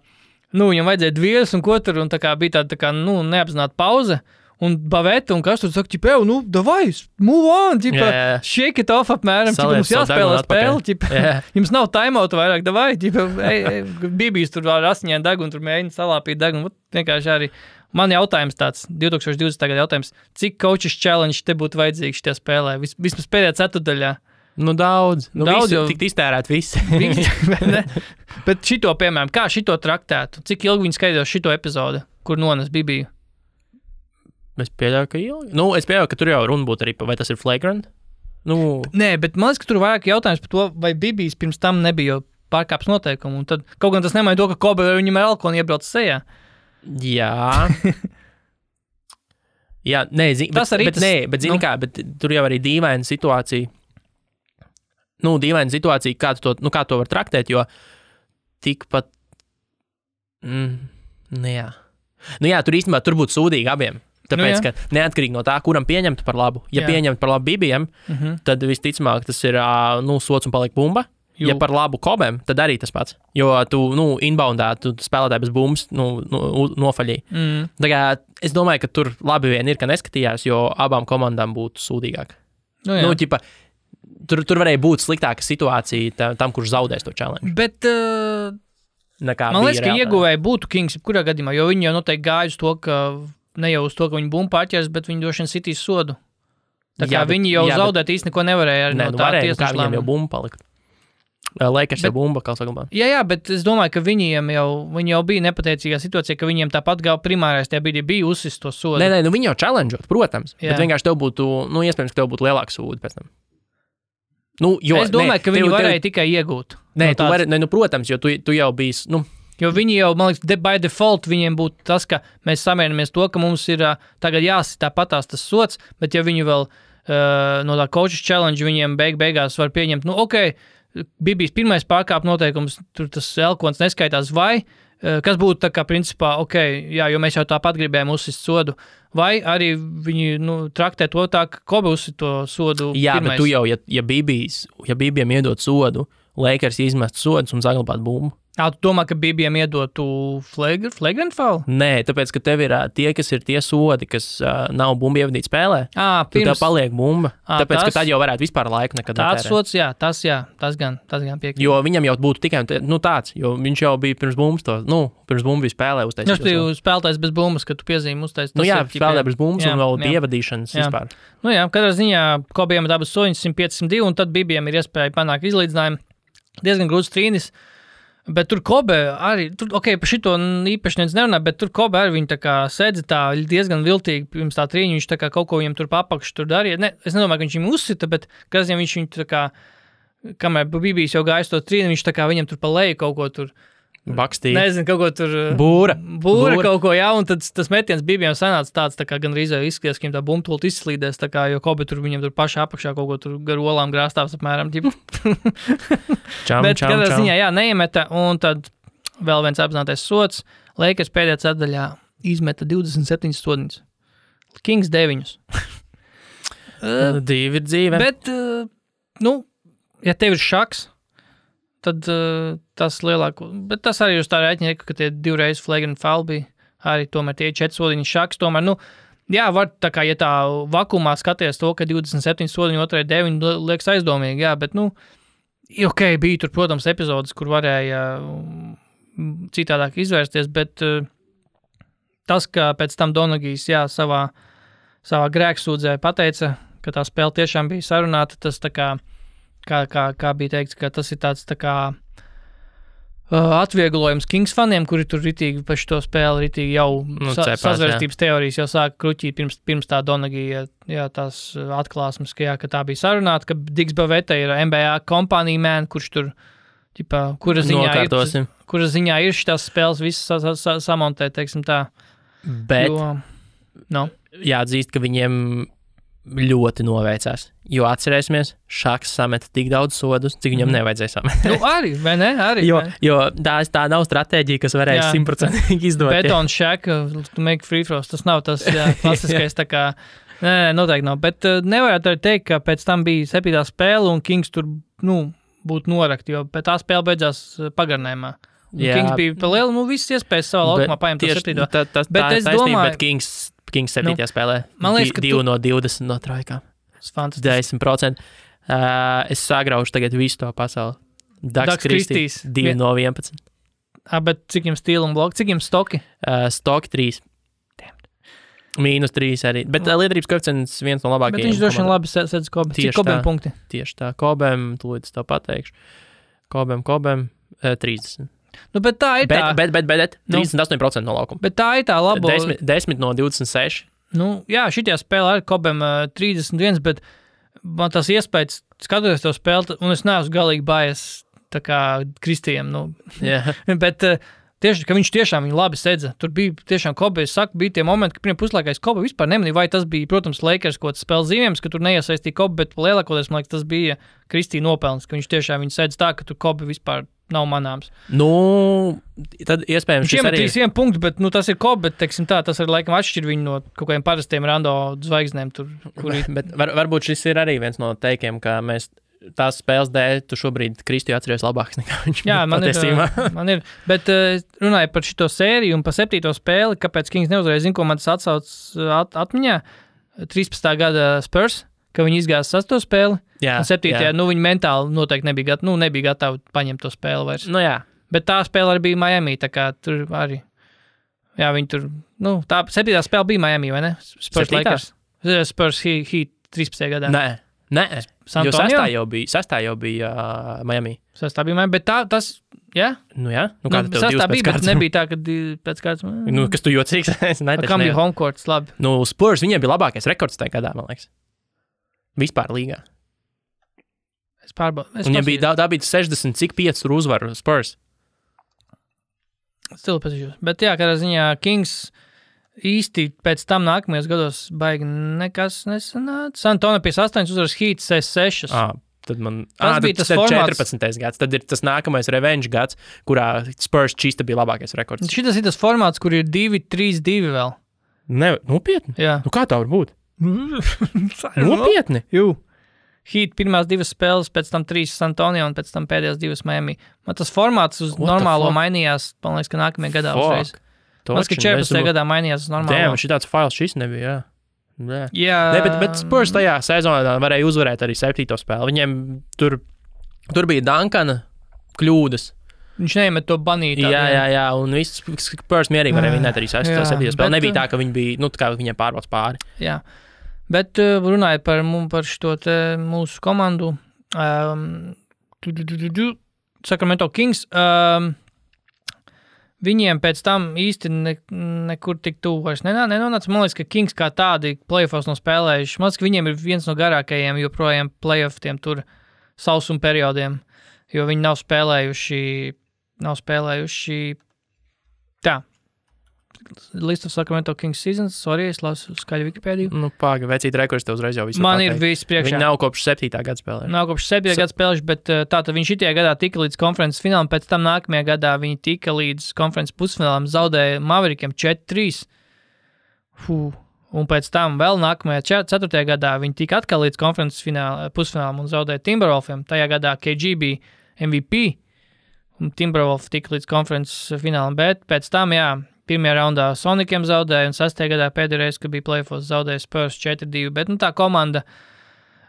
viņam vajadzēja dvieras un ko tur, un tā kā bija tāda, tā kā, neapzināta pauze, un Baveta, un kas tur saka, davai, move on, shake it off apmēram, mums jāspēlē spēle, jums nav timeouta vairāk, davai, Bībijs tur ar asiņiem degunu, tur mēģina salāpīt degunu, vienkārši arī. Man jautājums tāds, 2020. gada jautājums, cik coaches challenge te būtu vajadzīgs šajā spēlē? Vismaz pēdējā ceturdaļā. Daudz. Daudz jau. Tikt iztērēt visi. Bet šito, piemēram, kā šito traktētu? Cik ilgi viņi skaidros šito epizodu, kur nones Bībiju? Es pieļauju, ka ilgi. Es pieļauju, ka tur jau runa būtu arī, vai tas ir flagrant? Nē, bet man liekas, ka tur vairāk jautājums par to, vai Bībijs pirms tam nebija jau pārkāps noteikumu. Un tad kaut gan tas nemaina to, ka Kobe viņam ar elkonu iebrauc sejā. Jā. Jā, nē, bet tur jau arī dīvaina situācija. Dīvaina situācija, kā to var traktēt, jo tikpat... jā. Tur īstenībā tur būtu sūdīgi abiem. Tāpēc, ka neatkarīgi no tā, kuram pieņemtu par labu. Ja pieņemtu par labu Bībijam, tad visticamāk tas ir sots un paliek bumba. Ja par labu Kobem, tad arī tas pats. Jo tu, inboundā, tu spēlētāji bez bumbas, nofaļīji. Tā kā es domāju, ka tur labi vien ir, ka neskatījās, jo abām komandām būtu sūdīgāk. Tur varēja būt sliktāka situācija tam, kurš zaudēs to challenge. Bet, man liekas, ka ieguvēji būtu Kings, kurā gadījumā, jo viņi jau noteikti gāja uz to, ka ne jau uz to, ka viņi bumbu pārķers, bet viņi droši vien sitīs sodu. Tā kā viņi jau zaudēt īsti neko nevarēja arī no tā tiesneša lēmuma. Viņiem jau bumbu palika. Lakers jau bumba, kā saglabā. Jā, bet es domāju, ka viņi jau bija nepateicīgā situācija, ka viņiem tāpat primārais tajā bija uzsist to sodu. Nē, viņi jau challengeot, protams, bet vienkārši tev būtu, iespējams, ka tev būtu lielāks sūdi pēc tam. Es domāju, ka viņi varēja tikai iegūt. Nē, protams, jo tu jau biji, Jo viņi jau, man liekas, by default viņiem būtu tas, ka mēs samierinamies to, ka mums ir tagad jāsit tāpatās tas sods, bet ja viņi vēl no tā coaches challenge viņiem beigās var pieņemt, Bībijs pirmais pārkāp noteikums, tur tas elkons neskaitās, vai, kas būtu tā kā principā, jo mēs jau tāpat gribējām uzsist sodu, vai arī viņi, traktē to tā, ka Kobe uzsit to sodu pirmais. Jā, bet tu jau, ja Bībijam iedot sodu, Lakers izmest sodus un saglabāt bumbu. Tu domā, ka Bībijam iedotu flagrant foul? Nē, tāpēc, ka tev ir tie, kas ir tie sodi, kas nav bumbu ievadīt spēlē. Tev paliek bumba. Tāpēc, ka tad jau varētu vispār laiku nekad netērēt. Tāds sods, jā, tas gan piekrīt. Jo viņam jau būtu tikai tāds, jo viņš jau bija pirms bumbas pirms bumbu bija spēlē uztaisīt. Viņš bija spēlētājs bez bumbas, kad tu piezīmi uztaisīt. Spēlē bez bumbas un vēl ievadīšanas vispār. Katrā ziņā Kobijam ir abas soņas 105-102, un tad Bībijam ir iespēja panākt izlīdzinājumu. Diezgan grūts trīnis. Bet tur Kobe arī, par šito īpaši neviens nerunā, bet tur Kobe arī viņi tā kā sēdzi tā diezgan viltīgi pirms tā trīņa, viņš tā kā kaut ko viņam tur papakš tur darīja. Es nedomāju, ka viņš viņam uzsita, bet kāds viņš viņu tā kā, kamēr Bībijs jau gājas to trīni, viņš tā kā viņam tur pa leju kaut ko tur. Bakstīja. Nezinu, kaut ko tur. Būra kaut ko, jā, un tad tas metiens Bībijam sanāca tāds, tā kā gan rīzē izskatījās, ka viņam tā bumtult izslīdēs, tā kā, jo Kobe tur viņam tur pašā apakšā kaut ko tur gar olām grāstāvs apmēram. Bet kādā ziņā, jā, neiemeta, un tad vēl viens apzinātais sods. Lakers pēdējā ceturdaļā izmeta 27 sodiņus. Kings 9. Divi ir dzīve. Bet, ja tev ir šaks, tad tas lielāko, bet tas arī uz tā rēķina, ka tie divreiz flagrant foul bija, arī tomēr tie 4 sodiņi šaks, tomēr, jā, var tā kā, ja tā vakumā skaties to, ka 27 sodiņi, otrai 9 liekas aizdomīgi, jā, bet, bija tur, protams, epizodes, kur varēja citādāk izvērsties, bet tas, ka pēc tam Donagijs, jā, savā grēksūdzē pateica, ka tā spēle tiešām bija sarunāta, tas tā kā bija teikts, ka tas ir tāds tā kā atvieglojums Kings faniem, kuri tur ritīgi par šo spēli ritīgi jau sazvērstības teorijas jau sāka kruķīt pirms tā Donagija, jā, tās atklāsmes, ka tā bija sarunāta, ka Diggs Baveta ir NBA kompānija man, kurš tur ķipā, kura ziņā ir šitās spēles visas samontēt, teiksim tā. Bet jāatzīst, ka viņiem ļoti noveicās. Jo atcerēsimies, Šaks sameta tik daudz sodus, cik viņam nevajadzēja samet. Arī, vai ne? Arī, jo tā nav stratēģija, kas varēja 100% izdot. Beton Shaq, to make free throws, tas nav tas klasiskais tā kā, nē, noteikti nav. Bet nevarētu arī teikt, ka pēc tam bija 7. spēle un Kings tur, būtu norakt, jo pēc tā spēle beidzās pagarinājumā. Kings bija pa lielu, visas iespējas savā laukumā paņemt to 7. Bet es domāju, Kings 7. spēlē 2 no 20 no trojkām. 10%. Es sagraušu tagad visu to pasauli. Dags Kristīs 2 no 11. Bet cik jums stīla un bloki? Cik jums stoki? Stoki 3. -3 arī. Bet liederības koeficients viens no labākajiem. Bet viņš droši vien labi sedz Kobem. Cik Kobem punkti? Tieši tā. Kobem, tūlīt es to pateikšu. Kobem 30. Bet tā ir tā. Bet 38% no laukuma. Bet tā ir tā labo. 10 no 26. Jā, šitajā spēlē ar Kobem 31, bet man tas iespējas skatoties to spēli, un es neesmu galīgi bājies tā kā Kristijam. Bet tieši, ka viņš tiešām viņu labi sedza. Tur bija tiešām Kobe, es saku, bija tie momenti, ka pirmie puslaikais Kobe vispār nemanīja, vai tas bija, protams, Lakers kaut kāds spēles zīmējums, ka tur neiesaistīja Kobe, bet lielākoties, man liekas, tas bija Kristija nopelns, ka viņš tiešām viņu sedz tā, ka tur Kobe vispār nav manāms. Tad iespējams šis arī... 1 punktu, bet tas ir Kobe, bet, teiksim tā, tas ir laikam atšķir viņu no kaut kādiem parastiem rando zvaigznēm tur, kuri... Bet varbūt šis ir arī viens no teikiem, ka mēs tās spēles dēļ, tu šobrīd Kristiju atceries labāks nekā viņš. Jā, man ir, bet runāju par šito sēriju un par 7. spēli, kāpēc Kings neuzvarēja, zinu, ko man tas atsauc atmiņā, 13. gada Spurs, ka viņi izgāja 6. spēli, un 7. Viņi mentāli noteikti nebija gatavi paņemt to spēli vairs. Jā. Bet tā spēle arī bija Miami, tā kā tur arī, viņi tur, tā 7. spēle bija Miami, vai ne? Spurs Lakers. Spurs Heat 13. gadā. Nē, jo 6. jau bija Miami. 6. bija Miami, bet tas, jā? Jā. Kā tev 6. bija, bet nebija tā, ka pēc kārtas... Kas tu jocīgs? Kam bija home courts, labi? Spurs, viņiem bija labākais rekords tajā gadā, man liekas. Vispār līgā. Es pārbaudu. Viņiem bija 60, cik 5 uzvaru Spurs. Stilu pasažos. Bet jā, kādā ziņā Kings... īsti pēc tam nākamajos gados baigi nekas nesanāca. San Antonio 58 uzvaras, Heat 6. Tad bija tas formāts. 14. gads. Tad ir tas nākamais revenge gads, kurā Spurs čista bija labākais rekords. Šitas ir tas formāts, kur ir 2-3-2 vēl. Nopietni? Jā. Kā tā var būt? Nopietni? Jū. Heat pirmās 2 spēles, pēc tam 3 San Antonio un pēc tam pēdējās 2 Miami. Man tas formāts uz normālo mainījās, man liekas, ka nākamajā gadā uzreiz. Man liekas, ka 14. gadā mainījās uz normālo. Šitāds fails šis nebija, jā. Jā. Bet Spurs tajā sezonā varēja uzvarēt arī 7. spēli. Viņiem tur bija Duncana kļūdas. Viņš neiemet to banītā. Jā, un viss Spurs mierīgi varēja vinēt arī 6. spēli. Nebija tā, ka viņi bija, kā viņiem pārbauds pāri. Jā. Bet runājot par šo mūsu komandu, Sacramento Kings, viņiem pēc tam īsti nekur tik tuvu vairs nenonāca. Man liekas, ka Kings kā tādi playoffs nav spēlējuši. Man liekas, ka viņiem ir viens no garākajiem joprojām playoffiem tur sausuma periodiem, jo viņi nav spēlējuši tā. List of Sacramento Kings seasons, sorry, es lasu skaļu Wikipēdiju. Pāga, vecīt rekords tev uzreiz jau visu man pateikt. Ir viss priekšā. Viņi nav kopš 7. gada spēlējuši. Nav kopš 7. gada spēlējuši, bet tātad viņi šitajā gadā tika līdz konferences finālam, pēc tam nākamajā gadā viņi tika līdz konferences pusfinālam, zaudēja Maverikiem 4-3. Un pēc tam vēl nākamajā 4. gadā viņi tika atkal līdz konferences pusfinālam un zaudēja Timberwolfiem. Tajā gadā KG bija MVP un Timberwolf tika līdz konferences finālam, bet pēc tam, pirmajā raundā Sonikiem zaudēja, un 6. gadā pēdējā reize, kad bija playoffs, zaudēja Spurs 4-2, bet tā komanda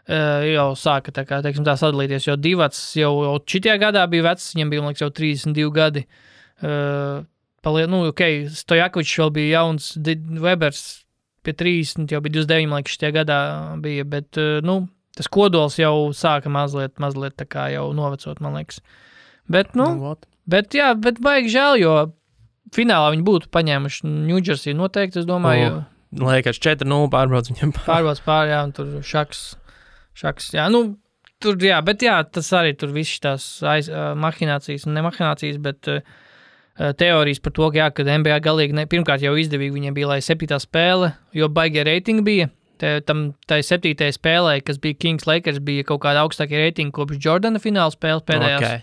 jau sāka tā sadalīties, jo Divats jau šitajā gadā bija vecs, viņam bija, man liekas, jau 32 gadi. Stojakovičs vēl bija jauns, Webers pie 30, jau bija 29, man liekas, šitajā gadā bija, bet, tas kodols jau sāka mazliet tā kā jau novecot, man liekas. Bet, bet baigi žēl, jo finālā viņi būtu paņēmuši New Jersey noteikti, es domāju. Liekas, 4-0 pārbrauc viņam. Pārbrauc pār, un tur šaks, jā, Tur, jā, bet jā, tas arī tur viss tās mahinācijas, ne mahinācijas, bet teorijas par to, ka, jā, kad NBA galīgi, pirmkārt jau izdevīgi viņiem bija, lai 7. spēle, jo baigie reitingi bija. Tai 7. spēlē, kas bija Kings Lakers, bija kaut kāda augstākie reitingi kopš Jordana fināla spēles pēdējās. Okay.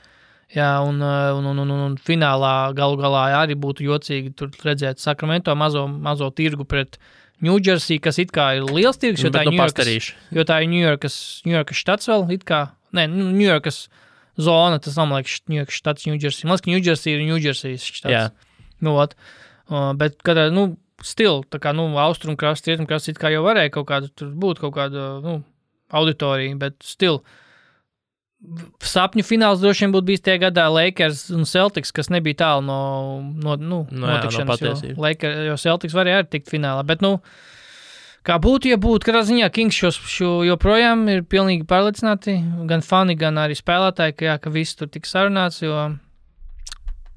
Jā, un finālā galu galā arī būtu jocīgi tur redzēt Sacramento mazo tirgu pret New Jersey, kas it kā ir liels tirgus, jo tā ir New Yorkas štats vēl, it kā, New Yorkas zona, tas nav, man liekas, New Yorkas štats New Jersey. Man liekas, ka New Jersey ir New Jersey štats. Jā. Bet, kad, tā kā, austrumkrasts, rietumkrasts, it kā jau varēja kaut kāda, tur būt kaut kāda, auditorija, bet sapņu fināls droši vien būtu bijis tie gadā Lakers un Celtics, kas nebija tālu no notikšanas, jo Celtics varēja arī tikt finālā, bet, kā būtu, ja būtu, katrā ziņā Kings šo joprojām ir pilnīgi pārliecināti, gan fani, gan arī spēlētāji, ka viss tur tiks sarunāts, jo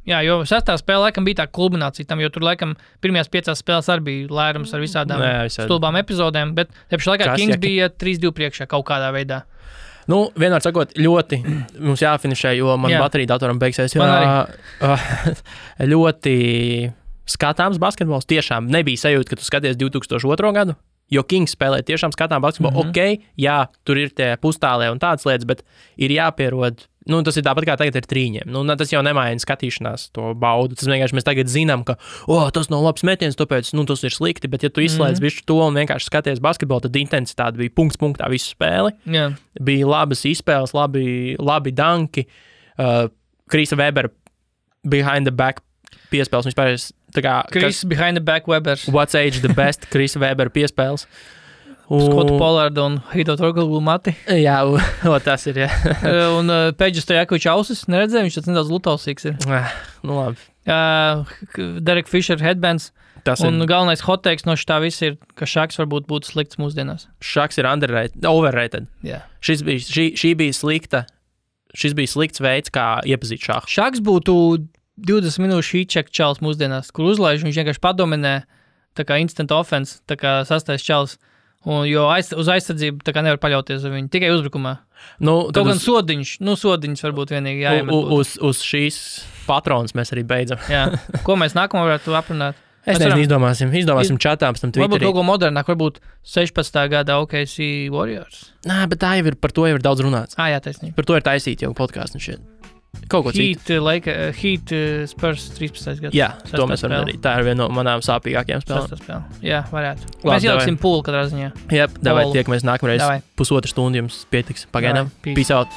6. spēle laikam bija tā kulminācija tam, jo tur laikam pirmajās 5 spēles arī bija lērums ar visādām stulbām epizodēm, bet tepši laikā Kings bija 3-2 priekšā kaut kādā veidā. Vienmēr sakot, ļoti mums jāfinišē, jo man baterija datoram beigsies. Ļoti skatāms basketbols. Tiešām nebija sajūta, ka tu skaties 2002. gadu, jo Kings spēlē tiešām skatām basketbolu. Ok, jā, tur ir tie pustālie un tādas lietas, bet ir jāpierod. Tas ir tāpat kā tagad ir trīņiem. Tas jau nemaina skatīšanās to baudu. Tas vienkārši mēs tagad zinām, ka tas nav labs metiens, tāpēc tas ir slikti, bet ja tu izslēdz visu to un vienkārši skaties basketbolu, tad intensitāte bija punkts punktā visu spēli. Yeah. Bija labas izspēles, labi danki. Krisa Webera behind the back piespēles. Chris behind the back Webers. What's age the best Krisa Webera piespēles. Skotu Pollardu un Hito Torgulu mati. Jā, tas ir, jā. Un Peģis Stojakovičs ausis, neredzēju, viņš tāds nedaudz lutausīgs ir. Labi. Derek Fisher headbands. Un galvenais hot takes no šitā viss ir, ka Šaks varbūt būtu slikts mūsdienās. Šaks ir overrated. Jā. Šī bija slikta. Šis bija slikts veids, kā iepazīt šahu. Šaks būtu 20 minūšu heat-check čals mūsdienās, kur uzlaiž, viņš vienkārši padominē, tā kā instant offense, tā kā sastais čals. Jo uz aizsardzību tā kā nevar paļauties uz viņu, tikai uzbrukumā. Kaut gan sodiņš varbūt vienīgi jāiemet. Uz šīs patronas mēs arī beidzam. Jā. Ko mēs nākamā varētu aprunāt? Es nezinu, izdomāsim čatā, pēc tam Twitterī. Varbūt kaut ko modernāk, varbūt 16. gada OKC Warriors. Bet par to jau ir daudz runāts. Jā, taisnība. Par to ir taisīt jau podkāstu šeit. Kaut ko citu. Heat Spurs 13. gads. Jā, to mēs varam darīt. Tā ir viena no manām sāpīgākajām spēlēm. Jā, varētu. Mēs ieliksim pūli katrā ziņā. Jā, davai tiekamies nākamreiz. 1,5 stundu jums pietiks. Pagaidām. Peace out.